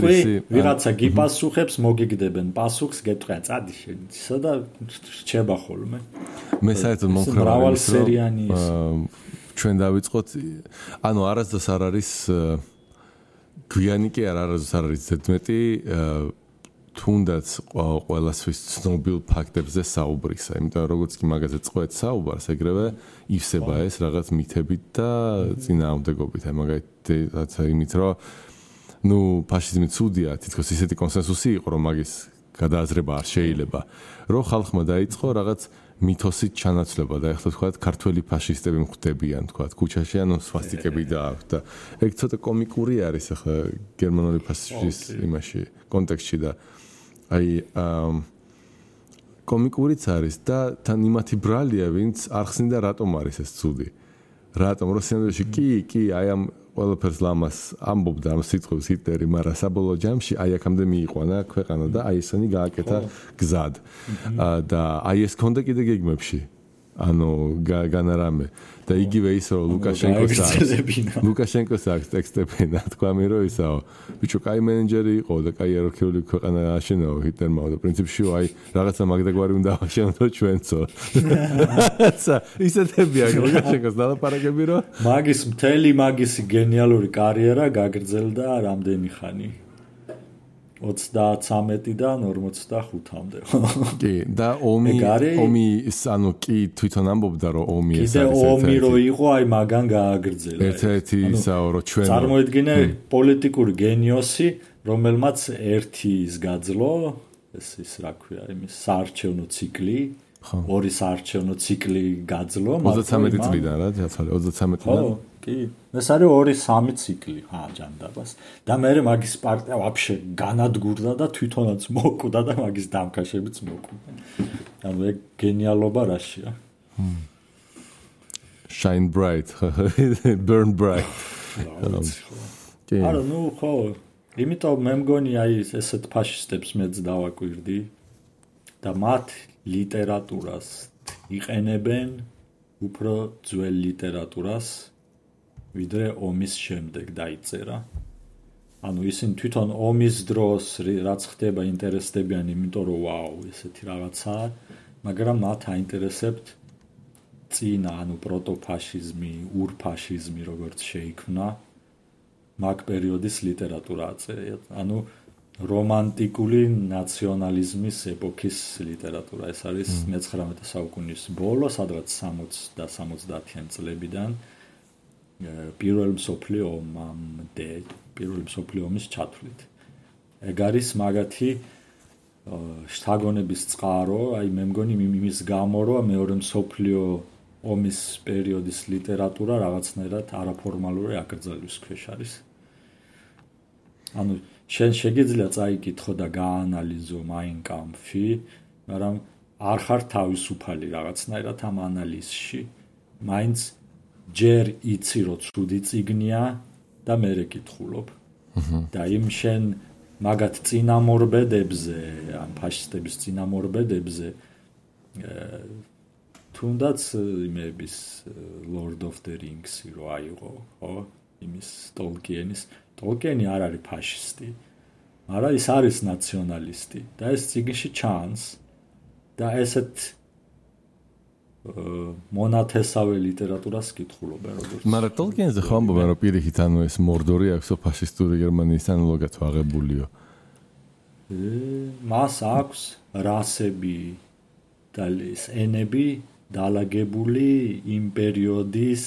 ვიღაცა გიპასუხებს, მოგიგდებენ პასუხს, გეტყვიან წადი შენ ისა და რჩება ხოლმე. მე საერთოდ მომხევარ მრავალსერიანი ის. ჩვენ დავიწყოთ, ანუ არასდროს არ არის გვიანი კი არასდროს არ არის ზედმეტი თუნდაც ყველასთვის ცნობილ ფაქტებზე საუბრისა, იმიტომ რომ როგორც კი მაგაზე წყვეთ საუბარს, ეგრევე ივსება ეს რაღაც მითებით და წინააღმდეგობით, აი მაგალითად იმით რომ ნუ ფაშიზმი ცუდია, თითქოს ისეთი კონსენსუსი იყო, რომ მაგის გადააზრება არ შეიძლება, რომ ხალხმა დაიწყო რაღაც მითოსით ჩანაცვლება და ეხლა თქვა ქართველი ფაშისტები მხვდებიან, თქვა ქუჩაში, ანუ სვასტიკები დააქვთ და ეგ ცოტა კომიკური არის ახლა გერმანული ფაშიზმის იმაში კონტექსტში და აი კომიკურიც არის და თან იმათი ბრალია, ვინც არ ხსნიდა რატომ არის ეს ცუდი. რატომ რუსეთში კი, აი ამ ყველაფერს ლამას ამბობდა ამ სიტყვებს ჰიტლერი, მაგრამ საბოლოო ჯამში აი აქამდე მიიყვანა ქვეყანა და აი ესენი გააკეთა გზად. და აი ეს ქონდა კიდე გეგმებში. ანუ განარამე და იგივე ის რომ ლუკაშენკოს აქვს ტექსტები, თქვა მე რომ ისაო, ბიჭო, კაი მენეჯერი იყო და კაი ეროვნული ქვეყანა აშენაო ჰიტლერმა და პრინციპში აი რაღაცა მაგდაგვარი უნდა აღშენოთ ჩვენцо. ისეთებია ლუკაშენკოს დალაპარაკები რომ მთელი მაგისი გენიალური კარიერა გაგრძელდა რამდენი ხანი? 33-დან 45-მდე. კი, და ომი ანუ კი თვითონ ამბობდა რომ ომი ეს არის. კიდე ომი რო იყო, აი მაგან გააგრძელა. ერთ-ერთი ისაო რომ ჩვენ წარმოედგინე პოლიტიკური გენიოსი, რომელმაც ერთი ის გაძლო, ის რა ქვია, იმის საარჩევნო ციკლი, ორი საარჩევნო ციკლი გაძლო, 33 წლიდან რა, 33 წლიდან. კი, ეს არის 2-3 ციკლი, ჯანდაბას. და მე მაგის პარტია ვაფშე განადგურდა და თვითონაც მოკვდა და მაგის დამკაშებიც მოკვდა. ანუ ეგ გენიალობა რაშია. Shine bright, burn bright. კი. არა, ნუ ხო, იმიტომ მე მგონი აი ესეთ ფაშისტებს მეც დავაკვირდი და მათ ლიტერატურას იყენებენ უფრო ძველ ლიტერატურას ვიდრე ომის შემდეგ დაიწერა. ანუ ისინი თვითონ ომის დროს რაც ხდება ინტერესდებიან, იმიტომ რომ ვაუ, ესეთი რაღაცაა, მაგრამ მათ აინტერესებთ წინა, ანუ პროტოფაშიზმი, ურფაშიზმი როგორც შეიქმნა, მაგ პერიოდის ლიტერატურა აწერია. ანუ რომანტიკული ნაციონალიზმის ეპოქის ლიტერატურა. ეს არის 19 საუკუნის ბოლო, სადღაც 60 და 70-იან წლებიდან. პირველ მსოფლიო ომამდე, პირველ მსოფლიო ომის ჩათვლით. ეგ არის მაგათი შთაგონების წყარო, აი მე მგონი იმის გამო, რომ მეორე მსოფლიო ომის პერიოდის ლიტერატურა რაღაცნაირად არაფორმალური აკრძალვის ქვეშ არის. ანუ შენ შეგიძლია წაიკითხო და გაანალიზო Mein Kampf-ი, მაგრამ არ ხარ თავისუფალი რაღაცნაირად ამ ანალიზში. მაინც ჯერ იცი რომ ცუდი წიგნია და მერე კითხულობ. და იმ შენ მაგათ წინამორბედებზე, ან ფაშისტების წინამორბედებზე თუნდაც იმების Lord of the Rings-ი რო აიღო, ხო? იმის Tolkien-ი არ არის ფაშისტი, მაგრამ ის არის ნაციონალისტი და ეს წიგნში ჩანს და ესეთ მონათესავე ლიტერატურას კითხულობენ როგორც. მაგრამ Tolkien-ზე ხო ამბობენ რომ პირიქით ანუ ეს მორდორი აქვს ფაშისტური გერმანიის ანალოგად აღებულიო. მას აქვს რასები და ენები დალაგებული იმ პერიოდის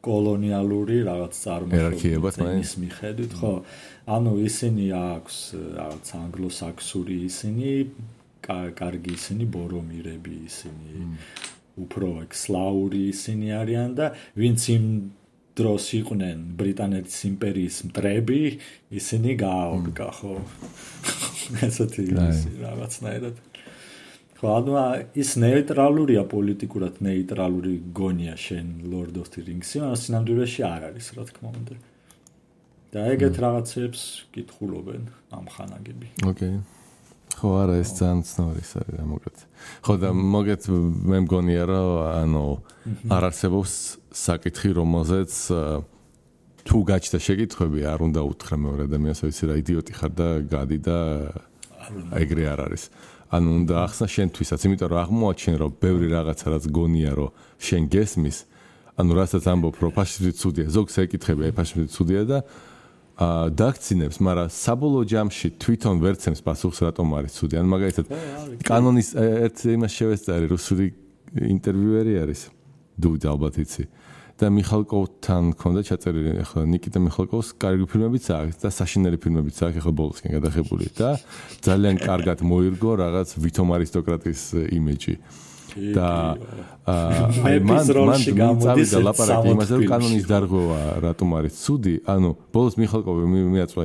კოლონიალური რაღაც წარმოშობის მიხედვით, ხო? ანუ ისინი აქვს რაღაც ანგლოსაქსური ისინი, კარგი ისინი ბორომირები ისინი, უფრო სლავური ისინი არიან და ვინც იმ დროს იყვნენ ბრიტანეთის იმპერიის მტრები, ისინი გააორგა, ხო? ესეთი რაღაცნაირად. ხო, ანუ ის ნეიტრალურია პოლიტიკურად ნეიტრალური გონია შენ Lord of the Rings-ი, მაგრამ სინამდვილეში არ არის, რა თქმა უნდა. და ეგეთ რაღაცებს კითხულობენ ამ ხანაგები. ოკეი. ხო არა ეს ძალიან ცნობილი არის რა მოგეთ. ხო და მოგეთ მე მგონია რომ ანუ არ არსებობს საკითხი რომელზეც თუ გაჩნდა შეკითხვები არ უნდა უთხრა მეორე ადამიანს ვიცი რა იდიოტი ხარ და გადი და ეგრე არ არის. ანუ უნდა ახსნა შენთვისაც, იმიტომ რომ აღმოაჩენ რომ ბევრი რაღაცა რაც გონია რომ შენ გესმის, ანუ რასაც ამბობ რომ ფაშიზმი ცუდია, ზოგს ეკითხები ფაშიზმი ცუდია და დაქცინებს, მაგრამ საბოლოო ჯამში თვითონ ვერცემს პასუხს რატომ არის ცუდი. ან მაგალითად კანონის ერთ იმას შევეწარი რუსული ინტერვიუერი არის დუდა ალბათ იცი და მიხალკოვთან ქონდა ჩაწერილი ახლა ნიკიტა მიხალკოვს კარგი ფილმებიც აქვს და საშინელი ფილმებიც აქვს ახლა ბოლოსკენ გადაღებული და ძალიან კარგად მოირგო რაღაც ვითომ არისტოკრატის იმიჯი და მან წავიდა ლაპარაკი იმაზე რომ კანონის დარღვევა რატომ არის ცუდი ანუ ბოლოს მიხალკოვი მიაწვა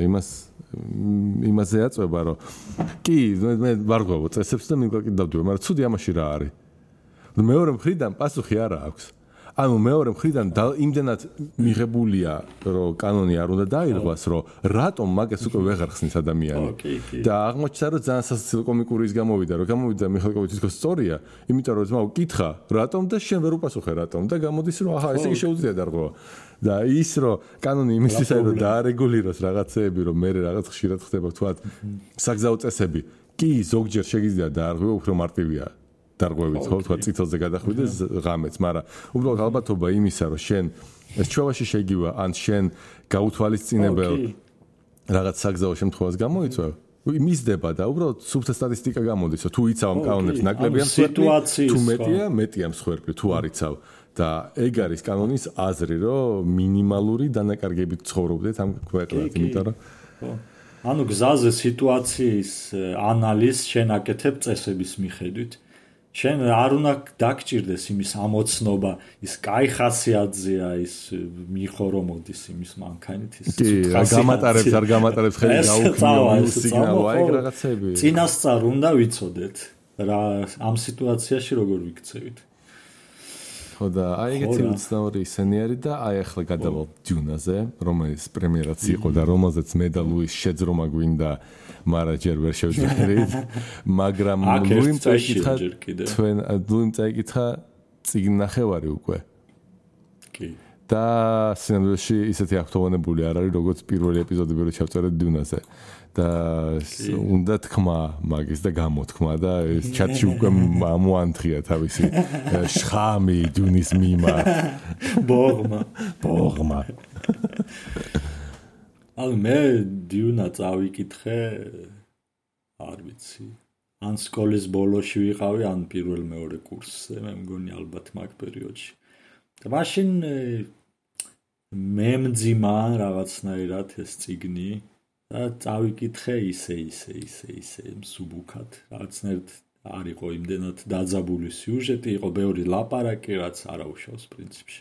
იმაზე აწვება რომ კი მე ვარღვევო წესებს და მიგვაკი დავდივარ მაგრამ ცუდი ამაში რა არის მეორე მხრიდან პასუხი არა აქვს ანუ მეორე მხრიდან იმდენად მიღებულია რომ კანონი არ უნდა დაირღვას რომ რატომ მაგას უკვე ვეღარ ხსნის ადამიანი და აღმოჩნდა რომ ძალიან სასაცილო კომიკური ის გამოვიდა რომ გამოვიდა მიხალკოვი თვითონ სწორია იმიტომ რომ ძმაო კითხა რატომ და შენ ვერ უპასუხე რატომ და გამოდის რომ აჰა ესე იგი შეუძლია დარღვევა და ის რომ კანონი იმისთვისაც რომ დაარეგულიროს რაღაცეები რომ მე რაღაც ხშირად ხდება თქვა საგზაო წესები კი ზოგჯერ შეგიძლია დაარღვევა უფრო მარტივია დარღვევით ხო თქვა წითელზე გადახვიდეს ღამეც მაგრამ უბრალოდ ალბათობა იმისა რომ შენ ეს ჩვევაში შეგივა ან შენ გაუთვალისწინებელ რაღაც საგზაო შემთხვევას გამოიწვევ მისდება და უბრალოდ სუფთა სტატისტიკა გამოდის რომ თუ იცავ ამ კანონებს ნაკლებია სიტუაციის თუ მეტია მსხვერპლი თუ არ იცავ და ეგ არის კანონის აზრი რომ მინიმალური დანაკარგებით ცხოვრობდეთ ამ ქვეყნად იმიტომ რომ ანუ გზაზე სიტუაციის ანალიზს შენ აკეთებ წესების მიხედვით შენ არ უნდა დაგჭირდეს იმის ამოცნობა ის კაი ხასიათზეა ის მიხორო მოდის იმის მანქანით ის გამატარებს არ გამატარებს ხელი გაუქმო სიგნალო აი რაღაცები წინასწარ უნდა ვიცოდეთ რა ამ სიტუაციაში როგორ ვიქცევით ხო და აი ეგეთი უცნაური ისენი არის და აი ახლა გადავალ დიუნაზე რომელიც პრემიერაც იყო და რომელზეც მე და ლუის შეძრომა გვინდა მაგრამ ჯერ ვერ შევძლებთ მაგრამ ლუიმ წაიკითხა წიგნ ნახევარი უკვე კი და სცენარში ისეთი აქტოვანებული არ არის როგორც პირველი ეპიზოდები რო ჩავწერეთ დიუნაზე და უნდა თქმა მაგის და გამოთქმა და ეს ჩატში უკვე ამოანთია თავისი შხამი დიუნის მიმართ ბოღმა ანუ მე დიუნა წავიკითხე არ ვიცი ან სკოლის ბოლოში ვიყავი ან პირველ მეორე კურსზე მე მგონი ალბათ მაგ პერიოდში და მაშინ მე მძიმა რაღაცნაირად ეს წიგნი და წავიკითხე ისე მსუბუქად რაღაცნაირად არ იყო იმდენად დაძაბული სიუჟეტი იყო ბევრი ლაპარაკი რაც არაუშავს პრინციპში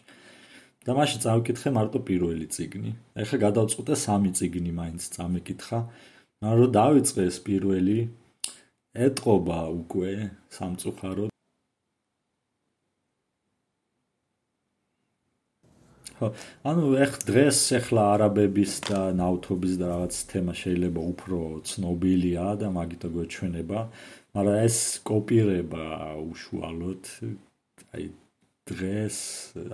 და მაშინ წავიკითხე მარტო პირველი წიგნი ეხლა გადავწყვიტე სამი წიგნი მაინც წამეკითხა მაგრამ რომ დავიწყე ეს პირველი ეტყობა უკვე სამწუხაროდ ანუ დღეს ახლა არაბების და ნავთობის და რაღაც თემა შეიძლება უფრო ცნობილია და მაგითო გვეჩვენება, მაგრამ ეს კოპირება უშუალოდ აი დღეს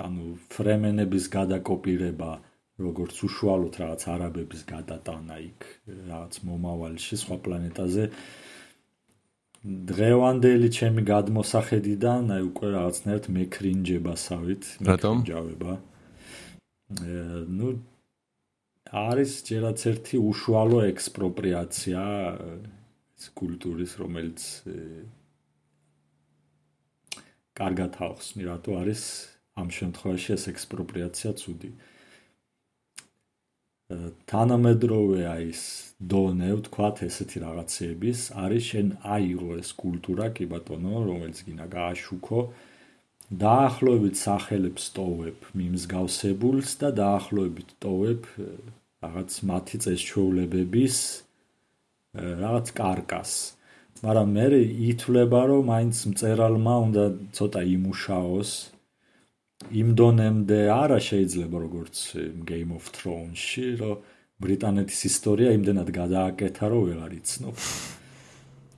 ანუ ფრემენების გადაკოპირება როგორც უშუალოდ რაღაც არაბების გადატანა იქ რაღაც მომავალში სხვა პლანეტაზე დღევანდელი ჩემი გადმოსახედიდან აი უკვე რაღაცნაირად მეკრინჯებასავით მეკრინჯავება ну არის ჯერაც ერთი უშუალო ექსპროპრიაცია კულტურის რომელიც კარგად ახსნი რატო არის ამ შემთხვევაში ეს ექსპროპრიაცია ცუდი თანამედროვე ის დონე ვთქვათ ესეთი რაღაცების არის შენ აიღო ეს კულტურა კი ბატონო რომელიც გინდა გააშუქო დაახლოებით სახელებს ტოვებ მიმსგავსებულს და დაახლოებით ტოვებ რაღაც მათი წესჩვეულებების რაღაც კარკას მაგრამ მე ითვლება რომ მაინც მწერალმა უნდა ცოტა იმუშაოს იმ დონემდე არა შეიძლება როგორც Game of Thrones-ში რომ ბრიტანეთის ისტორია იმდენად გადააკეთა რომ ვეღარ იცნობ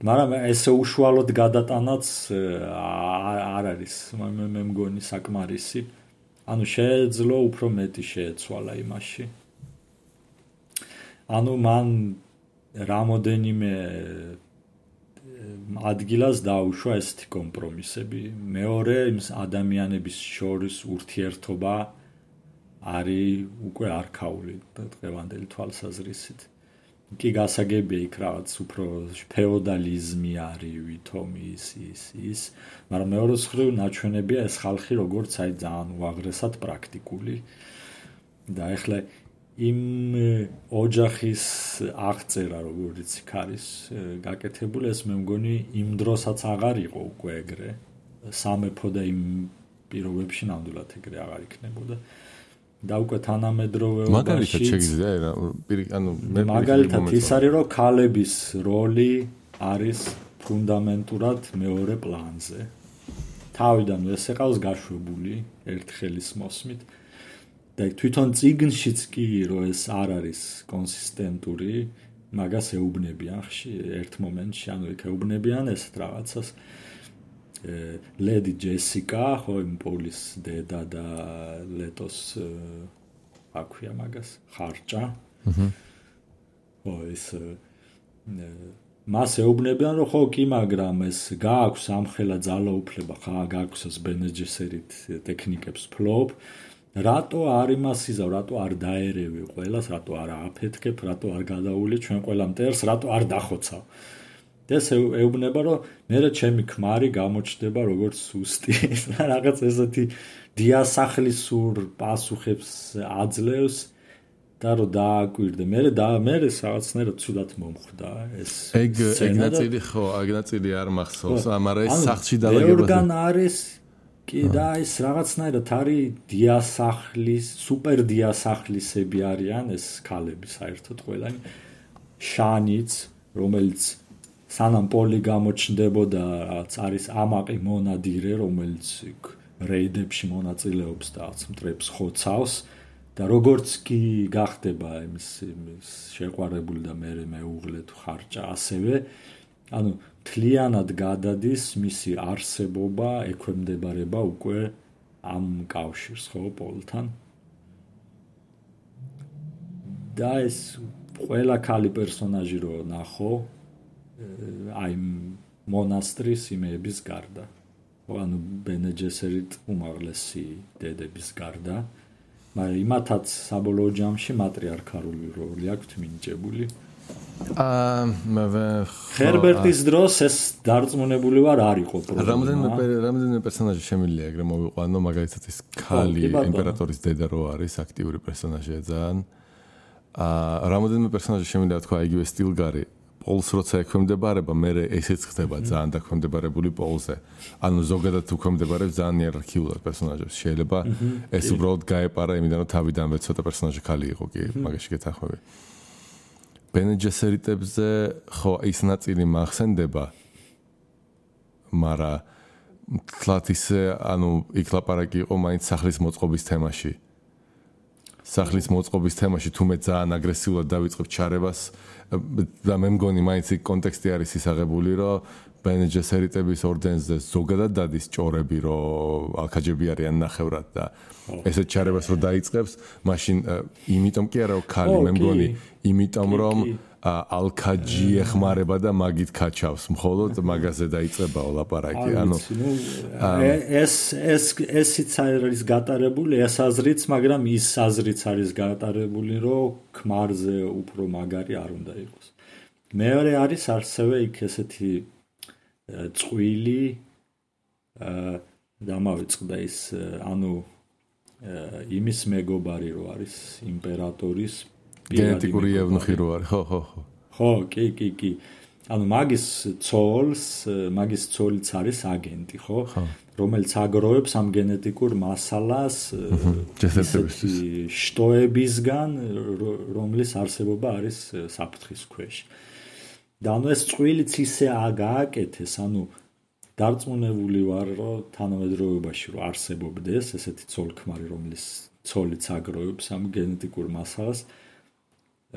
მაგრამ ესე უშუალოდ გადატანაც არ არის მე მგონი საკმარისი. ანუ შეეძლო უფრო მეტი შეეცვალა იმაში. ანუ მან რამოდენიმე ადგილას დაუშვა ესეთი კომპრომისები. მეორე იმ ადამიანების შორის ურთიერთობა არის უკვე არქაული დღევანდელი თვალსაზრისით. კი გასაგებია იქ რაღაც უფრო ფეოდალიზმი არის ვითომ ის, მაგრამ მეორე მხრივ ნაჩვენებია ეს ხალხი როგორც აი ძალიან უაღრესად პრაქტიკული და ეხლა იმ ოჯახის აღწერა როგორც იქ არის გაკეთებული ეს მე მგონი იმ დროსაც აღარ იყო უკვე ეგრე სამეფო და იმ პირობებში ნამდვილად ეგრე აღარ იქნებოდა და უკვე თანამედროვეობაში მაგალითად შეგიძლია ანუ მაგალითად ის არის რომ ქალების როლი არის ფუნდამენტურად მეორე პლანზე თავიდან ეს ეყავს გაშვებული ერთხელის მოსმით და თვითონ წიგნშიც კი რომ ეს არ არის კონსისტენტური მაგას ეუბნებიან ერთ მომენტში ანუ იქ ეუბნებიან ეს რაღაცას ლედი ჯესიკა ხო იმ პოლის დედა და ლეტოს აქვია მაგას ხარჭა ხო ეს მას ეუბნებიან რომ ხო კი მაგრამ ეს გააქვს ამხელა ძალაუფლება ხა გააქვს ეს ბენეჯესერით ტექნიკებს ფლობ რატო არ იმასიზავ რატო არ დაერევი ყველას რატო არ აფეთქებ რატო არ გადაული ჩვენ ყველა მტერს რატო არ დახოცავ ეს ეუბნება რომ მე ჩემი ქმარი გამოჩნდება როგორც სუსტი რაღაც ესეთი დიასახლისურ პასუხებს აძლევს და რომ დააკვირდე მე რაღაცნაირად ცუდად მომხვდა ეს ეგ ნაწილი ხო ეგ ნაწილი არ მახსოვს მაგრამ ეს სახლში დალაგება ბევრგან არის კი და ეს რაღაცნაირად არის დიასახლის სუპერ დიასახლისები არიან ეს ქალები საერთოდ ყველანი შანიც რომელიც სანამ პოლი გამოჩნდებოდა რაც არის ამაყი მონადირე რომელიც რეიდებში მონაწილეობს და მტრებს ხოცავს და როგორც კი გახდება იმის შეყვარებული და მეუღლე თუ ხარჭა ასევე ანუ თლიანად გადადის მისი არსებობა ექვემდებარება უკვე ამ კავშირს ხო პოლთან და ეს ყველა ქალი პერსონაჟი რო ნახო აი მონასტრის იმების გარდა ანუ ბენეჯესერით უმაღლესი დედების გარდა მაგრამ იმათაც საბოლოო ჯამში მატრიარქალური როლი აქვს მინიჭებული ჰერბერტის დროს ეს დარწმუნებული ვარ არ იყო პრობლემა რამდენიმე პერსონაჟი შემიძლია ეგრე მოვიყვანო მაგალითად ის ქალი იმპერატორის დედა რო არის აქტიური პერსონაჟია ძალიან რამდენიმე პერსონაჟი შემიძლია თქვა იგივე სტილგარი პოლს როცა ექვემდებარება მე ესეც ხდება ძალიან დაქვემდებარებული პოლზე ანუ ზოგადად უქვემდებარებს ძალიან იერარქიულად პერსონაჟებს შეიძლება ეს უბრალოდ გაეპარა იმიდან რომ თავიდანვე ცოტა პერსონაჟი ქალი იყო კი მაგაში გეთანხმები ბენეჯესერიტებზე ხო ის ნაწილი მახსენდება მაგრამ თლათ ისე ანუ იქ ლაპარაკი იყო მაინც სახლის მოწყობის თემაში სახლის მოწყობის თემაში თუმე ძალიან აგრესიულად დავიწყებ ჩარებას და მე მგონი მაინც იქ კონტექსტი არის ისაღებული რომ ბენეჯესერიტების ორდენზე ზოგადად დადის ჭორები რომ ალქაჯები არიან ნახევრად და ესეთ ჩარებას რომ დაიწყებს მაშინ იმიტომ კი არა რომ ქალი მე მგონი იმიტომ რომ ალქაჯი ეხმარება და მაგით კაჩავს მხოლოდ მაგაზე დაიწყება ლაპარაკი ანუ ესიც არის გატარებული ეს აზრიც მაგრამ ის აზრიც არის გატარებული რომ ქმარზე უფრო მაგარი არ უნდა იყოს მეორე არის ასევე იქ ესეთი წყვილი დამავიწყდა ის ანუ იმის მეგობარი რო არის იმპერატორის გენეტიკური ევნუხი რო არის ხო კი ანუ მაგის ცოლიც არის агенტი ხო რომელიც აგროვებს ამ გენეტიკურ მასალას შტოებისგან რომლის არსებობა არის საფრთხის ქვეშ და ანუ ეს წვილიც ისე გააკეთეს ანუ დარწმუნებული ვარ რომ თანამედროვეობაში რომ არსებობდეს ესეთი ცოლ-ქმარი რომლის ცოლიც აგროვებს ამ გენეტიკურ მასალას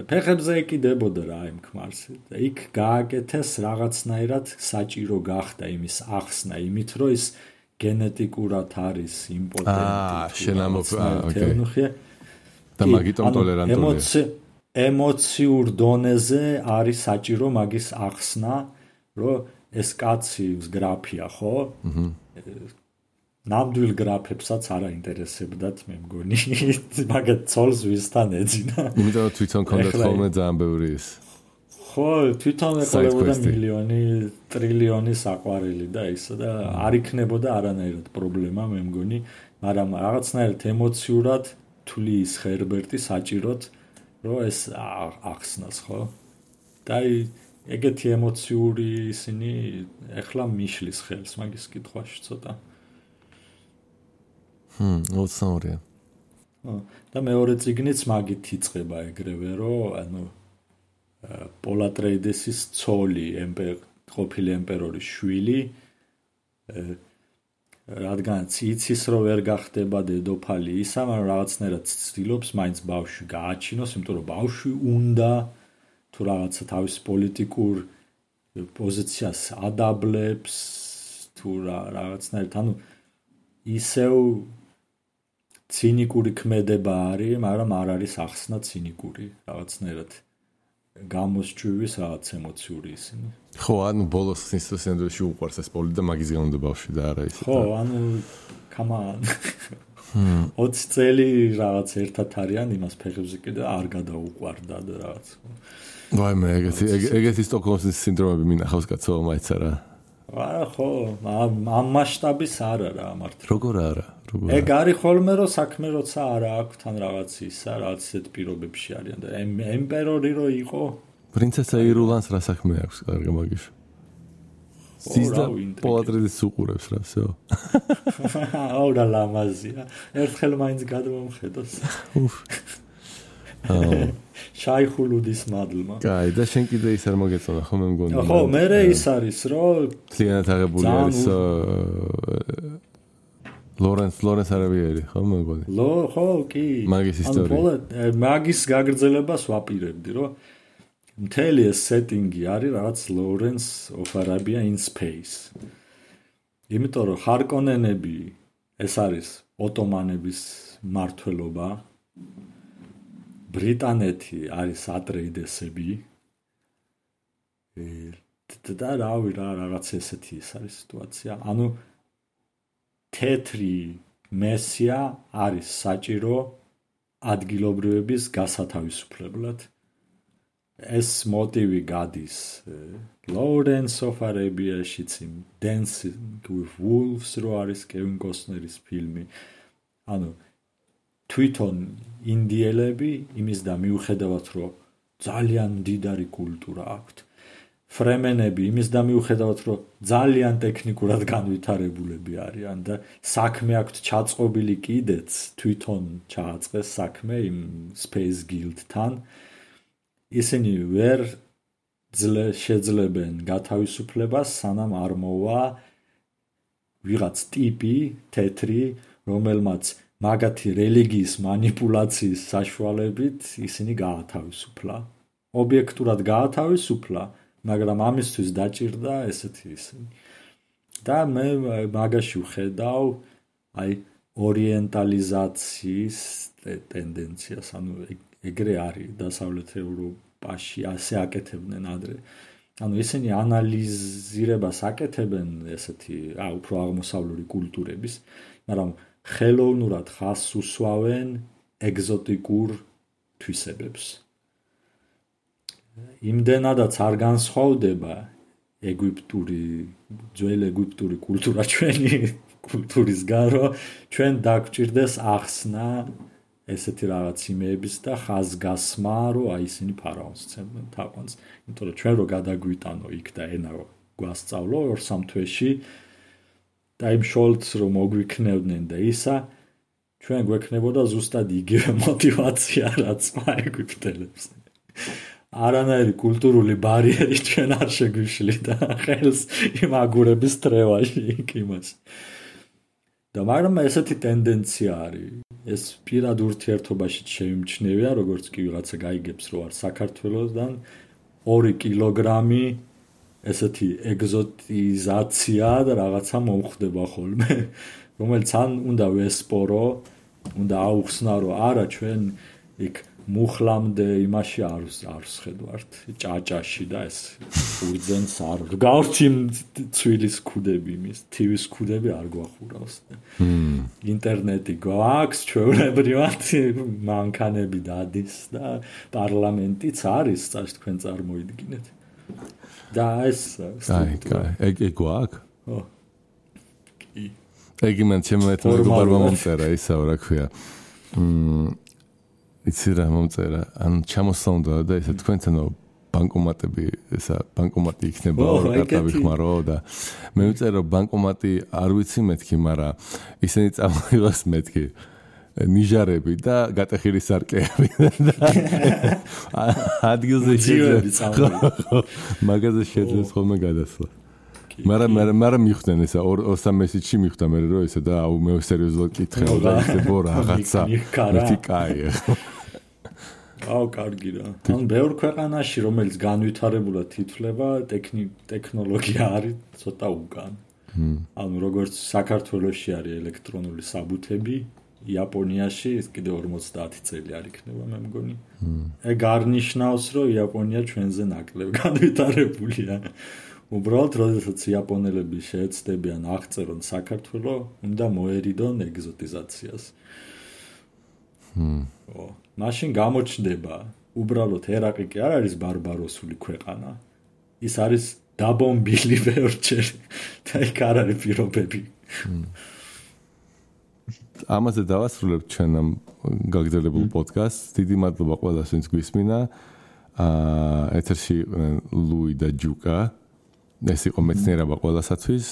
ფეხებზე ეკიდებოდა რა იმ ქმარს. იქ გააკეთეს რაღაცნაირად საჭირო გახდა იმის ახსნა, იმით რომ ის გენეტიკურად არის იმპოტენტი. ოკეი. და მაგიტომ ტოლერანტულია. ემოციურ დონეზე არის საჭირო მაგის ახსნა, რომ ეს კაცი გრაფია, ხო? ნამდვილ გრაფებსაც არ აინტერესებდათ, მე მგონი, მაგათ ცოლს ვისთან ეძინა. იმიტომ რომ თვითონ კონდათ ხოლმე ძალიან ბევრი ის. ხო, თვითონ ეყოლებოდა მილიონი, ტრილიონი საყვარელი და ისო და არ იქნებოდა არანაირად პრობლემა, მე მგონი, მაგრამ რაღაცნაირად ემოციურად თulis ხერბერტი საჭიროთ, რომ ეს ახსნას, ხო? და ეგეთი ემოციური ისინი ეხლა მიშლის ხელს მაგის კითხვაში ცოტა. ოცნაურია. და მეორე წიგნიც მაგით იწყება ეგრევე, რომ ანუ პოლ ატრეიდესის ცოლი, ყოფილი ემპერორის შვილი, რადგანაც იცის, რომ ვერ გახდება დედოფალი ისა, მაგრამ რაღაცნაირად ცდილობს მაინც ბავშვი გააჩინოს, იმიტომ რომ ბავშვი უნდა თუ რაღაცა თავის პოლიტიკურ პოზიციას ადაბლებს, თუ რაღაცნაირად, ანუ ისევ ცინიკური ქმედება არის, მაგრამ არ არის ახსნა ცინიკური, რაღაცნაირად გამოსჭვივის რაღაც ემოციური ისინი. ხო, ანუ ბოლოს ინსტიტუციაში უყვარს ეს პოლი და მაგის გამო და ბავშვი და არა ისე. ხო, ანუ კამან 20 წელი რაღაც ერთად არიან იმას ფეხებზე კიდე არ გადაუყვარდა და რაღაც. ვაიმე, ეგეთი სტოკჰოლმის სინდრომები მინახავს კაცო, მაიცა რა. არა, ხო, ამ მასშტაბის არა რა მართლა. როგორ არა? ეგ არის ხოლმე რომ საქმე როცა არა აქვს თან რაღაც ისა, რაღაც ისეთ პირობებში არიან და ემპერორი რო იყო. პრინცესა ირულანს რა საქმე აქვს კარგი მაგიში? სიზდა პოლატრიდის უყურებს რა, всё. აუ რა ლამაზია. ერთხელ მაინც გადმომხედოს. შაიხულუდის მადლმა. კაი, და შენ კიდე ის არ მოგეწონა ხო მე მგონი. ხო, მე ის არის რომ კლიანად აღებული არის ლორენს არავიერი, ხო მე მგონი. ხო, კი. მაგის ისტორია. მაგის გაგრძელებას ვაპირებდი, რომ მთელი ეს სეტინგი არის რაღაც ლორენს of Arabia in space. იმიტომ რომ ხარკონენები ეს არის ოტომანების მმართველობა. ბრიტანეთი არის ატრეიდესები. და რავი რა რაღაც ესეთი ის არის სიტუაცია. ანუ თეთრი მესია არის საჭირო ადგილობრივების გასათავისუფლებლად. ეს მოტივი გადის Lawrence of Arabia-შიც იმ Dancing with Wolves რო არის კევინ კოსნერის ფილმი. ანუ თვითონ ინდიელები იმის და მიუხედავად რომ ძალიან მდიდარი კულტურა აქვთ. ფრემენები იმის და მიუხედავად რომ ძალიან ტექნიკურად განვითარებულები არიან და საქმე აქვთ ჩაწყობილი კიდეც თვითონ ჩააწყეს საქმე იმ Space Guild-თან. ისინი ვერ შეძლებენ გათავისუფლებას, სანამ არ მოვა ვიღაც ტიპი თეთრი, რომელმაც მაგათი რელიგიის მანიპულაციის საშუალებით ისინი გაათავისუფლა. ობიექტურად გაათავისუფლა, მაგრამ ამისთვის დაჭირდა ესეთი ისინი. და მე მაგაში ვხედავ აი ორიენტალიზაციის ტენდენციას, ანუ ეგრე არის დასავლეთ ევროპაში ასე აკეთებდნენ ადრე. ანუ ისინი ანალიზირებას აკეთებენ ესეთი უფრო აღმოსავლური კულტურების, მაგრამ ხელოვნურად ხაზს უსვავენ ეგზოტიკურ თვისებებს. იმდენადაც არ განსხვავდება ძველი ეგვიპტური კულტურა ჩვენი კულტურისგან, რომ ჩვენ დაგვჭირდეს ახსნა ესეთი რაღაც იმეების და ხაზგასმა, რომ აი ისინი ფარაონს ცემდნენ თაყვანს. იმიტომ რომ ჩვენ რო გადაგვიტანო იქ და ენა გვასწავლო 2-3 თვეში და იმ შოლტს რომ მოგვიქნევდნენ და ისა, ჩვენ გვექნებოდა ზუსტად იგივე мотиваცია, რაც ეგვიპტელებს. არანაირი კულტურული ბარიერი ჩვენ არ შეგვიშლიდა ხელს იმ აგურების თრევაში იქ იმას. და მაგრამ ესეთი ტენდენცია არის. ეს პირად ურთიერთობაში შეიმჩნევია, როგორც კი ვიღაცა გაიგებს, რომ არ საქართველოსდან 2 კილოგრამი ესეთი ეგზოტიზაცია და რაღაცა მომხდება ხოლმე, რომელიც ან უნდა ვესპორო, უნდა აუხსნა, რომ არა ჩვენ იქ მუხლამდე იმაში არ ვხედავთ ჭაჭაში და ეს უძენს არ გავარჩი ცვილის ქუდები იმის TV-ის ქუდები არ გვახურავს ინტერნეტი გვაქვს ჩვეულებრივად მანქანები დადის და პარლამენტიც არის წაშ თქვენ წარმოიდგინეთ და ეს ეგ გვაქვს ო კი ეგ მან შემოეთმო მეგობარმა მომწერა ისაო რა ქვია იცი რა მომწერა ან ჩამოსწონდა და ესა თქვენთანო ბანკომატები ესა ბანკომატი იქნება კარტა ვიხმარო და მე ვწერო ბანკომატი არ ვიცი მეთქი მაგრამ ისინი წამოიღოს მეთქი ნიჟარები და გატეხილი სარკეები ადგილზე შეძლებს მაგაზე შეძლებს ხოლმე გადასვლა მაგრამ მიხვდნენ ესა 2-3 მესიჯში მიხვდა მე რომ ესა და აუ მე სერიოზულად კითხავ და ისე რაღაცა მეთქი კაია აუ კარგი რა. ან ბევრ ქვეყანაში რომელიც განვითარებულად ითვლება ტექნოლოგია არის ცოტა უკან. ანუ როგორც საქართველოში არის ელექტრონული საბუთები, იაპონიაში ეს კიდე 50 წელი არ იქნება მე მგონი. ეგ არ ნიშნავს რომ იაპონია ჩვენზე ნაკლებ განვითარებულია. უბრალოდ როდესაც იაპონელები შეეცდებიან აღწერონ საქართველოს, უნდა მოერიდონ ეგზოტიზაციას. მაშინ გამოჩნდება უბრალოდ ერაყი კი არ არის ბარბაროსული ქვეყანა. ის არის დაბომბილი ბევრჯერ და იქ არ არის პირობები. ამაზე დავასრულებ ჩვენ ამ გაგრძელებულ პოდკასტს. დიდი მადლობა ყველას, ვინც გვისმინა. ეთერში ლუი და ჯუკა. ეს იყო მეცნიერება ყველასათვის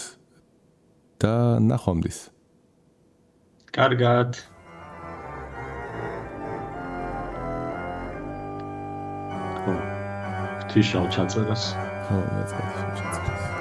და ნახვამდის. კარგად. თიშავ ჩაწერას. ხო, მეც გაჩაწერას.